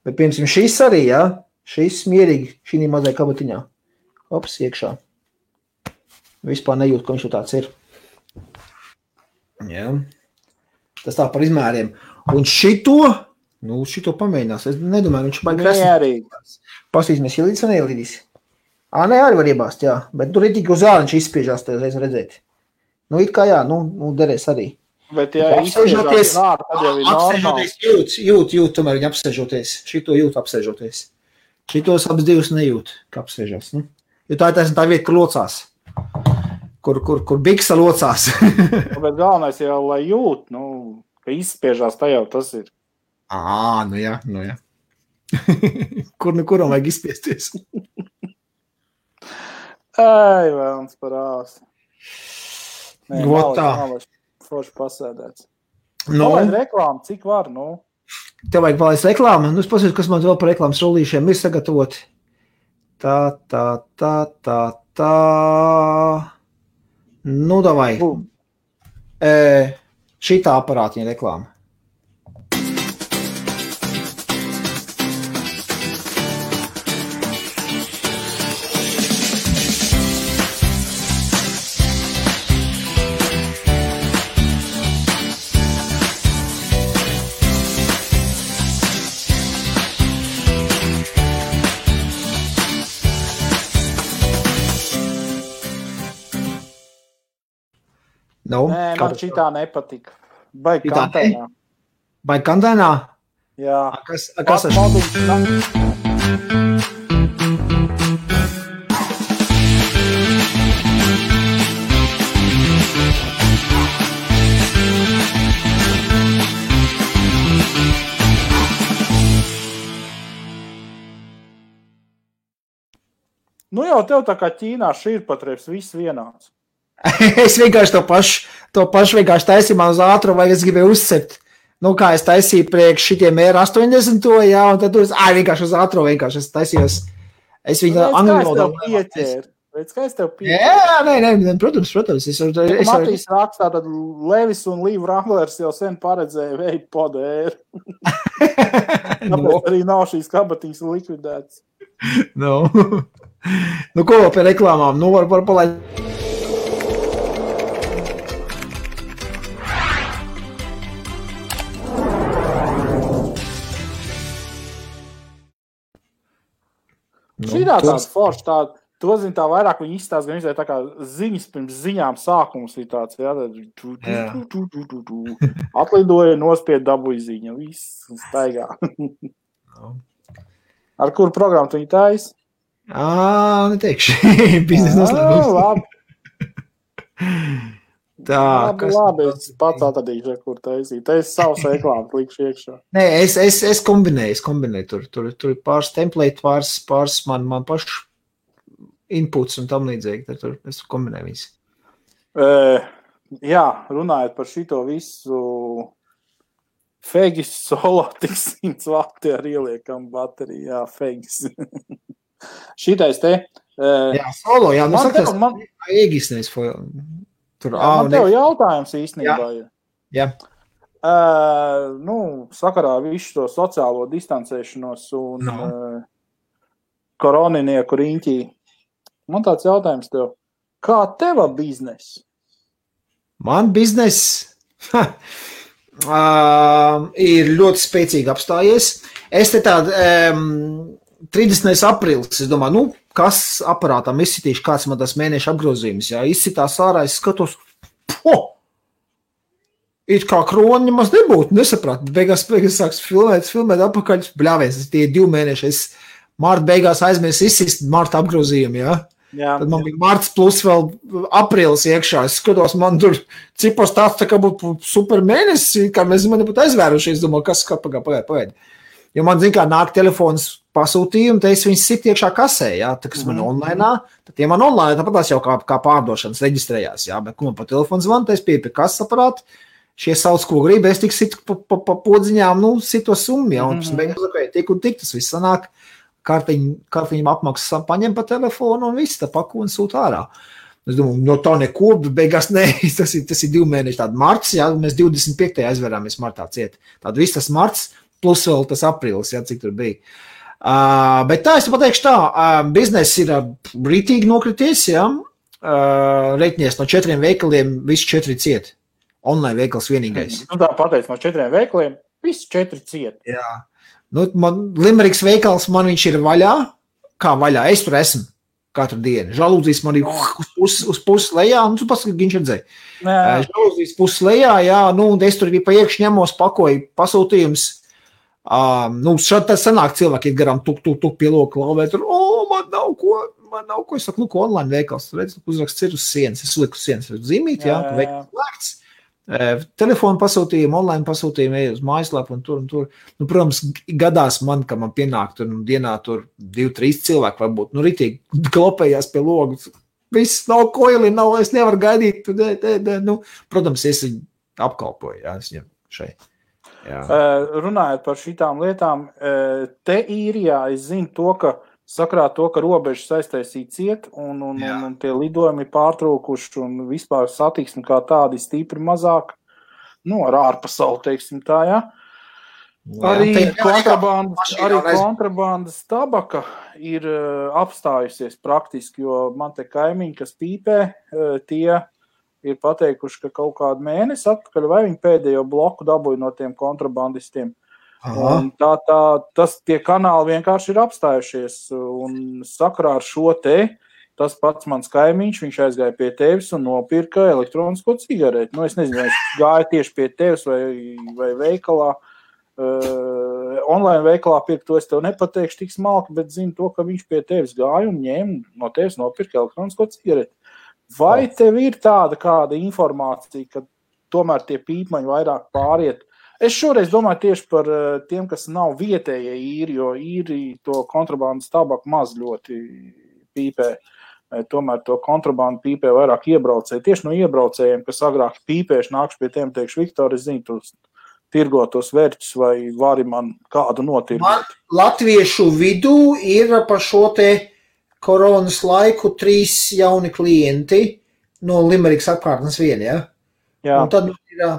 Bet, piemēram, šis arī, jā, šis mierīgi, šī mazai kabatiņā. Ops, iekšā. Vispār nejūt, ka viņš jau tāds ir. Jā. Tas tā par izmēriem. Un šito pamēģinās. Es nedomāju, viņš baigi krasnīs. Pastīsimies, ielīdis vai neielīdis. Nē, arī var iebāst, jā. Bet tur ir tik uz āliņš izspiežās, te reiz redzēt. It kā jā, derēs arī. Bet, ja apsēžoties, jūt, tomēr viņa apsēžoties. Šito jūt apsēžoties. Šitos abas divas nejūt, ka apsēžās. Jo tā ir tā vieta, kur locās. Kur biksa locās. Bet galvenais jau, lai jūt, ka izspiežās, tā jau tas ir. Nu jā. Kuram vajag izspiesties? Vēlams par āsi. Gotā. Forši pasēdēts. Palaid reklāmu, cik var, Tev vajag palaist reklāmu. Es pasūtu, kas man vēl par reklāmas rullīšiem ir sagatavoti. Tā. Davai. Šitā aparātiņa reklāma. Nē, man šitā nepatika. Baigi kantēnā. Baigi kantēnā? Jā. Kas ar jau tev tā kā Ķīnā šķirpatreps viss vienāds. Es vienkārši to pašu vienkārši taisīju man uz ātrumu, vai es gribēju uzcept. Kā es taisīju priekš šitiem R80, jā, un tad vienkārši uz ātrumu vienkārši es taisījos. Es viņu angļu Redz, kā es tev pieķēru? Jā, nē, protams. Matīs rakstā, tad Levis un Līv Wranglers jau sen paredzēja veidu podēru. Tāpēc arī nav šīs kabatiņas likvidētas. Ko vēl pie reklāmām? Var palaist. Šitā tāds foršs, to zin tā vairāk viņi izstāst, gan izvēl tā kā ziņas pirms ziņām sākums ir tāds, jā, atlidoja, nospied dabūja ziņa, viss staigā. Ar kuru programmu tu viņi tais? Neteikšu, biznes noslēgums. Labi. Labi, es pats atradīšu, kur taisīt. Te es savus reklāmas likšu iekšā. Nē, es kombinēju. Tur ir pāris template, pāris man pašu inputs un tam līdzīgi. Tur es kombinēju visu. Jā, runājot par šito visu Fegis solo tik 100 vati ar ieliekam bateriju. Jā, Fegis. Šitais te. Jā, solo, jā. Man Egis nevis man tev jautājums īstenībā. Jā. Sakarā visu to sociālo distancēšanos un koroninieku riņķī. Man tāds jautājums tev. Kā teva biznes? Man biznes ir ļoti spēcīgi apstājies. Es te tādu 30. aprīlis, es domāju, kas aparātām izsitīšu, kāds man tas mēneša apgrozījums, jā, izsitās ārā, es skatos, it kā kroni maz nebūtu, nesaprāt, beigās sāks filmēt apakaļ, bļāvies, tie 2 mēneši, es marta beigās aizmies izsist marta apgrozījumu, jā. Tad man bija marts plus vēl aprīlis iekšā, es skatos, man tur cipos tāds tā kā būtu super mēnesis, kā mēs man nebūtu aizvēruši, es domāju, kas pagaid. Jo man, zin kā, nāk telefons pasūtījumi, tad es viņus sit iekšā kasē, jā, tā, kas man online, tad tie man online, tāpat tās jau kā pārdošanas reģistrējās, jā, bet, man pa telefonu zvanu, tad es pie kasas aparātu, šie sauc, ko grib, es tik situ pa podziņām, sito summu, jā, un tik un tik, tas viss sanāk, kartiņam apmaksas paņem pa telefonu un viss, tā paku un sūt ārā. Es domāju, no tā neko, bet beigās nē, tas ir 2 mēneši tāda marts, jā, mēs 25. aizverāmies martā ciet. Tātad viss tas marts, plus vēl tas aprīlis, jā, cik tur bija. Bet tā, es pateikšu tā, bizness ir rītīgi nokrities, jā, reiķinies no 4 veikaliem, visi 4 ciet. Online veikals vienīgais. Nu tā pateic, no 4 veikaliem, visi 4 ciet. Jā. Nu, Limeriks veikals, man viņš ir vaļā, kā vaļā, es tur esmu. Katru dienu. Žalūzijas man ir uz pusi lejā, un tu paskatīt, viņš redzēja. Žalūzijas pusi lejā, jā, nu, un es tur arī pa iekšu ņemos, pakoju pasūtījums. Nu, šādi tā sanāk cilvēki ir garām tuk pie loka lauvē, tur, man nav ko, es saku, online veikals, tur redz, uzraksts ir uz sienas, es liku uz sienas, zīmīt, jā, veikals lēkts. Telefonu pasūtījumu, online pasūtījumu, ej uz mājaslapu un tur. Nu, protams, gadās man, ka man pienāk tur dienā tur 2-3 cilvēki varbūt, nu, ritīgi klopējās pie logu. Viss nav koili, es nevaru gaidīt. Nu, protams, es viņu apkalpoju, jā, es viņam šeit. Jā. Runājot par šitām lietām, te īrijā es zinu to, ka sakrā to, ka robežas aiztaisīja ciet un tie lidojumi pārtraukuši un vispār satiksmi kā tādi stipri mazāk, nu, ar ārpasauli, teiksim tā, jā. Arī kontrabandas tabaka ir apstājusies praktiski, jo man te kaimiņi, kas pīpē, tie ir pateikuši, ka kaut kādu mēnesi atpakaļ vai viņi pēdējo bloku dabūja no tiem kontrabandistiem. Un tie kanāli vienkārši ir apstājušies un sakarā ar šo tas pats mans kaimiņš, viņš aizgāja pie tevis un nopirka elektronisko cigareti. Nu, es nezinu, vai viņš gāja tieši pie tevis vai veikalā, online veikalā pirkt, to es tev nepateikšu tik smalki, bet zinu to, ka viņš pie tevis gāja un ņēma no tevis nopirka elektronisko cigareti. Vai tev ir tāda kāda informācija, ka tomēr tie pīpmaņi vairāk pāriet? Es šoreiz domāju tieši par tiem, kas nav vietējie īri, jo īri to kontrabandas tabaku maz ļoti pīpē. Tomēr to kontrabandu pīpē vairāk iebraucēji. Tieši no iebraucējiem, kas agrāk pīpējuši, nākšu pie tiem, teikšu, Viktor, es zinu, tos tirgotos vērķus vai vari man kādu notirgot. Latviešu vidū ir pa šo te koronas laiku 3 jauni klienti no Limerikas apkārtnes vien, ja? Jā. Un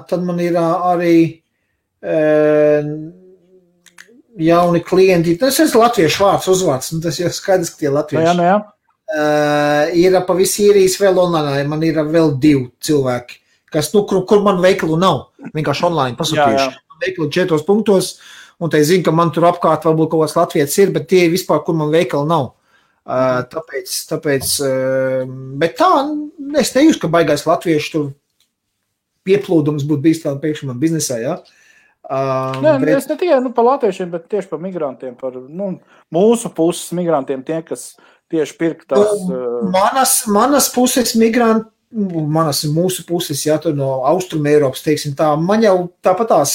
tad man ir arī jauni klienti, tas ir latviešu vārds, uzvārds, un tas jau skaidrs, ka tie latvieši. Jā. Ir pa visi īrijas vēl online, man ir vēl 2 cilvēki, kas, nu, kur man veikalu nav, vienkārši online pasūtījuši. Veikalu 4 punktos, un te zinu, ka man tur apkārt varbūt kaut kāds latvietis ir, bet tie ir vispār, kur man veikalu nav. Tāpēc, bet tā, es nejūstu, ka baigais latviešu tur pieplūdums būtu bijis tādā pēkšņi man biznesā, jā. Es ne tikai par latviešiem, bet tieši par migrantiem, par mūsu puses migrantiem, tie, kas tieši pirka tās... Manas puses migranti, mūsu puses, jā, tur no Austrum Eiropas, teiksim tā, man jau tāpatās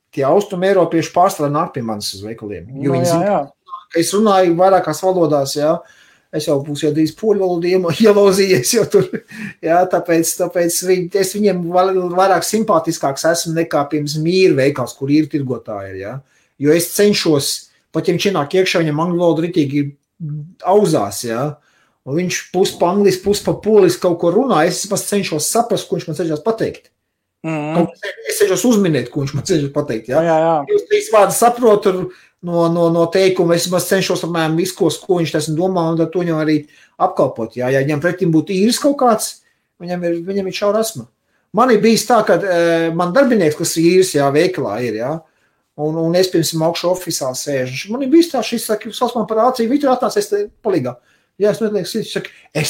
tie Austrum Eiropieši pārstāvā nāk pie manis uz veikaliem, jo viņi zina, ka es runāju vairākās valodās, jā, es jau būs jau drīz poļu valodu ielauzījies, jo tur, jā, tāpēc es viņiem vairāk simpātiskāks esmu nekā pirms mīra veikals, kur ir tirgotāji, jā, jo es cenšos, pat ja viņš ienāk iekšā, viņam angļu valoda ritīgi auzās, jā, un viņš pus pa angliski, pus pa poliski kaut ko runā, es cenšos saprast, ko viņš man cenšas pateikt. Es cenšos uzminēt, ko viņš man cenšas pateikt, jā. Jūs 3 vārdi saprotu no teikuma, es cenšos apmēram visu, ko viņš tas domā, un to viņam arī apkalpot, jā. Ja viņam pretim būtu īris kaut kāds, viņam ir šaura asma. Man ir bijis tā, ka man darbinieks, kas ir īris, jā, veikalā ir, jā, un es pirms augšu ofisā sēžu. Man ir bijis tā, šis saka, sauc man par āciju, Viktor atnāc, es te palīgā. Jā, es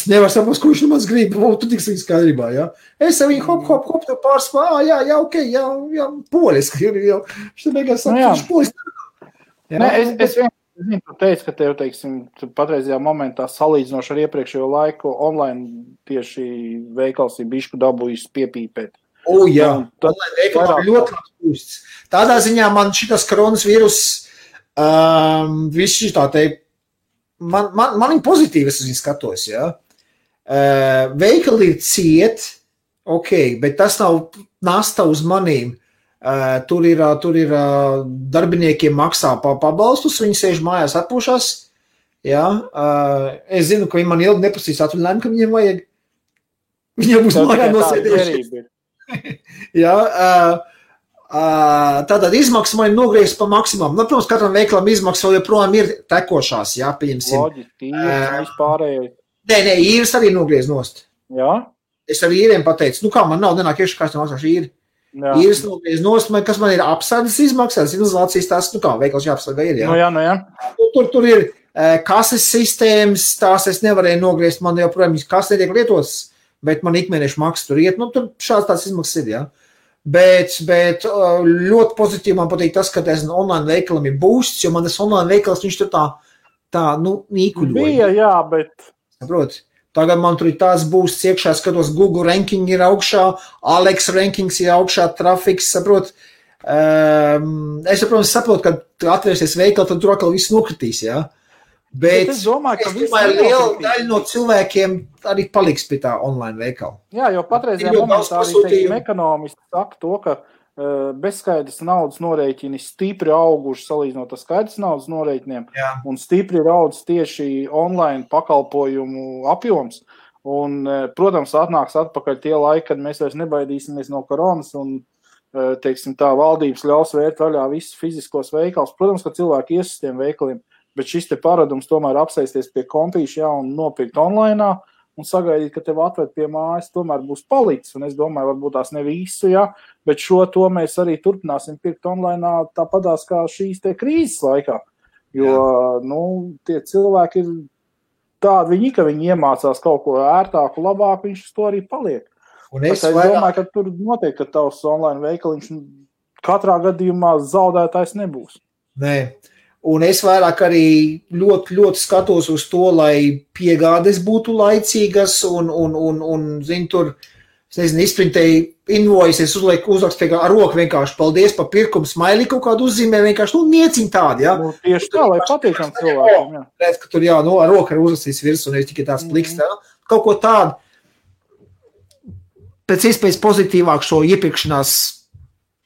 nevaru saprast, ko viņš no mans grib, tu tiks viņa skaidrībā, jā. Es viņu hop, tev pārspā, jā, ok, jā, poliski, jā. Šitā beigās saka, viņš poliski. Es vienkārši teicu, ka tev, teiksim, patreizajā momentā salīdzinoši ar iepriekšējo laiku online tieši veikals ir bišku dabūjis piepīpēt. Jā, online veikalā ļoti labs pusts. Tādā ziņā man šitas koronas vīrus, viss šitā te, man ir pozitīvi, es viņu skatos, jā. Veikali ir ciet, ok, bet tas nav nasta uz manīm. Tur ir darbiniekiem maksā pabalstus, viņi sēž mājās atpūšās, Jā, es zinu, ka viņi man ilgi neprasīs atvaļinājumu, ka viņiem vajag. Viņiem būs mājā nosēdējuši. Jā, tātad izmaksas man ir nogriezt pa maksimumu. Nu, protams, katram veikalam izmaksas vēl joprojām ir tekošās, jā, pieņemsim. Loģiski, vispārējais. Nē, īres arī nogriez nost. Jā. Es ar īriem pateicu, nu kā man nav nenāk iekšā, kā es maksāšu īri. Īres nogriez nost, kas man ir apsardzes izmaksas, izolācijas tās, nu kā, veikals jāapsargā ir, jā. Nu jā. Tur ir kases sistēmas, tās es nevarēju nogriezt, man joprojām kas netiek lietotas, bet man ikmēnešu maksa tur iet, nu tur šāds tās izmaksas ir, jā. Bet ļoti pozitīvi man patīk tas, ka tas online veikalam ir boosts, jo man tas online veikals, viņš tur tā nīkuļoja. Bija, jā, bet... Saprot, tagad man tur ir tāds boosts iekšā, skatos, Google ranking ir augšā, Alex rankings ir augšā, trafiks, saprot. Es, protams, saprotu, ka atvērsies veikali, tad tur atkal viss nokritīs, jā. Bet es domāju, ka liela daļa no cilvēkiem arī paliks pie tā online veikala. Jā, jo patreizajā momentā arī, teiksim, ekonomisti saka to, ka bezskaidrs naudas norēķini stipri auguši salīdzinot ar skaidrs naudas norēķiniem, un stipri ir audzis tieši online pakalpojumu apjoms. Un, protams, atnāks atpakaļ tie laiki, kad mēs vairs nebaidīsimies no koronas un, teiksim, tā valdības ļaus vērt vaļā visus fiziskos veikals. Protams, ka cilvēki ies uz tiem veikaliem, bet šis te paradums tomēr apsēsties pie kompīša, un nopirkt online un sagaidīt, ka tev atved pie mājas, tomēr būs palicis. Un es domāju, varbūt tās ne visu, bet šo to mēs arī turpināsim pirkt online tāpatās kā šīs te krīzes laikā. Jo, tie cilvēki ir tādi, ka viņi iemācās kaut ko ērtāku, labāku, viņš uz to arī paliek. Es domāju, ka tur noteikti, ka tavs online veikaliņš katrā gadījumā zaudētājs nebūs. Nē. Un es vairāk arī ļoti, ļoti skatos uz to, lai piegādes būtu laicīgas un zinu, tur, es nezinu, izprintēju invoices, es uzrakstu ar roku vienkārši paldies par pirkumu, smaili kaut kādu uzzīmē, vienkārši, nieciņ tādi, jā. Tieši tā, lai patīkam cilvēkiem, jā. Redz, ka tur, ar roku ir uzrakstīs virs un ir tikai tāds pliks, kaut ko tādu, pēc iespējas pozitīvāk šo iepirkšanās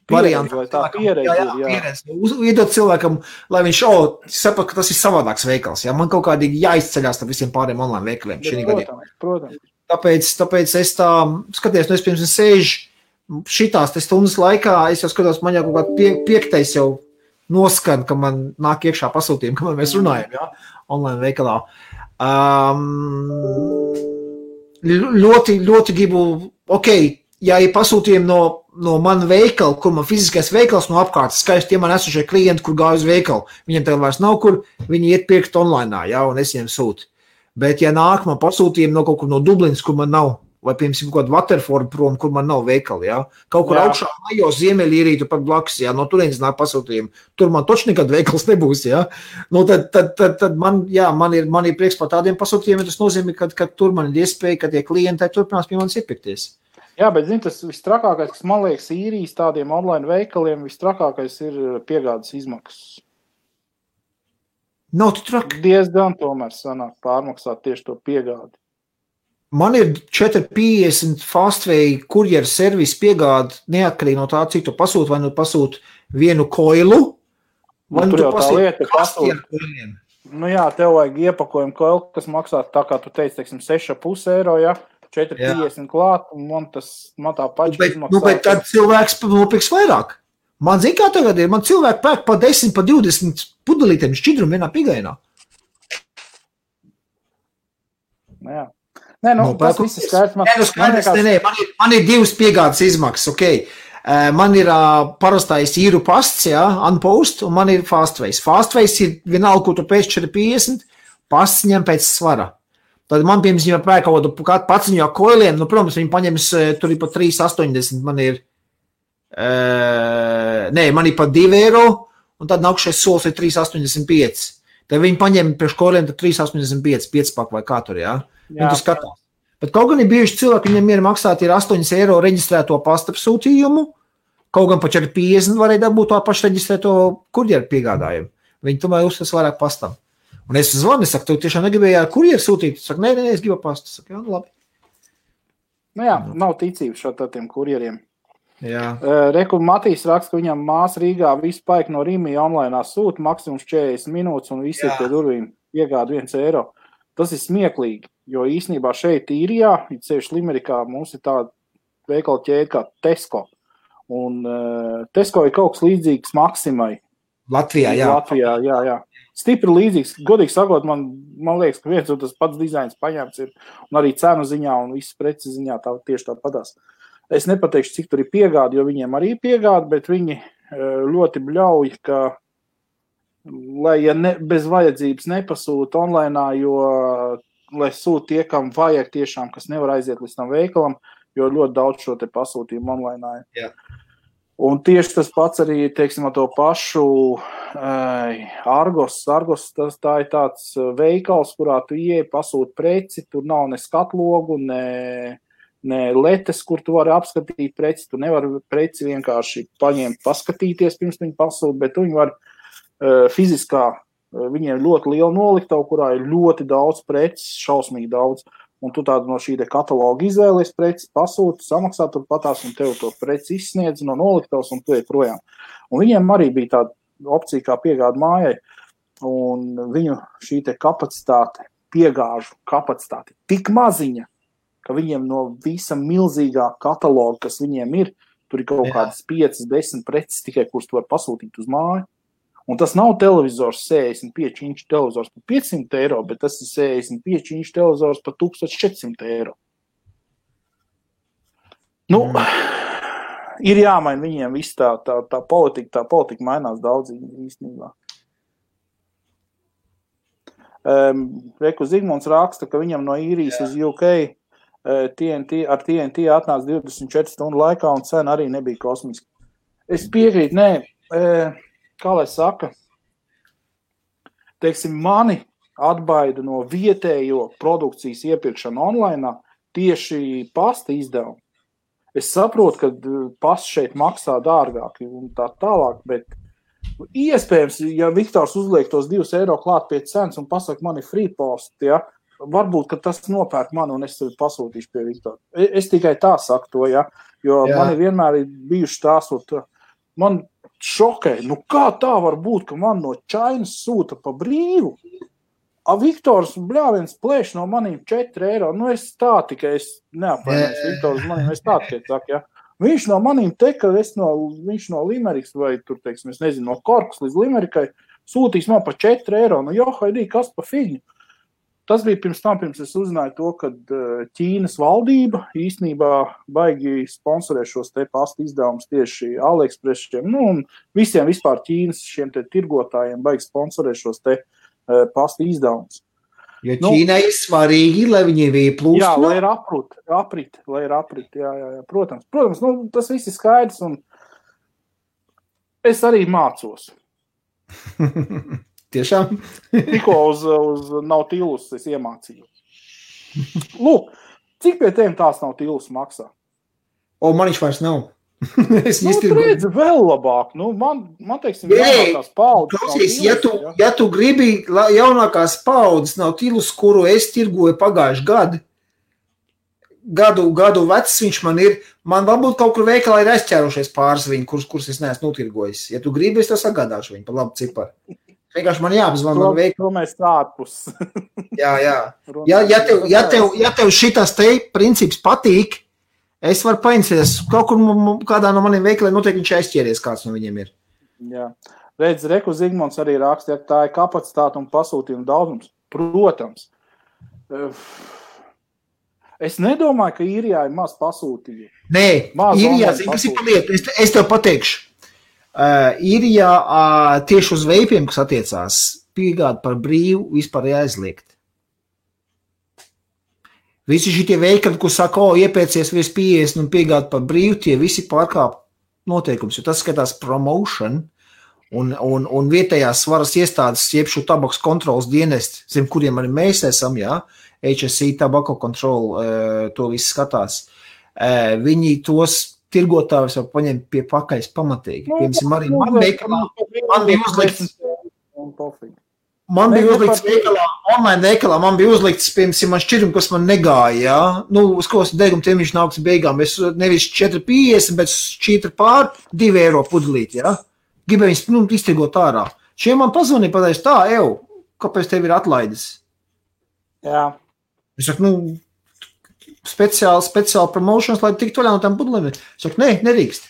variantu. Tā pieredze ir, Iedot cilvēkam, lai viņš saprot, ka tas ir savādāks veikals. Jā. Man kaut kādīgi jāizceļās tam visiem pāriem online veikaliem. Protams. Tāpēc es tā skaties, es pirms sēžu šitās stundas laikā, es jau skatos, man jau kaut kā piektais jau noskan, ka man nāk iekšā pasūtījumi, kamēr mēs runājam, jā, online veikalā. Ļoti, ļoti gribu, ja ir pasūtījumi no mana veikala, kur man fiziskais veikals no apkārtas, skaisti tie man esošie klienti, kur gāja uz veikalu. Viņiem tagad vairs nav, kur viņi iet pirkt online, un es viņiem sūtu. Bet, ja nāk man pasūtījumi no kaut kur no Dublinas, kur man nav, vai, piemēram, kaut kāda Waterford prom, kur man nav veikali, kaut kur augšā majo Ziemeļīrītu pat blakus, no turienes nāk pasūtījumi. Tur man toči nekad veikals nebūs, tad man ir prieks par tādiem pasūtījumiem, tas nozīmē, ka tur man ir iespēja, ka tie klienti turpinās pie manis iepirkties. Jā, bet, tas vistrakākais, kas man liekas īrijas tādiem online veikaliem, vistrakākais ir piegādes izmaksas. Nav tu traki. Diezgan tomēr sanāk pārmaksāt tieši to piegādi. Man ir 450 Fastway kurjeru servisu piegādi, neatkarīgi no tā, cik tu pasūti, vai nu pasūti vienu koilu, vai nu tu pasūti kastiem koiliem. Nu jā, tev vajag iepakojumu koilu, kas maksā tā, kā tu teici, 6,5 eiro, 4,50 klāt, un man tā paša izmaksā. Bet tad cilvēks nopirks vairāk. Man zina, kā tagad ir, man cilvēki pērk pa 10, pa 20 pudelītiem šķidrumu vienā pigainā. Jā. Tas viss ir skaidrs. Man ir divas piegādes izmaksas, Man ir parastais īru pasts, Unpost, un man ir Fastways. Fastways ir vienalga, ko tu pēc 4,50, pasts ņem pēc svara. Tad man, piemēram, ja pērk kaut kādu paciņu ar koiliem, protams, viņi paņems, tur ir pa 3,80, man ir pa 2 eiro, un tad nākušais solis ir 3,85. Tad viņi paņem priekš koiliem, tad 3,85, 5 vai kā tur, Viņi tu skatās. Bet kaut gan ir bijuši cilvēki, viņiem ir maksāt ir 8 eiro reģistrēto pastapsūtījumu, kaut gan pa 4,50 varēja dabūt to pašu reģistrēto kurjeru piegādājumu. Viņi tomēr uzstas vairāk pastam. Un es zvanu, saku, tu tiešām negribēji ar kurjeru sūtīt? Saku, nē, es gribu pastu. Saku, jā, labi. Nav ticības šo tādiem kurjeriem. Jā. Reku Matīs raksta, ka viņam māsa Rīgā visu paik no Rīmija online sūta maksimums 40 minūtes un visi ir pie durvīm. piegāda 1 eiro. Tas ir smieklīgi, jo īstenībā šeit īrijā, ceļš Limerikā, mums ir tāda veikala ķēde kā Tesco. Un Tesco ir kaut kas līdzīgs Maksimai. Latvijā, jā. Latvijā, jā. Stipri līdzīgs. Godīgi sakot, man liekas, ka viens un tas pats dizains paņemts ir. Un arī cenu ziņā un visas preces ziņā tieši tā padās. Es nepateikšu, cik tur ir piegādi, jo viņiem arī ir piegādi, bet viņi ļoti bļauj, ka, lai bez vajadzības nepasūta online, jo, lai sūta tie, kam vajag tiešām, kas nevar aiziet līdz tam veikalam, jo ļoti daudz šo te pasūtījumu online. Jā. Un tieši tas pats arī, teiksim, ar to pašu Argos. Argos tā ir tāds veikals, kurā tu ieej, pasūti preci, tur nav ne skatlogu, ne letes, kur tu vari apskatīt preci. Tu nevari preci vienkārši paņemt, paskatīties, pirms viņi pasūta, bet tu viņi var fiziskā, viņiem ļoti liela noliktavu, kurā ir ļoti daudz preces, šausmīgi daudz. Un tu tādu no šī kataloga izvēlies preci, pasūti, samaksā turpatās, un tev to preci izsniedz no noliktavas, un tu ej projām. Un viņiem arī bija tāda opcija kā piegāda mājai, un viņu šī te kapacitāte, piegāžu kapacitāte tik maziņa, ka viņiem no visa milzīgā kataloga, kas viņiem ir, tur ir kaut kādas 5-10 preces tikai, kuras tu var pasūtīt uz māju. Un tas nav televizors 65 inču televizors par 500 eiro, bet tas ir 65 inču televizors par 1400 eiro. Nu, ir jāmaina viņiem viss tā politika mainās daudz īstenībā. Reku Zigmunds raksta, ka viņam no īrijas uz UK ar TNT atnāca 24 stundu laikā un cena arī nebija kosmiska. Es piekrītu, kā lai saka, teiksim, mani atbaida no vietējo produkcijas iepirkšana online tieši pasta izdevumu. Es saprotu, ka pasta šeit maksā dārgāk un tā tālāk, bet iespējams, ja Viktors uzliek tos 2 eiro klāt pie cenas un pasaka, man ir free post, ja, varbūt, ka tas nopērk mani un es tevi pasūtīšu pie Viktora. Es tikai tā saku to, ja, jo mani vienmēr ir bijuši tās, man šokē, nu kā tā var būt, ka man no Čainas sūta pa brīvu, a Viktors bļāviens plēš no manīm 4 eiro, nu es tā tikai, es neapvainojos Viktors manīm, es tā tikai saku, ja. Viņš no manīm ka viņš no Limerikas vai tur, teiksim, es nezinu, no Korkas līdz Limerikai sūtīs man pa 4 eiro, nu johaidī, kas pa figņu. Tas bija pirms es uzzināju to, ka Ķīnas valdība īstenībā baigi sponsorē šos te pasta izdevumus tieši AliExpressiem, nu un visiem vispār Ķīnas šiem te tirgotājiem baigi sponsorē šos te pasta izdevumus. Jo Ķīnai ir svarīgi, lai viņi ieplūst. Jā, lai ir aprit, jā. Protams, nu tas viss ir skaidrs un es arī mācos. Tiešām? Tikko uz Nautilus es iemācīju. Lūk, cik pie tiem tās Nautilus maksā? Man viņš vairs nav. Tu redzi vēl labāk. Nu, man teiksim, jaunākās paudzes. Klausies, ja tu gribi jaunākās paudzes Nautilus, kuru es tirgoju pagājuši gadu vecs viņš man ir, man varbūt kaut kur veikalā ir aizķērušies pāris viņu, kurus es neesmu notirgojis. Ja tu gribi, es tev sagādāšu viņu par labu ciparu. Vienkārši man jāpazvan man veikali. To mēs ārpus. Jā. Ja tev šitas te princips patīk, es varu paincies. Kaut kur kādā no maniem veikaliem noteikti viņš aizķēries, kāds no viņiem ir. Jā. Redz, Reku Zigmunds arī raksta, ka tā ir kapacitāte un pasūtījuma daudzums. Protams. Es nedomāju, ka īrijā ir maz pasūtījumu. Nē, īrijā, kas ir paliet, es tev pateikšu. Īrijā tieši uz veipiem, kas attiecās, piegāda par brīvu vispār jāizliegt. Visi šitie veikali, kur saka, iepēcies virs 50 un piegāda par brīvu, tie visi pārkāp noteikums, jo tas skatās promotion un vietējās varas iestādes, iepšu tabaks kontrolas dienesti, zem kuriem arī mēs esam, jā, HSI, Tobacco Control, to viss skatās. Viņi tos tirgotājus var paņemt pie pakaļas pamatīgi. Piemēram, arī man bija uzlikts veikalā, online veikalā, man bija uzlikts, piemēram, man šķirum, kas man negāja, jā. Nu, uz ko deguma tiem viņš nāks beigām. Es nevis 4,50, bet 4 pār 2 eiro pudelīt, jā. Gribēju viņus, iztirgot ārā. Šiem man pazvanīja pateicis tā, kāpēc tev ir atlaides? Jā. Es saku, speciāli promotions, lai tiktu vaļā no tām pudelēm. Es saku, nerīkst.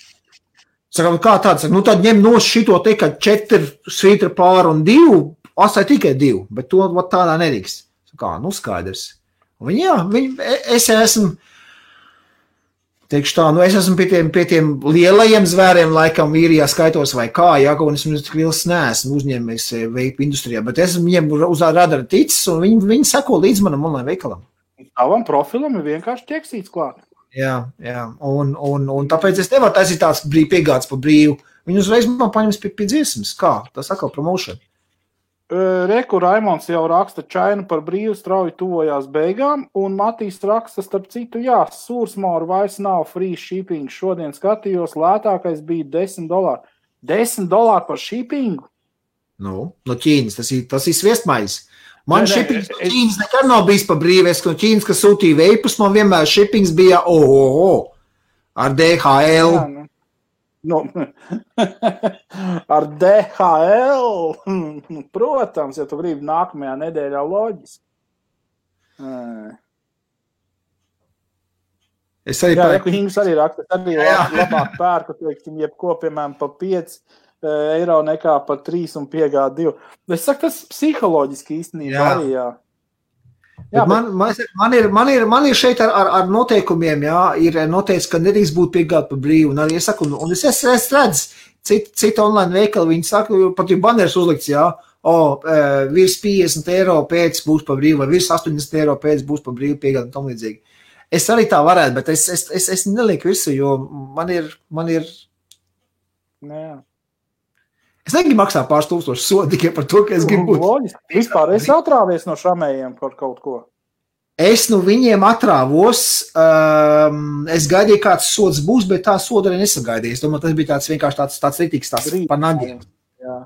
Saku, kā tāds? Saku, tad ņem no šito te, ka 4 svītra pār un 2, asai tikai 2, bet to tādā nerīkst. Saku, skaidrs. Un es esmu, teikšu tā, es esmu pie tiem lielajiem zvēriem, laikam īrijā skaitos vai kā, un es tik liels neesmu uzņēmējs veipu industrijā, bet es esmu viņiem uz radara ticis, un viņi seko līdz manam online veikalam. Tavam profilam ir vienkārši ķeksīts klāt. Jā, un tāpēc es nevaru taisīt tāds piegāds pa brīvu. Viņi uzreiz man paņems pie dziesmas. Kā? Tas atkal promotion. Reku Raimonds jau raksta čainu par brīvu strauji tuvojās beigām, un Matīs raksta, starp citu, sūrsmauru vairs nav free shipping. Šodien skatījos, lētākais bija $10. $10 par shippingu? No Ķīnas, tas ir sviestmaiz. Man shippings no Ķīnas nekad nav bijis pa brīvu. Es no Ķīnas, kas sūtīja veipus, man vienmēr shippings bija ar DHL. Ar DHL, protams, ja tu gribi nākamajā nedēļā loģiski. Es arī Hings arī raksta, arī labāk pērku, teiksim, jebko, piemēram, pa 5 eiro nekā pa 3 un piegāda 2. Es saku, tas psiholoģiski īstenībā arī, Man ir šeit ar noteikumiem, ir noteikts, ka nedrīkst būt piegāda pa brīvu. Un arī es saku, un es redzu, cita online veikali, viņi saka, pat ir baneris uzlikts, virs 50 eiro pēc būs pa brīvu, vai virs 80 eiro pēc būs pa brīvu piegāda un tam līdzīgi. Es arī tā varētu, bet es nelieku visu, jo man ir... Nē. Es negribu maksāt pāris tūkstoši sodu tikai par to, ka es gribu būt. Vispār esi atrāvies no šamējiem par kaut ko? Es no viņiem atrāvos. Es gaidīju, kāds sods būs, bet tā soda arī nesagaidīju. Es domāju, tas bija tāds vienkārši tāds ritīgs par nagiem.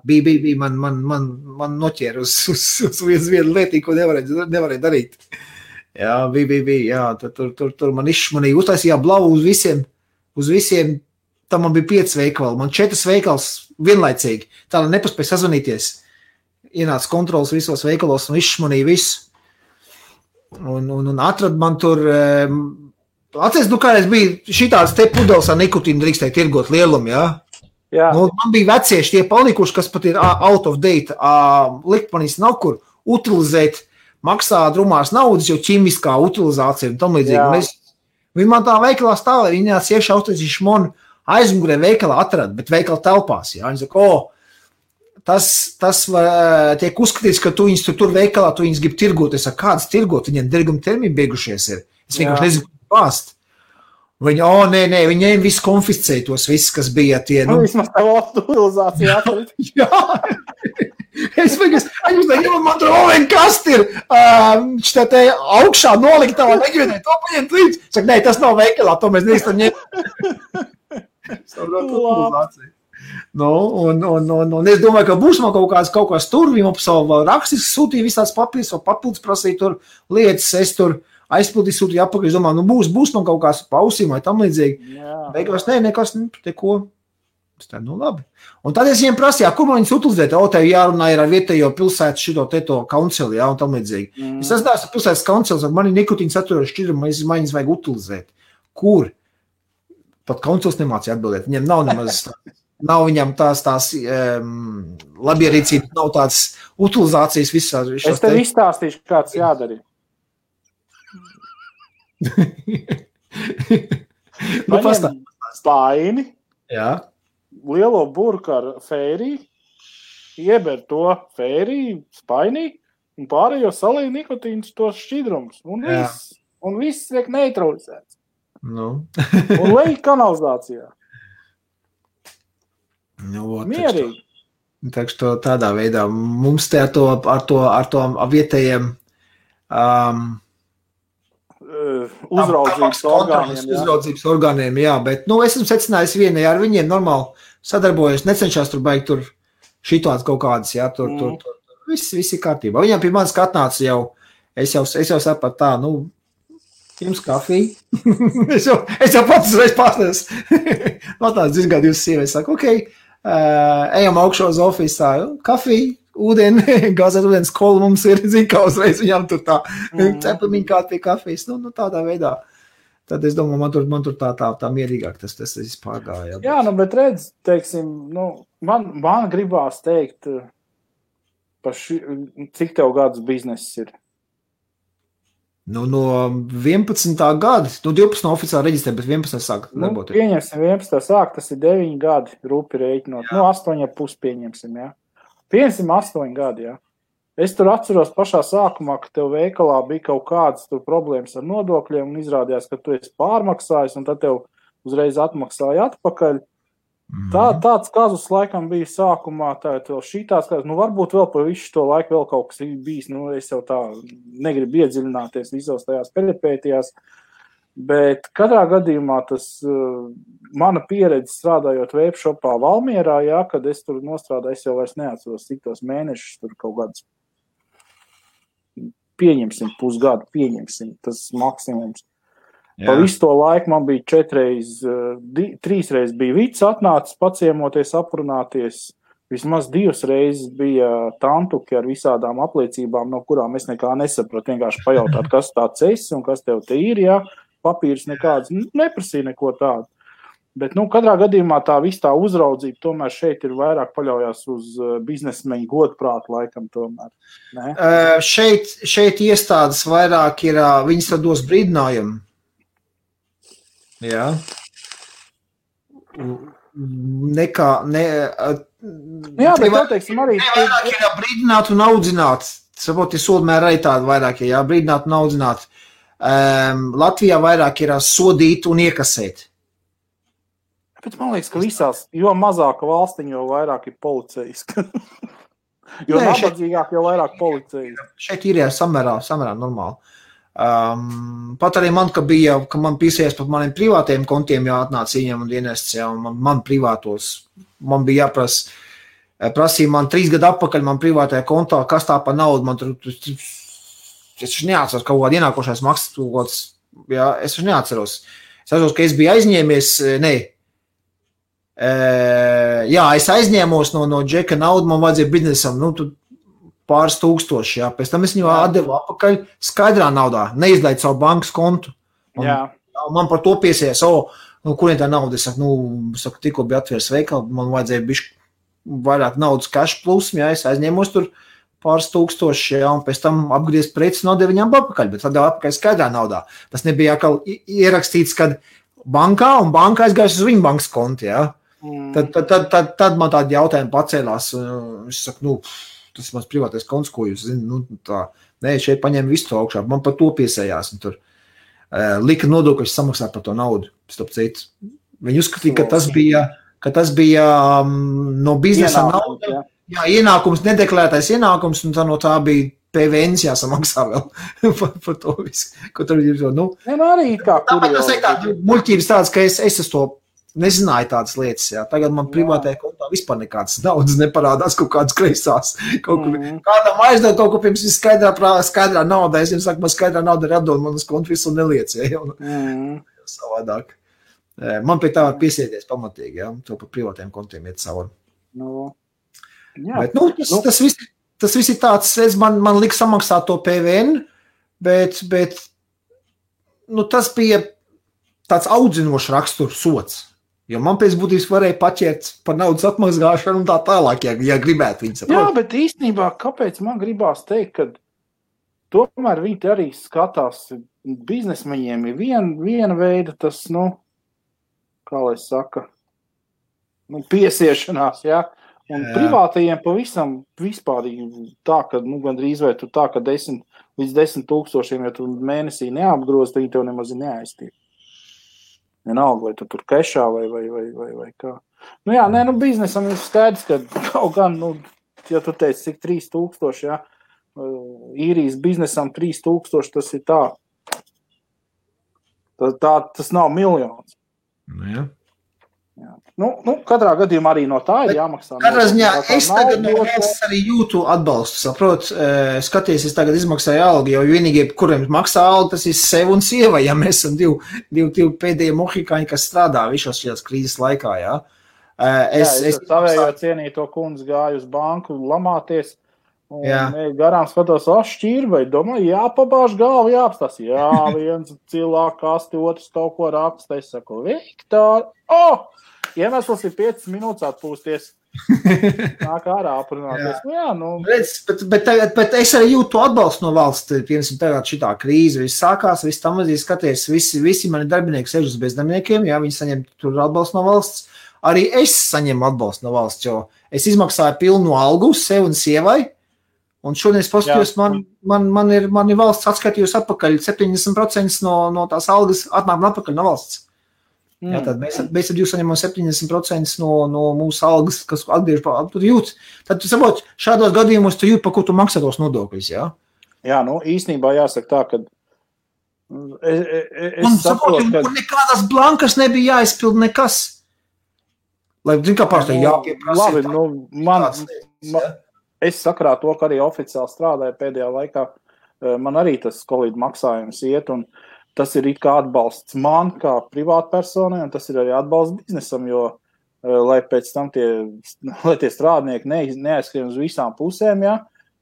Bija, man noķēra uz vienu lietī, ko nevarēja darīt. Jā, bija. Tur man izšmanīja, uztaisīja blavu uz visiem. Tam man bija 5 veikali, man 4 veikals vienlaicīgi. Tā lai nepaspēja sazvanīties. Ienāca kontrols visos veikalos un izšmanīja visu. Un atrad man tur... Atceries, kādreiz bija šitāds te pudeles ar nikotīnu drīkstēja tirgot lielumu, Jā. Man bija vecieši tie palikuši, kas pat ir out of date. Likpanīs nav kur utilizēt, maksā drumās naudas, jo ķimiskā utilizācija un tam līdzīgi. Viņi man tā veikalā stāvēja, viņi nāc iekšā uztaisīja šmonu, aizmugurē veikalā atrada, bet veikala telpās. Viņi saka, tas tiek uzskatīts, ka tu viņus tur veikalā, tu viņus grib tirgot. Es saku, kādas tirgot? Viņiem derguma termini beigušies ir. Es vienkārši nezinu, ko bāst. Viņi, nē, viņi visu konfiscēja tos visus, kas bija tie. Vismaz tā utilizācija atrit. Jā. Es domāju, man tur kas ir te augšā noliktā, negribēju to paņemt līdz. Saka, nē, tas nav veikalā, to mēs neesam ņemt. Un es domāju, ka būs man kaut kāds tur, viņi man savu rakstis sūtīja visās papīrs, vai papildus prasīja tur lietas, es tur aizpildīju, sūtīju apakaļ, es domāju, būs man kaut kāds pausīm vai tam līdzīgi. Beigās, nekas, te ko. Labi. Un tad es viņiem prasīju, kur man viņus utilizēt, tev jārunā ir ar vietējo pilsētu šito teto kauncili, un tam līdzīgi. Es esmu pilsētas kauncils, man ir nikotīna saturojuši šķidrumi, viņas vajag utilizēt. Kur? Pat kauncils nemācīja atbildēt. Viņam nav nemaz, nav viņam tās labierīcības, nav tāds utilizācijas visās. Es tev izstāstīšu, kāds jādara. Paņem spaini, lielo burku ar fēriju, ieber to fēriju spainī un pārējo salīja nikotīnus tos šķidrumus. Un viss tiek neutralizēts. Un lej kanalizācijā. Mierīgi. Tādā veidā mums te ar to vietējiem uzraudzības orgāniem, bet, es esmu secinājis vienai ar viņiem normāli sadarbojos, necenšās tur baigt tur šitās kaut kādas, tur viss ir kārtībā. Viņam pie manis atnāca jau, es jau sapratu tā, jums kafiju. es jau pats uzreiz pārstāvis. Atnāc izgādi jūs sievietes, saka, ejam augšā uz ofisā, kafiju, gāzēt ūdens kolu mums ir, kā uzreiz viņam tur tā cepamiņa kā pie kafijas, tādā veidā. Tad es domāju, man tur tā mierīgāk tas vispār gāja. Jā, bet redz, teiksim, man gribās teikt, cik tev gadus bizness ir? No 11. gada, 12 oficiāli reģistrē, bet 11. sāk darboties. Pieņemsim 11. sāk, tas ir 9 gadi, rupi rēķinot. 8,5 pieņemsim, jā. Pieņemsim 8 gadi, jā. Es tur atceros pašā sākumā, ka tev veikalā bija kaut kādas tur problēmas ar nodokļiem un izrādījās, ka tu esi pārmaksājis un tad tev uzreiz atmaksāja atpakaļ. Tāds kazus laikam bija sākumā, tā vēl šitās kazus, varbūt vēl pa visu to laiku vēl kaut kas bijis, es jau tā negribu iedziļināties visos tajās peripētijās, bet katrā gadījumā tas mana pieredze strādājot webshopā Valmierā, jā, kad es tur nostrādāju, es jau vairs neatceros, cik tos mēnešus tur kaut gadus pieņemsim, pusgadu pieņemsim, tas maksimums. Pa visu to laiku man bija 3 reizes bija Vits atnācis paciemoties, aprunāties. Vismaz 2 reizes bija tantuki ar visādām apliecībām, no kurām es nekā nesapratu. Vienkārši pajautāt, kas tāds esi un kas tev te ir, jā. Papīrs nekāds, neprasīja neko tādu. Bet, katrā gadījumā tā viss tā uzraudzība tomēr šeit ir vairāk paļaujās uz biznesmeņu godprātu laikam tomēr. Ne? Šeit iestādes vairāk ir, viņas tad dos brīdinājumu. Jā. Jā, bet tev teiksim arī... Vairāk ir brīdināt un audzināt. Saproti, soldmēr arī tāda vairāk ir, brīdināt un audzināt. Latvijā vairāk ir sodīt un iekasēt. Bet man liekas, ka visās, jo mazāka valstiņa, jo vairāk ir policijas. Jo nabadzīgāk, jo vairāk policijas. Šeit ir samērā normāli. Pat arī man, ka man piesies pat maniem privātiem kontiem jāatnāc viņam un dienests, un man privātos, man bija prasīja man 3 gadu atpakaļ man privātajā kontā, kas tā pa naudu, man tur, es neatceros kaut kādu ienākošais maksas, jā, es neatceros. Es atceros, ka es biju aizņēmies, es aizņēmos no Džeka naudu, man vajadzēja biznesam, tu pāris tūkstoši, jā. Pēc tam es viņu atdevu atpakaļ skaidrā naudā, neizlaidu savu bankas kontu. Man par to piesies, kurien tā nauda, es saku, tikko bija atvērs veikalu, man vajadzēja bišķi vairāk naudas cash plus, jā, es aizņēmos tur pāris tūkstoši, jā, un pēc tam apgriezt preces un atdevu viņam atpakaļ, bet atdevu atpakaļ skaidrā naudā. Tas nebija atkal ierakstīts, kad bankā, un banka aizgājas uz viņu bankas kontu, jā. Tad man tādi jautājumi pacēlās, es saku, tas ir mans privātais konts, ko jūs zināt, šeit paņēma visu to augšā, man par to piesējās, un tur lika nodokļus samaksāt par to naudu, starp citu. Viņi uzskatīja, ka tas bija no biznesa nauda, ienākums, nedeklarētais ienākums, un no tā bija PVNs jāsamaksā vēl par to visu, ko tur ir. Arī kā tas ir tā muļķības tāds, ka es uz to nezināju tādas lietas, jā. Tagad man privātajā kontā vispār nekādas naudas neparādās kaut kādas kreisās. Kādam aizdod kaut ko pirms skaidrā naudā. Es jums saku, man skaidrā nauda ir atdod, man uz kontu visu neliec, jā. Savādāk. Man pie tā var piesēties pamatīgi, jā. To par privātajiem kontiem iet cauri. Bet, tas viss ir tāds, man liek samaksāt to PVN, bet tas bija tāds audzinošs raksturs sots. Jo man pēc būtības varēja paķert par naudas atmazgāšanu un tā tālāk, ja gribētu viņus. Jā, bet īstenībā, kāpēc man gribās teikt, ka tomēr viņi arī skatās, biznesmeņiem ir viena veida tas, kā lai saka, piesiešanās, jā. Un privātajiem pavisam vispārīgi tā, ka, gandrīz vai tu tā, ka 10 līdz 10 000, ja tu mēnesī neapgroz, tad viņi tev nemaz neaiztiek. Vienalga, vai tu tur kešā vai kā. Biznesam ir skaidrs, ka kaut gan, ja tu teici, cik 3000, jā, īrijas biznesam 3000, tas ir tā. Tas nav miljons. Jā. Katrā gadījumā arī no tā ir jāmaksā. Katrā ziņā es tagad no valsts arī jūtu atbalstu, saprot, skaties, es tagad izmaksāju algu, jo vienīgie, kuriem maksā algu, tas ir sev un sieva, ja mēs esam divi pēdējie mohikāņi, kas strādā visos šajās krīzes laikā, jā. Es savējo cienīto kundzi gāju uz banku lamāties, Un garām skatos, šķirbai, domāju, jāpabāž galvu, jāapstās. Jā, viens cilvēks kasti, otrs kaut ko raksta. Es saku, Viktor, iemesls ir 5 minūtes atpūsties. Nāk ārā aprunāties. Redz, bet es arī jūtu atbalstu no valsts. Piemēram, tagad šitā krīze viss sākās, viss tam mazīgi skaties, visi mani darbinieki sēž uz bezdarbniekiem, jā, viņi saņem tur atbalstu no valsts. Arī es saņemu atbalstu no valsts, jo es izmaksāju pilnu algu uz sevi un sievai. Un šodien es paskatījos, man ir valsts atskaitījus atpakaļ 70% no tās algas atnāk atpakaļ no valsts. Jā, tad mēs ar jūs saņemam 70% no mūsu algas, kas atgriež tur jūt. Tad tu saproti, šādos gadījumos tu jūt, pa ko tu maksā tos nodokļus, jā? Jā, īstenībā jāsaka tā, ka es saprotu, ka nekādas blankas nebija jāizpild nekas. Lai, zin, kā pārstāj jāpieprasa. Labi, es sakrā to, ka arī oficiāli strādāju pēdējā laikā, man arī tas Covid maksājums iet, un tas ir it kā atbalsts man kā privātpersonai, un tas ir arī atbalsts biznesam, jo, lai pēc tam tie strādnieki neaizskrien uz visām pusēm,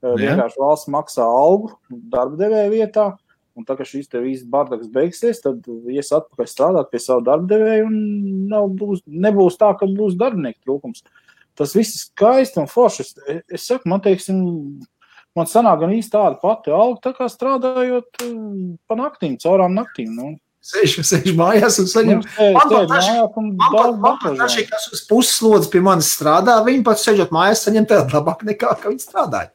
vienkārši valsts maksā algu darba devēja vietā, un tā, ka šīs te visas bardaks beigsies, tad ies atpakaļ strādāt pie savu darba devēju, un nebūs tā, ka būs darbinieku trūkums. Tas viss ir skaisti un forši. Es saku, man sanāk gan īsti tāda pati alga, tā kā strādājot pa naktīm, caurām naktīm. Sēž mājās un saņem. Man pat kas uz pusslodzes pie manis strādā, viņi pat sēžot mājās saņem tādu labāk nekā, ka viņi strādāja.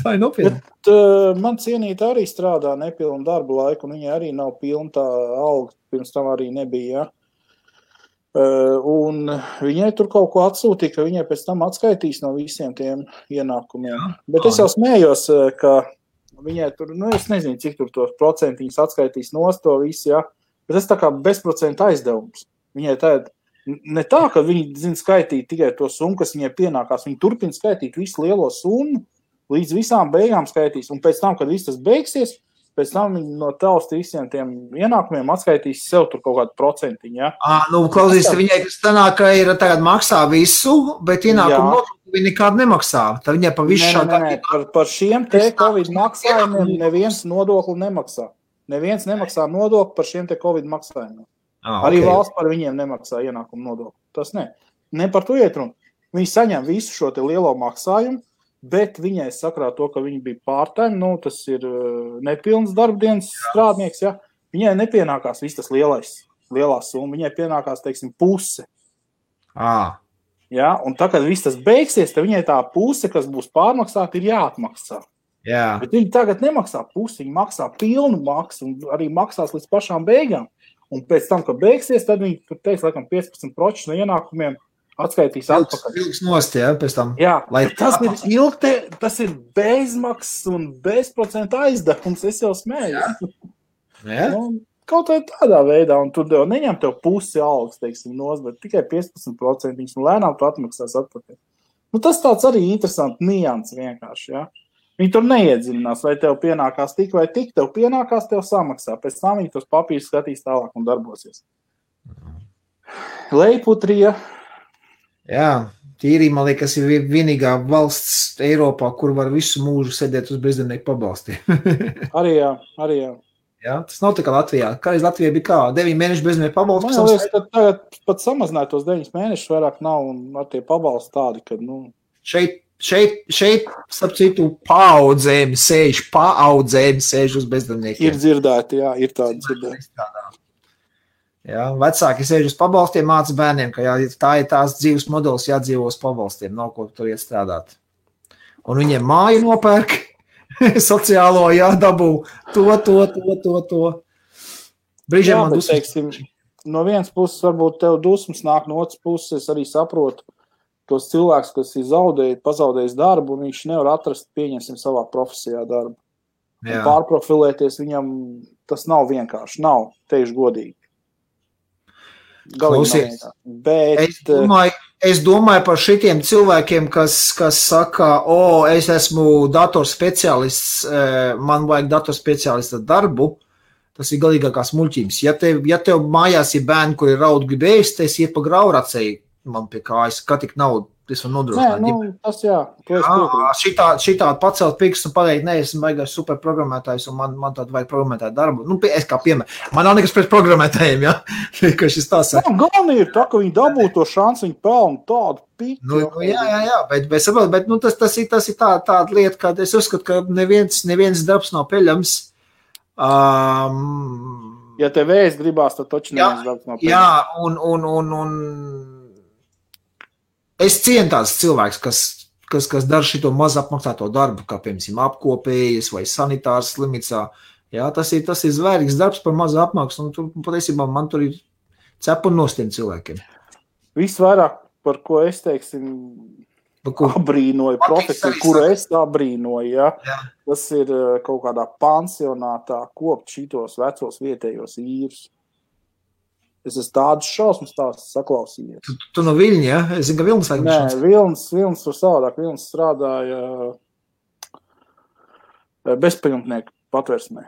Tā ir nopietna. Bet man cienīta arī strādā nepilnu darbu laiku, un viņai arī nav pilna tā alga, pirms tam arī nebija, Un viņai tur kaut ko atsūtīja, ka viņai pēc tam atskaitīs no visiem tiem ienākumiem. Jā. Bet es jau smējos, ka viņai tur, es nezinu, cik tur tos procentiņus atskaitīs nost to visu, bet tas tā kā bezprocenta aizdevums. Viņai ne tā, ka viņi zina skaitīt tikai to summu, kas viņai pienākās, viņi turpina skaitīt visu lielo summu, līdz visām beigām skaitīs, un pēc tam, kad viss tas beigsies, pēc tam viņi no tausta visiem tiem ienākumiem atskaitīs sev tur kaut kādu procentiņu, Klausīs, viņai tas tanāk, ka ir tagad maksā visu, bet ienākumu nodokli viņi nekādu nemaksā. Tad viņai pa visu šādā... Par šiem te Covid maksājumiem neviens nodokli nemaksā. Neviens nemaksā nodokli par šiem te Covid maksājumiem. Arī valsts par viņiem nemaksā ienākumu nodokli. Tas ne par to iet runa. Viņi saņem visu šo te lielo maksājumu, bet viņai sakrā to, ka viņi bija part-time, tas ir nepilns darbdienas strādnieks, viņai nepienākās viss tas lielā summa, viņai pienākās, teiksim, puse. Un tā, kad viss tas beigsies, tad viņai tā puse, kas būs pārmaksāta, ir jāatmaksā. Bet viņi tagad nemaksā pusi, viņi maksā pilnu maksu un arī maksās līdz pašām beigām. Un pēc tam, kad beigsies, tad viņi tur teiks, laikam, 15% no ienākumiem atskaitīs atpakaļ. Nost, pēc tam. Tas ir bezmaksas un bezprocenta aizdevums, es jau smēju. Kaut vai tādā veidā, un tur jau neņem tev pusi algas, teiksim, nost, bet tikai 15%, un lēnām tu atmaksās atpakaļ. Tas tāds arī interesants nians vienkārši, Viņi tur neiedziļinās, vai tev pienākās tik vai tik, tev pienākās, tev samaksā. Pēc tam viņi tos papīrus skatīs tālāk un darbosies. Leiputrija. Tīrī, man liekas, ir vienīgā valsts Eiropā, kur var visu mūžu sēdēt uz bezdarbnieku pabalstiem. Arī jā. Tas nav tā kā Latvijā. Kādreiz Latvijā bija kā 9 mēnešu bezdarbnieku pabalsti. Man liekas, ka tagad pat samazināt tos 9 mēnešus vairāk nav un ar tie pabalsti tādi, ka, Šeit, starp citu, paaudzēm sēž uz bezdarbniekiem. Ir dzirdēti, ir tādi dzirdēti. Vecāki sēž uz pabalstiem, māca bērniem, ka tā ir tās dzīves modelis, jādzīvo uz pabalstiem, nav ko tur iet strādāt. Un viņiem māju nopērk, sociālo jādabū, to. Brīžiem man dusmas. No vienas puses varbūt tev dusmas nāk, no otras puses es arī saprotu tos cilvēkus, kas ir pazaudējis darbu, un viņš nevar atrast, pieņemsim, savā profesijā darbu. Un pārprofilēties viņam, tas nav vienkārši, teikšu godīgi. Klausies, es domāju par šitiem cilvēkiem, kas saka, es esmu datorspeciālists, man vajag datorspeciālista darbu, tas ir galīgākās muļķības. Ja tev mājās ir bērni, kuri raud grib ēst, es iet pa grauracēju, man pie kājas, kā tik naudu. Es varu nodrošināt. Nē, tas jā. Šitā pacelt pirkstu un pateikt, ne, esmu baigās super programmētājs un man tādu vajag programmētāju darbu. Nu, es kā piemēram. Man nav nekas pret programmētājiem, ja? Ka šis tā saka. Galvenī ir tā, ka viņi dabū to šansu, viņi pelna tādu pitu. Jā, bet tas ir tāda lieta, ka es uzskatu, ka neviens darbs nav peļams. Ja tev vēs gribās, tad taču neviens darbs nav peļams. Jā, un es cienu tāds cilvēks, kas dara šito maz apmaksāto darbu, kā piemēram apkopējas vai sanitārs slimnīcā. Jā, tas ir zvērīgs darbs par mazu apmaksu, un tur patiesībā man tur ir cepuni nost tiem cilvēkiem. Visvairāk, par ko es teiksim, abrīnoju profesiju, kuru es abrīnoju, ja? Tas ir kaut kādā pansionātā kopt šitos vecos vietējos īrus. Es esmu tādas šausmas saklausījies. Tu no Viļņa, ja? Es zinu, ka Vilnis vajag šausmas. Nē, Vilnis tur savādāk. Vilnis strādāja bezpajumtnieku patversmē.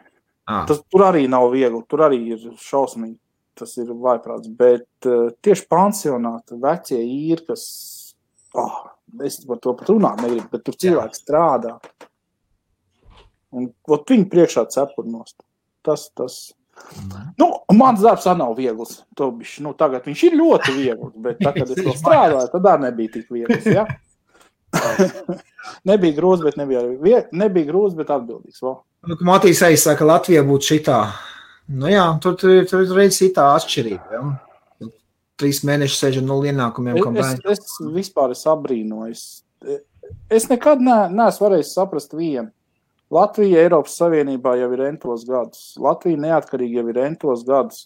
Tur arī nav viegli, tur arī ir šausmīgi. Tas ir vaiprāts. Bet tieši pansionāti, vecie īri, kas... es par to pat runāt negribu, bet tur cilvēki strādā. Un viņi priekšā cepurnost. Tas... Nu, mans darbs arī nav viegls. Tagad viņš ir ļoti viegls, bet tā, kad es to strādāju, tad arī nebija tik viegls, ja? Nebija grūts, bet nebija grūts, bet atbildīgs. Matīs aizsaka, Latvijā būtu šitā. Nu jā, tur reiz ir tā atšķirība, ja? 3 mēneši sēžam 0 ienākumiem. Es vispār abrīnoju. Es nekad neesmu varējis saprast vienu. Latvija Eiropas Savienībā jau ir entos gadus. Latvija neatkarīgi jau ir entos gadus.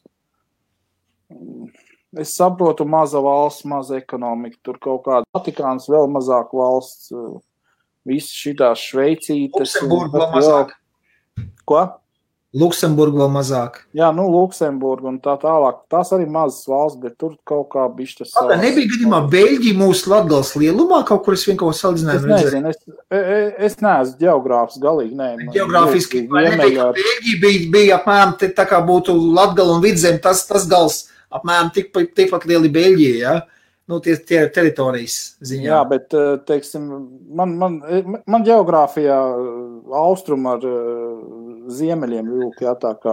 Es saprotu, maza valsts, maza ekonomika, tur kaut kāda Vatikāns, vēl mazāk valsts, visas šitās Šveicītes. Luksemburga vēl mazāk. Ko? Luksemburga vēl mazāk. Jā, Luksemburga un tā tālāk. Tās arī mazas valsts, bet tur kaut kā bišķi tas savās. Nebija gadījumā Beļģija mūsu Latgales lielumā, kaut kur es vienkārši salīdzinājumu redzēju? Es nezinu, es neesmu ģeogrāfs galīgi, nē. Ģeogrāfiski, Beļģija bija apmēram tā kā būtu Latgala un Vidzem, tas gals apmēram tikpat lieli Beļģija, ja? Nu, tie teritorijas ziņā. Jā, bet, teiksim, man ģeogrāfijā austrum ar ziemeļiem vilk, jā, tā kā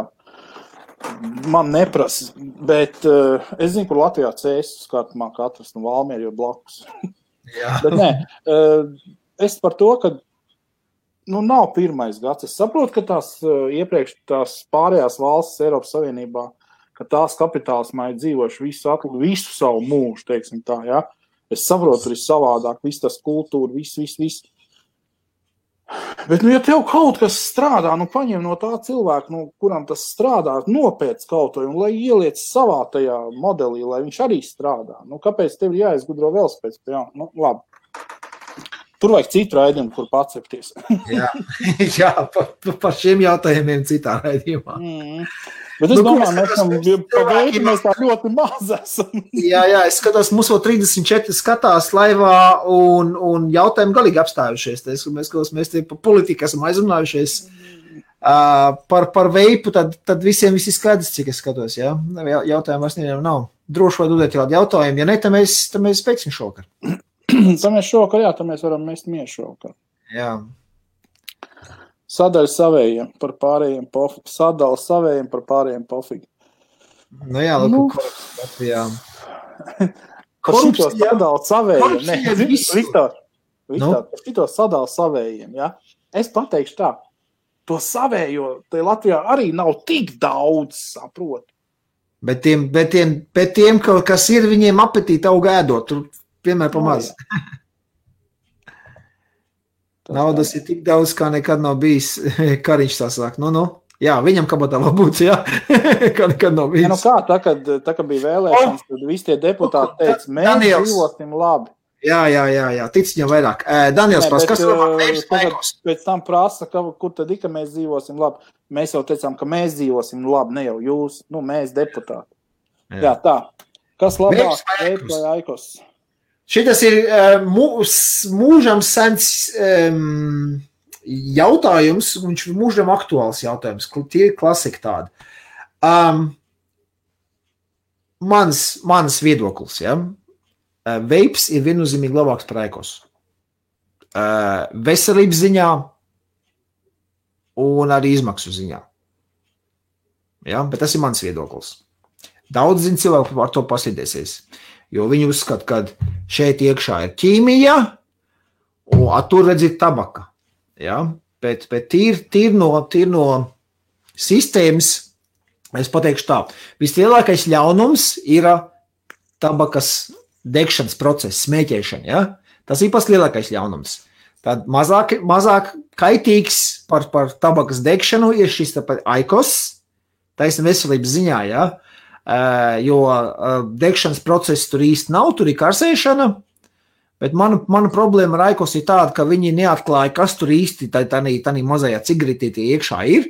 man neprasa, bet es zinu, kur Latvijā cēsas skartumā katrs, Valmieri jau blakus. Jā. Bet nē, es par to, ka nav pirmais gads. Es saprotu, ka iepriekš tās pārējās valstis Eiropas Savienībā, ka tās kapitālismā ir dzīvojuši visu savu mūžu, teiksim tā, ja? Es saprotu, tur ir savādāk, viss tas kultūra, viss. Bet, ja tev kaut kas strādā, paņem no tā cilvēka, kuram tas strādā, nopēc kaut to, un lai ieliec savā tajā modelī, lai viņš arī strādā. Kāpēc tev ir jāizgudro velosipēds? Jā, labi. Tur vajag citu raidījumu, kur pacepties. Jā, par šiem jautājumiem citā raidījumā. Bet es domāju, mēs tā ļoti maz esam. Jā, es skatos, mums vēl 34 skatās laivā un jautājumi galīgi apstājušies. Mēs te par politiku esam aizrunājušies. Par veipu, tad visiem viss ir skaidrs, cik es skatos. Ja? Jautājumi vairs nevienam nav. Droši vai dodēt kādu jautājumu. Ja ne, tad mēs beigsim šovakar. Tad mēs šovakar, tad mēs varam mest miešu šovakar. Jā. Sadaļa savējiem par pārējiem pofīgi. Sadala savējiem par pārējiem pofīgi. Nu jā, Latvijā. Par šito sadala savējiem. Viktor, par šito sadala savējiem, ja? Es pateikšu tā, to savējo, te Latvijā arī nav tik daudz, saprot. Bet tiem, kas ir, viņiem apetīti aug ēdot, tur vienmēr pamaz. Naudas ir tik daudz, kā nekad nav bijis. Kariņš tā sāk. Jā, viņam kabatā vēl būtu, jā. Kā nekad nav bijis. Tā, kad bija vēlēšanas, tad visi tie deputāti teica, mēs dzīvosim labi. Jā. Tic viņam vairāk. Daniels prasa, kas ir pēc tam prasa, kur tad ka mēs dzīvosim labi. Mēs jau teicām, ka mēs dzīvosim labi, ne jau jūs, mēs deputāti. Jā, tā. Kas labāk? Veips vai Aikos? Šitas ir mūžam sens jautājums, viņš ir mūžam aktuāls jautājums, tie ir klasika tādi. Mans viedoklis, ja? veips ir viennozīmīgi labāks par aikos. Veselības ziņā un arī izmaksu ziņā. Ja? Bet tas ir mans viedoklis. Daudz zin cilvēku ar to pasīdēsies, jo viņi uzskata, ka šeit iekšā ir ķīmija, un tur redz ir tabaka. Ja? Bet tīr no sistēmas, es pateikšu tā, vislielākais ļaunums ir tabakas degšanas process, smēķēšana. Ja? Tas ir pats lielākais ļaunums. Tad mazāk kaitīgs par tabakas degšanu ir šis aikos, taisnība veselības ziņā, ja? Jo degšanas process tur īsti nav, tur ir karsēšana, bet mana problēma ar aikos ir tāda, ka viņi neatklāja, kas tur īsti tā mazajā cigaretītī iekšā ir.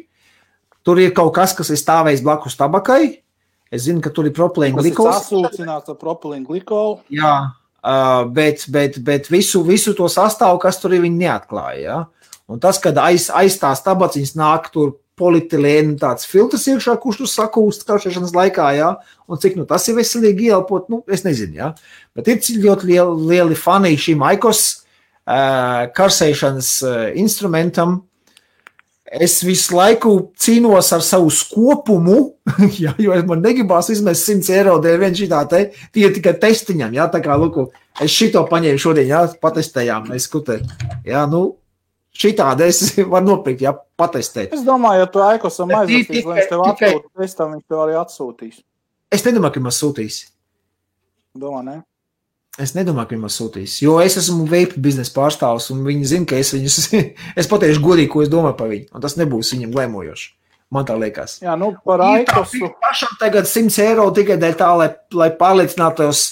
Tur ir kaut kas ir stāvējis blakus tabakai. Es zinu, ka tur ir propilēna glikols. Tas ir sasūcināts ar propilēna glikolu. Jā, bet visu to sastāvu, kas tur ir, viņi neatklāja. Ja? Un tas, kad aiz tās tabaciņas nāk tur polietilēna tāds filtrs iekšā, kurš tur sakūst karšēšanas laikā, ja? Un cik tas ir veselīgi ieelpot, es nezinu. Ja? Bet ir ļoti lieli fani šim aikos karsēšanas instrumentam. Es visu laiku cīnos ar savu skopumu, ja, jo man negribās izmest 100 eiro dēļ vien šitā tie tikai testiņam. Ja? Tā kā, luku, es šito paņēmu šodien, ja? Patestējām, mēs skutē. Ja? Šitādi es varu nopirkt, ja, patestēt. Es domāju, ja tu aikosam aizvestīs, lai viņš tev atsūtu testam, viņš tev arī atsūtīs. Es nedomāju, ka man sūtīs. Domā, ne? Es nedomāju, ka man sūtīs, jo es esmu vape biznesa pārstāvs, un viņi zina, ka es viņus, es pateikšu godīgi, ko es domāju par viņu, un tas nebūs viņam glēmojoši. Man tā liekas. Jā, par aikosu. Pašam tagad 100 eiro tikai dēļ tā, lai pārliecinātos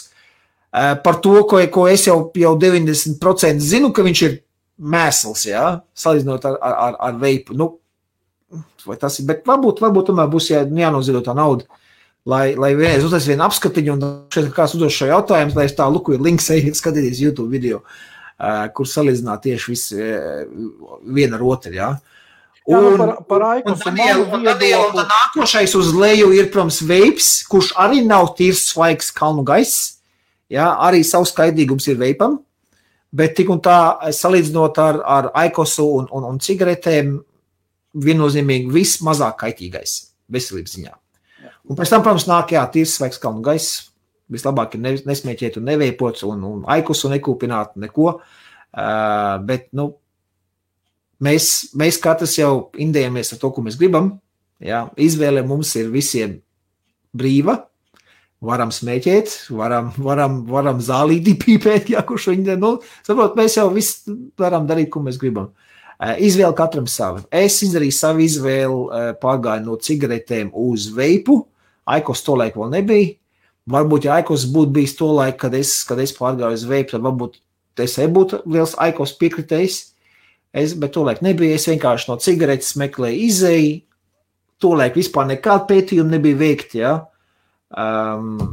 par to, ko es jau 90% zinu, ka viņš ir mēsls, ja, salīdzinot ar veipu. Vai tas ir, bet varbūt tomēr būs jānoziedot tā nauda, lai vienreiz uztais vienu apskatiņu, un šeit kāds uzdos šo jautājumu, lai es tā luku ir links, ejiet skatīties YouTube video, kur salīdzināt tieši visu viena ar otru, ja. Par Aikos un viedokli. Nākošais uz leju ir, protams, veips, kurš arī nav tīrs svaigs kalnu gaiss, ja, arī savs kaidīgums ir veipam. Bet tik un tā, salīdzinot ar aikosu un cigaretēm, viennozīmīgi vismazāk kaitīgais veselības ziņā. Un pēc tam, protams, nāk, jā, tīrs svaigs kalnu gaiss, vislabāk ir nesmēķēt un neveipot, un aikosu nekūpināt neko, bet, mēs katrs jau indējamies ar to, ko mēs gribam, jā, izvēle mums ir visiem brīva, varam smēķēt, varam zālīti pīpēt, ja kurš viņi, saprot, mēs jau visu varam darīt, ko mēs gribam. Izvēle katram savu. Es izdarīju savu izvēli, pārgāju no cigaretēm uz veipu, aikos to laiku vēl nebija. Varbūt, ja aikos būtu bijis to laiku, kad es pārgāju uz veipu, tad varbūt es būtu liels aikos piekritējis, bet to laiku nebija. Es vienkārši no cigaretes meklēju izēju, to laiku vispār nekāda pētījuma nebija veikti, ja.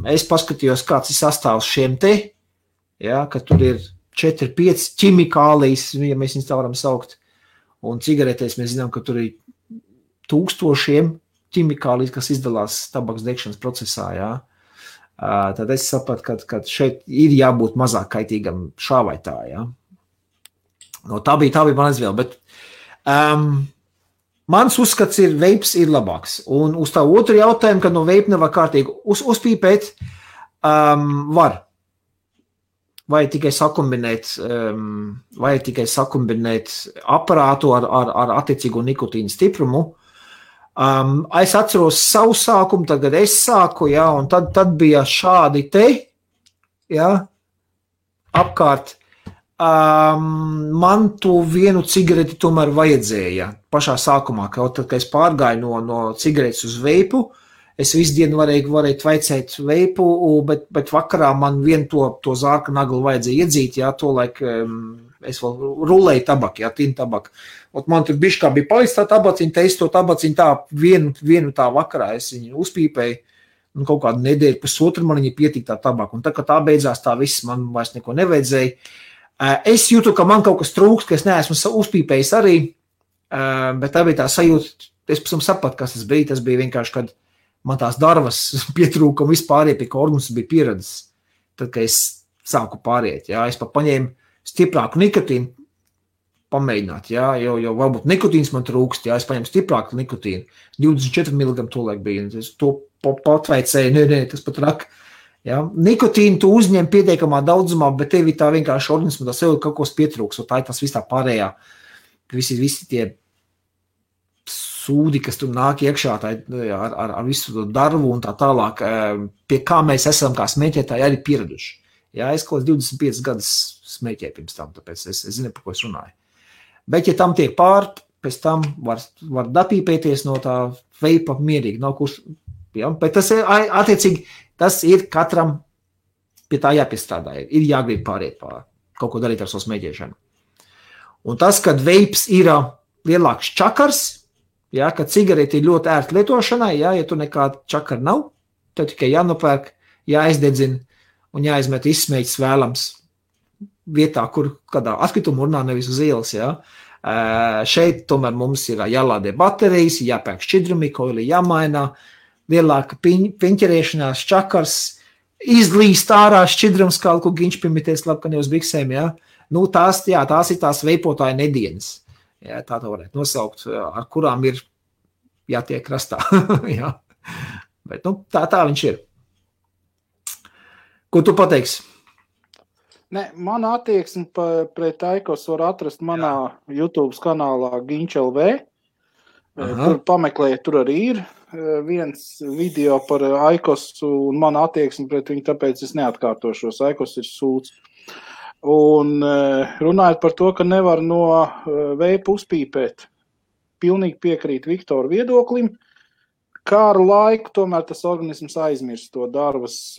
Es paskatījos, kāds ir sastāvs šiem te, ja, ka tur ir 4-5 ķimikālijas, ja mēs viņus tā varam saukt, un cigaretēs mēs zinām, ka tur ir 1000 ķimikālijas, kas izdalās tabaks degšanas procesā, ja. Tad es sapratu, ka šeit ir jābūt mazāk kaitīgam šā vai tā, ja. Tā bija man izvēle, bet mans uzskats ir, veips ir labāks. Un uz tā otru jautājumu, kad no veipa nevar kārtīgi uzpīpēt, var. Vai tikai sakombinēt aparātu ar attiecīgo nikotīnu stiprumu. Es atceros savu sākumu, tagad es sāku, ja, un tad bija šādi te, ja, apkārt. Man to vienu cigareti tomēr vajadzēja pašā sākumā, kad es pārgāju no cigaretes uz veipu, es visu dienu varēju tvaicēt veipu, bet vakarā man vienu to zārka naglu vajadzēja iedzīt, jā, to laik es vēl rulēju tabaku, jā, tīnu tabaku. Man tur bišķi bija palicis tā tabaciņa, te es to tabaciņu tā vienu tā vakarā, es viņu uzpīpēju, un kaut kādu nedēļu pusotru man viņa pietika tā tabaku, un tā, kad tā beidzās, tā viss man vairs neko nevajadzēja. Es jūtu, ka man kaut kas trūkst, ka es neesmu uzpīpējis arī, bet tā bija tā sajūta, es pēc tam sapratu, kas tas bija. Tas bija vienkārši, kad man tās darvas pietrūka un vispār pie ka organisms bija pieredzes. Tad, kad es sāku pāriet, jā, es pat paņēmu stiprāku nikotīnu, pamēģināt, jā, jo varbūt nikotīns man trūkst, jā, es paņemu stiprāku nikotīnu, 24 mg tolaik bija, es to patveicēju, nē, tas pat rak, jā, nikotīnu tu uzņem pietiekamā daudzumā, bet tevi tā vienkārši organismu, tā sev kaut kos pietrūks, un tā ir tas viss tā pārējā, visi tie sūdi, kas tur nāk iekšā ar visu to darbu un tā tālāk, pie kā mēs esam kā smēķētāji arī pieraduši. Jā, es kaut 25 gadus smēķēju pirms tam, tāpēc es zinu, par ko es runāju. Bet, ja tam tiek pēc tam var dapīpēties no tā veipa mierīgi, nav kurš, jā, bet tas ir, attiecīgi, tas ir katram pie tā jāpiestrādā, ir jāgrib pāriet pār, kaut ko darīt ar savu smēķēšanu. Un tas, kad veips ir lielāks čakars, jā, ka cigareti ir ļoti ērti lietošanai, jā, ja tu nekāda čakara nav, tev tikai jānopērk, jāizdedzina un jāizmet izsmēķis vēlams vietā, kur kādā atkrituma urnā nevis uz ielas, jā. Šeit tomēr mums ir jālādē baterijas, jāpērk šķidrumi, koili jāmaina, lielāka piņķerēšanās, čakars, izlīst ārā šķidrums, kā ko giņš piemitēs labkani uz biksēm, jā. Nu, tās ir tās veipotāja nedienas. Jā, tā varētu nosaukt, ar kurām ir jātiek krastā. Jā. Bet, nu, tā viņš ir. Ko tu pateiksi? Ne, mana attieksme pret Aikos var atrast manā YouTube kanālā Ginč.lv. Tur pameklēja, tur arī ir viens video par Aikos un mana attieksme pret viņu, tāpēc es neatkārtošos. Aikos ir sūds. Un runājot par to, ka nevar no veipa uzpīpēt, pilnīgi piekrīt Viktora viedoklim, kā ar laiku tomēr tas organisms aizmirst to darbas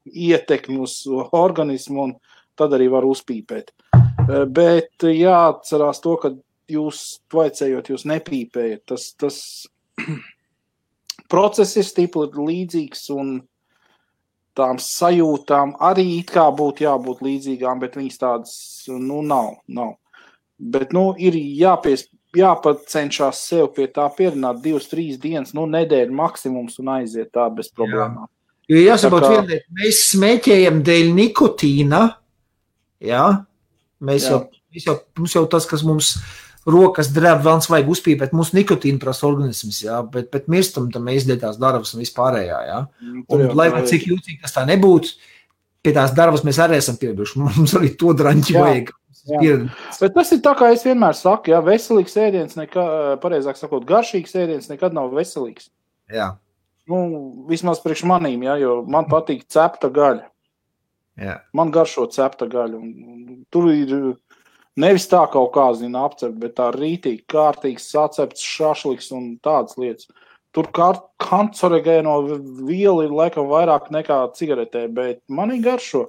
ietekmi uz organismu un tad arī var uzpīpēt. Bet jāatcerās to, ka jūs tvaicējot, jūs nepīpējat. Tas process ir stipri līdzīgs un tām sajūtām arī it kā būtu jābūt līdzīgām, bet viņas tādas, nu, nav. Bet, nu, ir jāpacenšās sev pie tā pierināt 2-3 dienas, nu, nedēļa maksimums un aiziet tā bez problēmām. Jo jāsaprot vienliet, mēs smēķējam dēļ nikotīna, jā, mums jau tas, kas mums rokas drēb, vēlns vajag uzpīpēt, mums nikotīna prasa organisms, jā, bet mirstam tam mēs dēļ tās darbas un vispārējā, jā. Un lai vai cik jūtīgi tas tā nebūtu, pie tās darbas mēs arī esam pieraduši, mums arī to draņķi vajag. Bet tas ir tā, kā es vienmēr saku, jā, veselīgs ēdiens, pareizāk sakot, garšīgs ēdiens nekad nav veselīgs. Jā. Nu, vismaz priekš manīm, jā, jo man patīk cepta gaļa. Jā. Man garšo cepta gaļa. Un tur ir nevis tā kaut kā, apcept, bet tā rītīgi, kārtīgs sacepts šašliks un tādas lietas. Tur kancerogēno vielu ir laikam vairāk nekā cigaretē, bet manī garšo.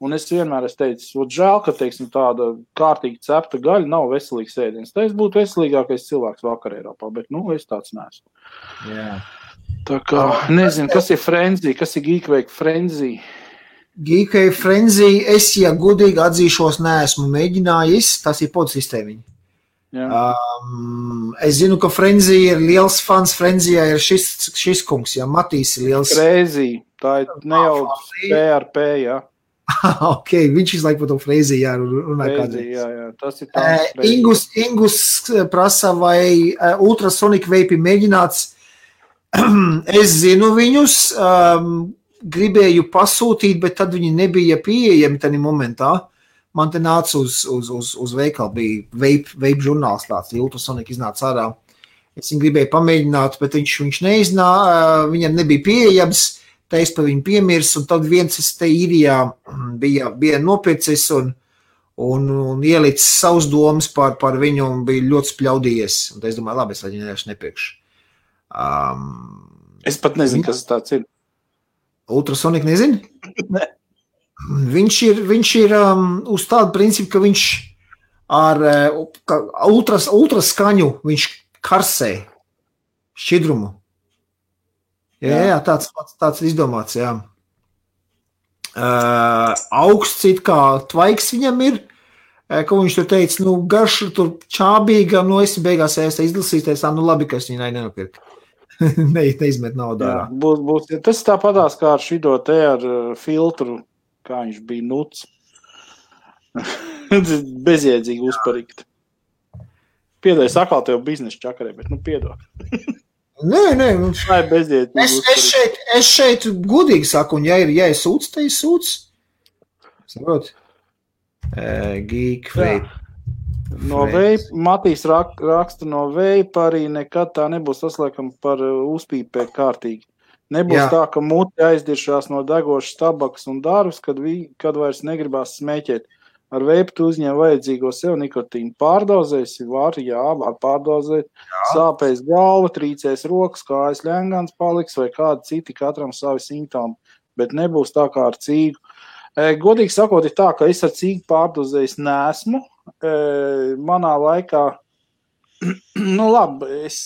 Un es vienmēr teicu, žēl, ka, teiksim, tāda kārtīgi cepta gaļa nav veselīgs ēdiens. Tā es būtu veselīgākais cilvēks vakar Eiropā, bet, nu, es tāds neesmu. Jā. Tā kā, nezinu, kas ir frenzy, kas ir Geekwake frenzy. Geekwake frenzy, es, ja godīgi atzīšos, neesmu mēģinājis, tas ir podsistēmiņi. Es zinu, ka frenzy ir liels fans, frenzyjā ir šis kungs, ja Matīs ir liels. Frenzy, tā ir ne jau PRP, jā. Ok, viņš izlaik par to frenzy, jā, runā kādreiz. Jā, tas ir tāds. Ingus prasa, vai ultrasonic vape mēģināts. Es zinu viņus, gribēju pasūtīt, bet tad viņi nebija pieejami tajā momentā. Man te nāca uz veikalu, bija vape žurnāls tāds, ultrasonic iznāca ārā. Es viņu gribēju pamēģināt, bet viņš neiznāca, viņam nebija pieejams. Tā es par viņu piemirs, un tad viens te īrijā bija nopircis un ielicis savus domas par viņu un bija ļoti spļaudījies. Un es domāju, labi, es viņu vienkārši nepirkšu. Es pat nezinu, kas tāds ir. Ultrasonic nezinu? Ne. Viņš ir uz tādu principu, ka viņš ar ultraskaņu viņš karsē šķidrumu. Jā, tāds izdomāts, jā. Augsts it kā tvaiks viņam ir, ko viņš tur teica, nu, garša tur čābīga, nu, esi beigās izlasīties, nu, labi, ka es viņai nenopirku. Neizmet naudā. Būs, tas tāpatās kā ar šido te ar filtru kā viņš bija nuts. Bezjēdzīgi uzparikt. Piedod, sakal tev biznesa čakarē, bet piedod. Nē. Tā ir bezjēdzīgi. Es šeit godīgi saku, un ja ir sūds, tad ir sūds. Saprot? Geek vape. No vape, Matīs raksta no vape, arī nekad tā nebūs saslēkama par uzpīpēt kārtīgi. Nebūs tā, ka muti aizdiršās no degošas tabakas un darbs, kad vairs negribās smēķēt. Ar vape tu uzņem vajadzīgo sev nikotīnu. Pārdozēsi, var pārdozēt, sāpēs galva, trīcēs rokas, kājas ļengans paliks vai kādi citi, katram savi simptomi, bet nebūs tā kā ar cīgu. Godīgi sakot, ir tā, ka es ar cīgu pārdozējis neesmu. Manā laikā, labi, es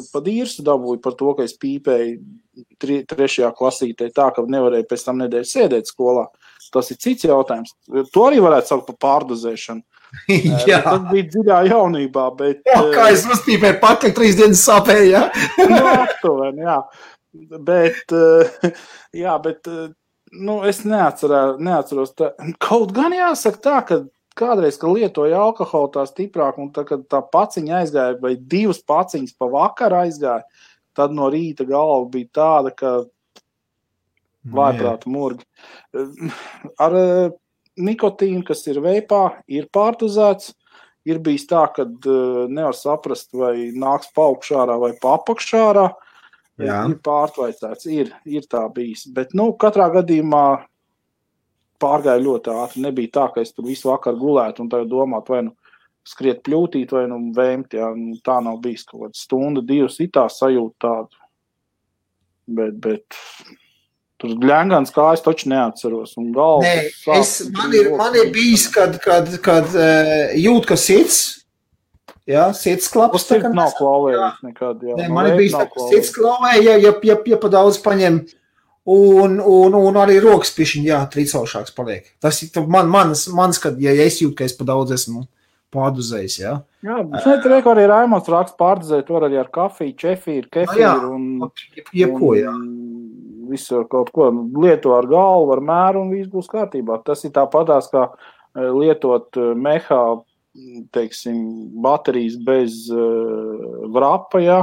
pa dīrstu dabūju par to, ka es pīpēju 3. klasītē tā, ka nevarēju pēc tam nedēļu sēdēt skolā. Tas ir cits jautājums. To arī varētu saukt par pārdozēšanu. Jā. Tas bija dziļā jaunībā, bet... Kā es uzpīpēju pakaļ 3 dienas sāpēju, aptuveni, jā. Bet, es neatceros tā. Kaut gan jāsaka tā, ka kādreiz, kad lietoja alkoholu tā stiprāk, un tā, kad tā paciņa aizgāja, vai 2 paciņas pa vakaru aizgāja, tad no rīta galva bija tāda, ka vājprāta murgi. Ar nikotīnu, kas ir veipā, ir pārdozēts. Ir bijis tā, ka nevar saprast, vai nāks paaugšārā vai papakšārā. Ir pārtvaicēts, ir tā bijis. Bet, katrā gadījumā pārgāja ļoti ātri. Nebija tā, ka es tur visu vakaru gulētu un tagad domāt, vai skriet pļūtīt, vai vēmt. Jā. Tā nav bijis kaut kāda stunda, 2 itā sajūta tādu. Bet tur ļengans kājas taču neatceros. Un galva, man ir bijis, kad jūt, ka sirds, sirds klaps. Tas nav klauvējis nekad. Jā. Man ir bijis, ka sirds klauvē, ja pa daudz paņem, un arī rokas pišķiņ, trīcaušāks paliek. Tas ir mans, kad, ja es jūtu, ka es pa daudz esmu pārdozējis, jā. Jā, šeit reku arī Raimonds raksts pārdozēt, var arī ar kafiju, čefīru, kefīru un... Jebko, jā. Visu kaut ko lieto ar galvu, ar mēru un viss būs kārtībā. Tas ir tāpatās, kā lietot mehā, teiksim, baterijas bez vrapa, jā.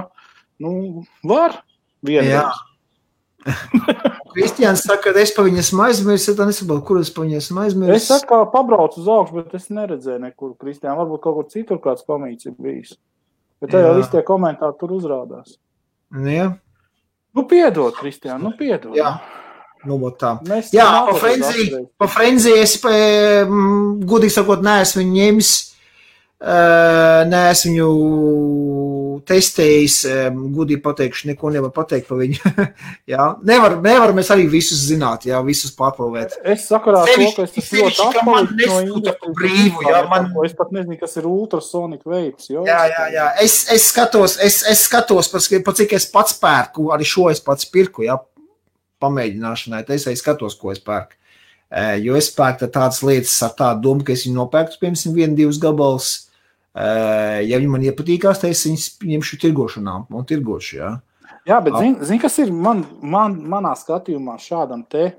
Var vienreiz. Kristiāns saka, ka es pa viņas aizmirsu, tad nesaprotu, kur es pa viņas aizmirsu. Es saku, kā pabraucu uz augšu, bet es neredzēju nekur, Kristiāna. Varbūt kaut kur citur kāds komīts ir bijis. Bet tā jau visi tie komentāri tur uzrādās. Jā. Piedod, Kristiāna, piedod. Jā, tā. Jā, pa Frenzy es, godīgi sakot, neesmu viņu ņemis, neesmu viņu testējis, godīgi pateikšu, neko nevar pateikt par viņu. Jā, nevar mēs arī visus zināt, visus pārprovēt. Es sakarā to, ka es ļoti atpalīdzu no es pat nezinu, kas ir ultrasonic vapes. Jā. Es skatos, pa cik es pats pērku, arī šo es pats pirku, pamēģināšanai, es skatos, ko es pērku. Jo es pērku tādas lietas ar tādu domu, ka es viņu nopērku, piemēram, 1-2 gabals. Ja viņi man iepatīkās, tad es viņus ņemšu tirgošanā un tirgošu, jā. Jā, bet zini, kas ir manā skatījumā šādam te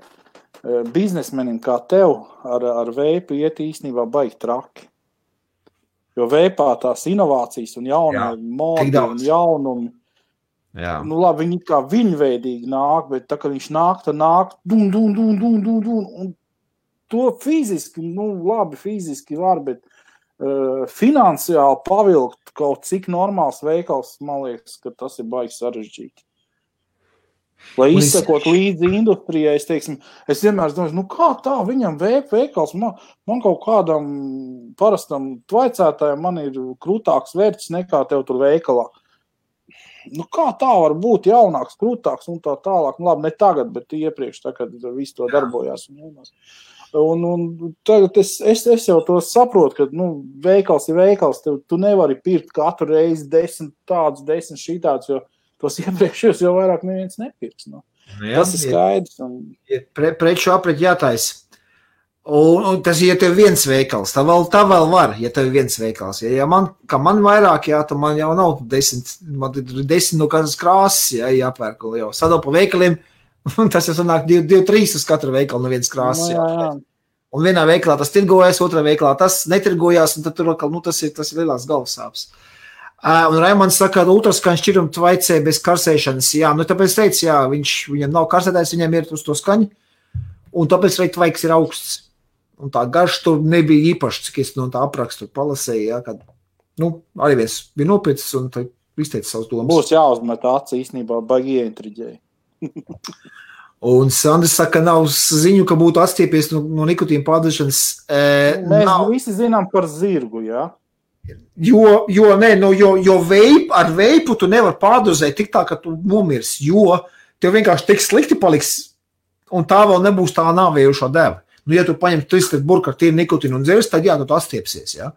biznesmenim kā tev ar veipu iet īstenībā baigi traki. Jo veipā tās inovācijas un jaunie modi un jaunumi, labi, viņi kā viņveidīgi nāk, bet tā, ka viņš nāk, tad nāk dun, un to fiziski, labi, fiziski var, bet finansiāli pavilkt kaut cik normāls veikals, man liekas, ka tas ir baigi sarežģīti. Lai izsakot līdzi industrijai, es vienmēr domāju, kā tā viņam veikals, man kaut kādam parastam tvaicētājam man ir krūtāks vērts nekā tev tur veikalā. Kā tā var būt jaunāks, krūtāks un tā tālāk? Labi, ne tagad, bet iepriekš, tā, kad viss to darbojās. Un tagad es jau to saprotu, ka veikals ir veikals, tu nevari pirkt katru reizi 10 tādus, 10 šitādus, jo tos iepriekšējos jau vairāk neviens nepirks. Tas ir skaidrs. Preču apret jātais. Un tas, ja tev viens veikals, tā vēl var, ja tev viens veikals. Ja man vairāk, tad man jau nav 10, man ir 10 no katras krāsas, jāpērk jau. Sadal pa veikaliem, Un tas jau sanāk 2-3 uz katru veikalu no vienas krāsas. Jā. Un vienā veikalā tas tirgojas, otrā veikalā tas netirgojās, un tad tur tas ir lielās galvasāpes. Un Raimonds saka, ka ultraskaņu šķirumu tvaicē bez karsēšanas. Jā, tāpēc teicu, jā, viņam nav karsētājs, viņam ir uz to skaņu, un tāpēc arī tvaiks ir augsts. Un tā garš tur nebija īpaši, cik es no tā aprakstu palasēju, jā, kad, arī viens bija nopietns un izteica savus domas. Būs jāuzmet aci īstenībā, baigi ieintriģēji. Un Sandrs saka, nav ziņu, ka būtu atstiepies no nikotīna pārdošanas. Mēs visi zinām par zirgu, jā? Jo ar veipu tu nevar pārdozēt tik tā, ka tu nomirs, jo tev vienkārši tik slikti paliks, un tā vēl nebūs tā nāvējušā deva. Ja tu paņem 3 burku ar tīru nikotīnu un dzers, tad jā, tu atstiepsies, jā.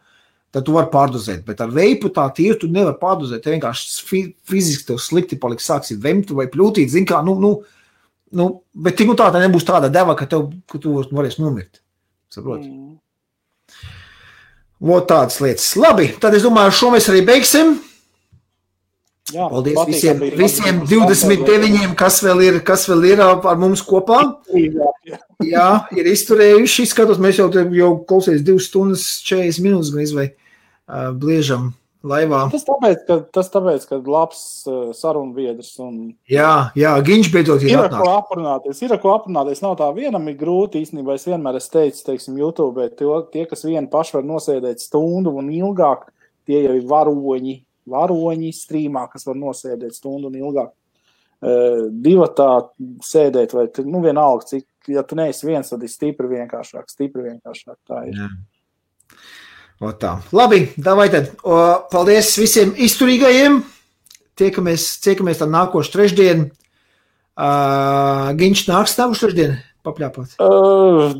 Tad tu vari pārdozēt, bet ar veipu tā tīru tu nevar pārdozēt, tev vienkārši fiziski tev slikti paliks, sāksi vemt vai pļūtīt, zin kā, bet tik tā nebūs tāda deva, ka tu varēsi nomirt. Saproti? Vot tādas lietas. Labi, tad es domāju, šo mēs arī beigsim. Jā, paldies visiem 29, kas vēl ir ar mums kopā. Jā, ir izturējuši. Skatos, mēs jau klausies 2 stundas 40 minūtes gan vai bliežam laivā. Tas tāpēc, ka labs sarunbiedrs. Jā, Giņš beidzot ir atnāks. Ir ko aprunāties. Nav tā vienam ir grūti, īstenībā es vienmēr teicu, teiksim, YouTube, tie, kas vieni paši var nosēdēt stundu un ilgāk, tie jau ir varoņi strīmā, kas var nosēdēt stundu un ilgāk. Divatā sēdēt, vai vienalga, cik, ja tu neesi viens, tad ir stipri vienkāršāk. Tā ir. Jā. Tā. Labi, davai tad. Paldies visiem izturīgajiem. Tiekamies tad nākošu trešdien. Giņš nāks nākošu trešdien papļāpāt?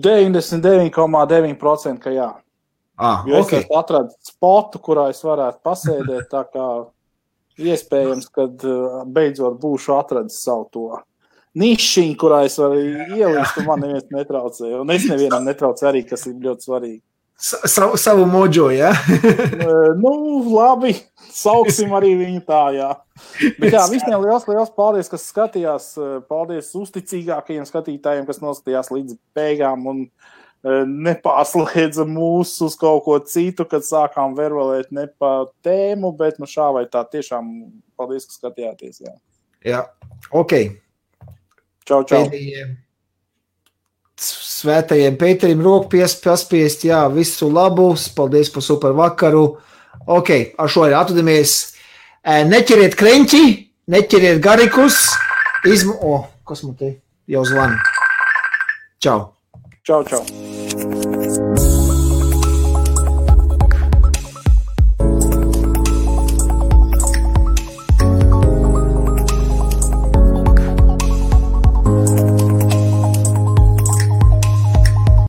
99,9%, ka jā. Jo es atradu spotu, kurā es varētu pasēdēt, tā kā iespējams, kad beidzot būšu atradis savu to nišiņu, kurā es varu ielīst, un man neviens netraucēja. Un es nevienam netraucēju arī, kas ir ļoti svarīgi. Savu mojo, jā? Labi, sauksim arī viņu tā, jā. Bet jā, visiem liels paldies, kas skatījās. Paldies uzticīgākajiem skatītājiem, kas noskatījās līdz beigām un nepārslēdza mūs uz kaut ko citu, kad sākām verbalēt ne pa tēmu, bet šā vai tā tiešām paldies, ka skatījāties, jā. Jā, ok. Čau. Svētajiem Pēterim roku paspiest, jā, visu labu, paldies par super vakaru. Ok, ar šo arī atvadamies. Neķeriet kreņķi, neķeriet garikus, kas man te jau zvana? Čau. Čau.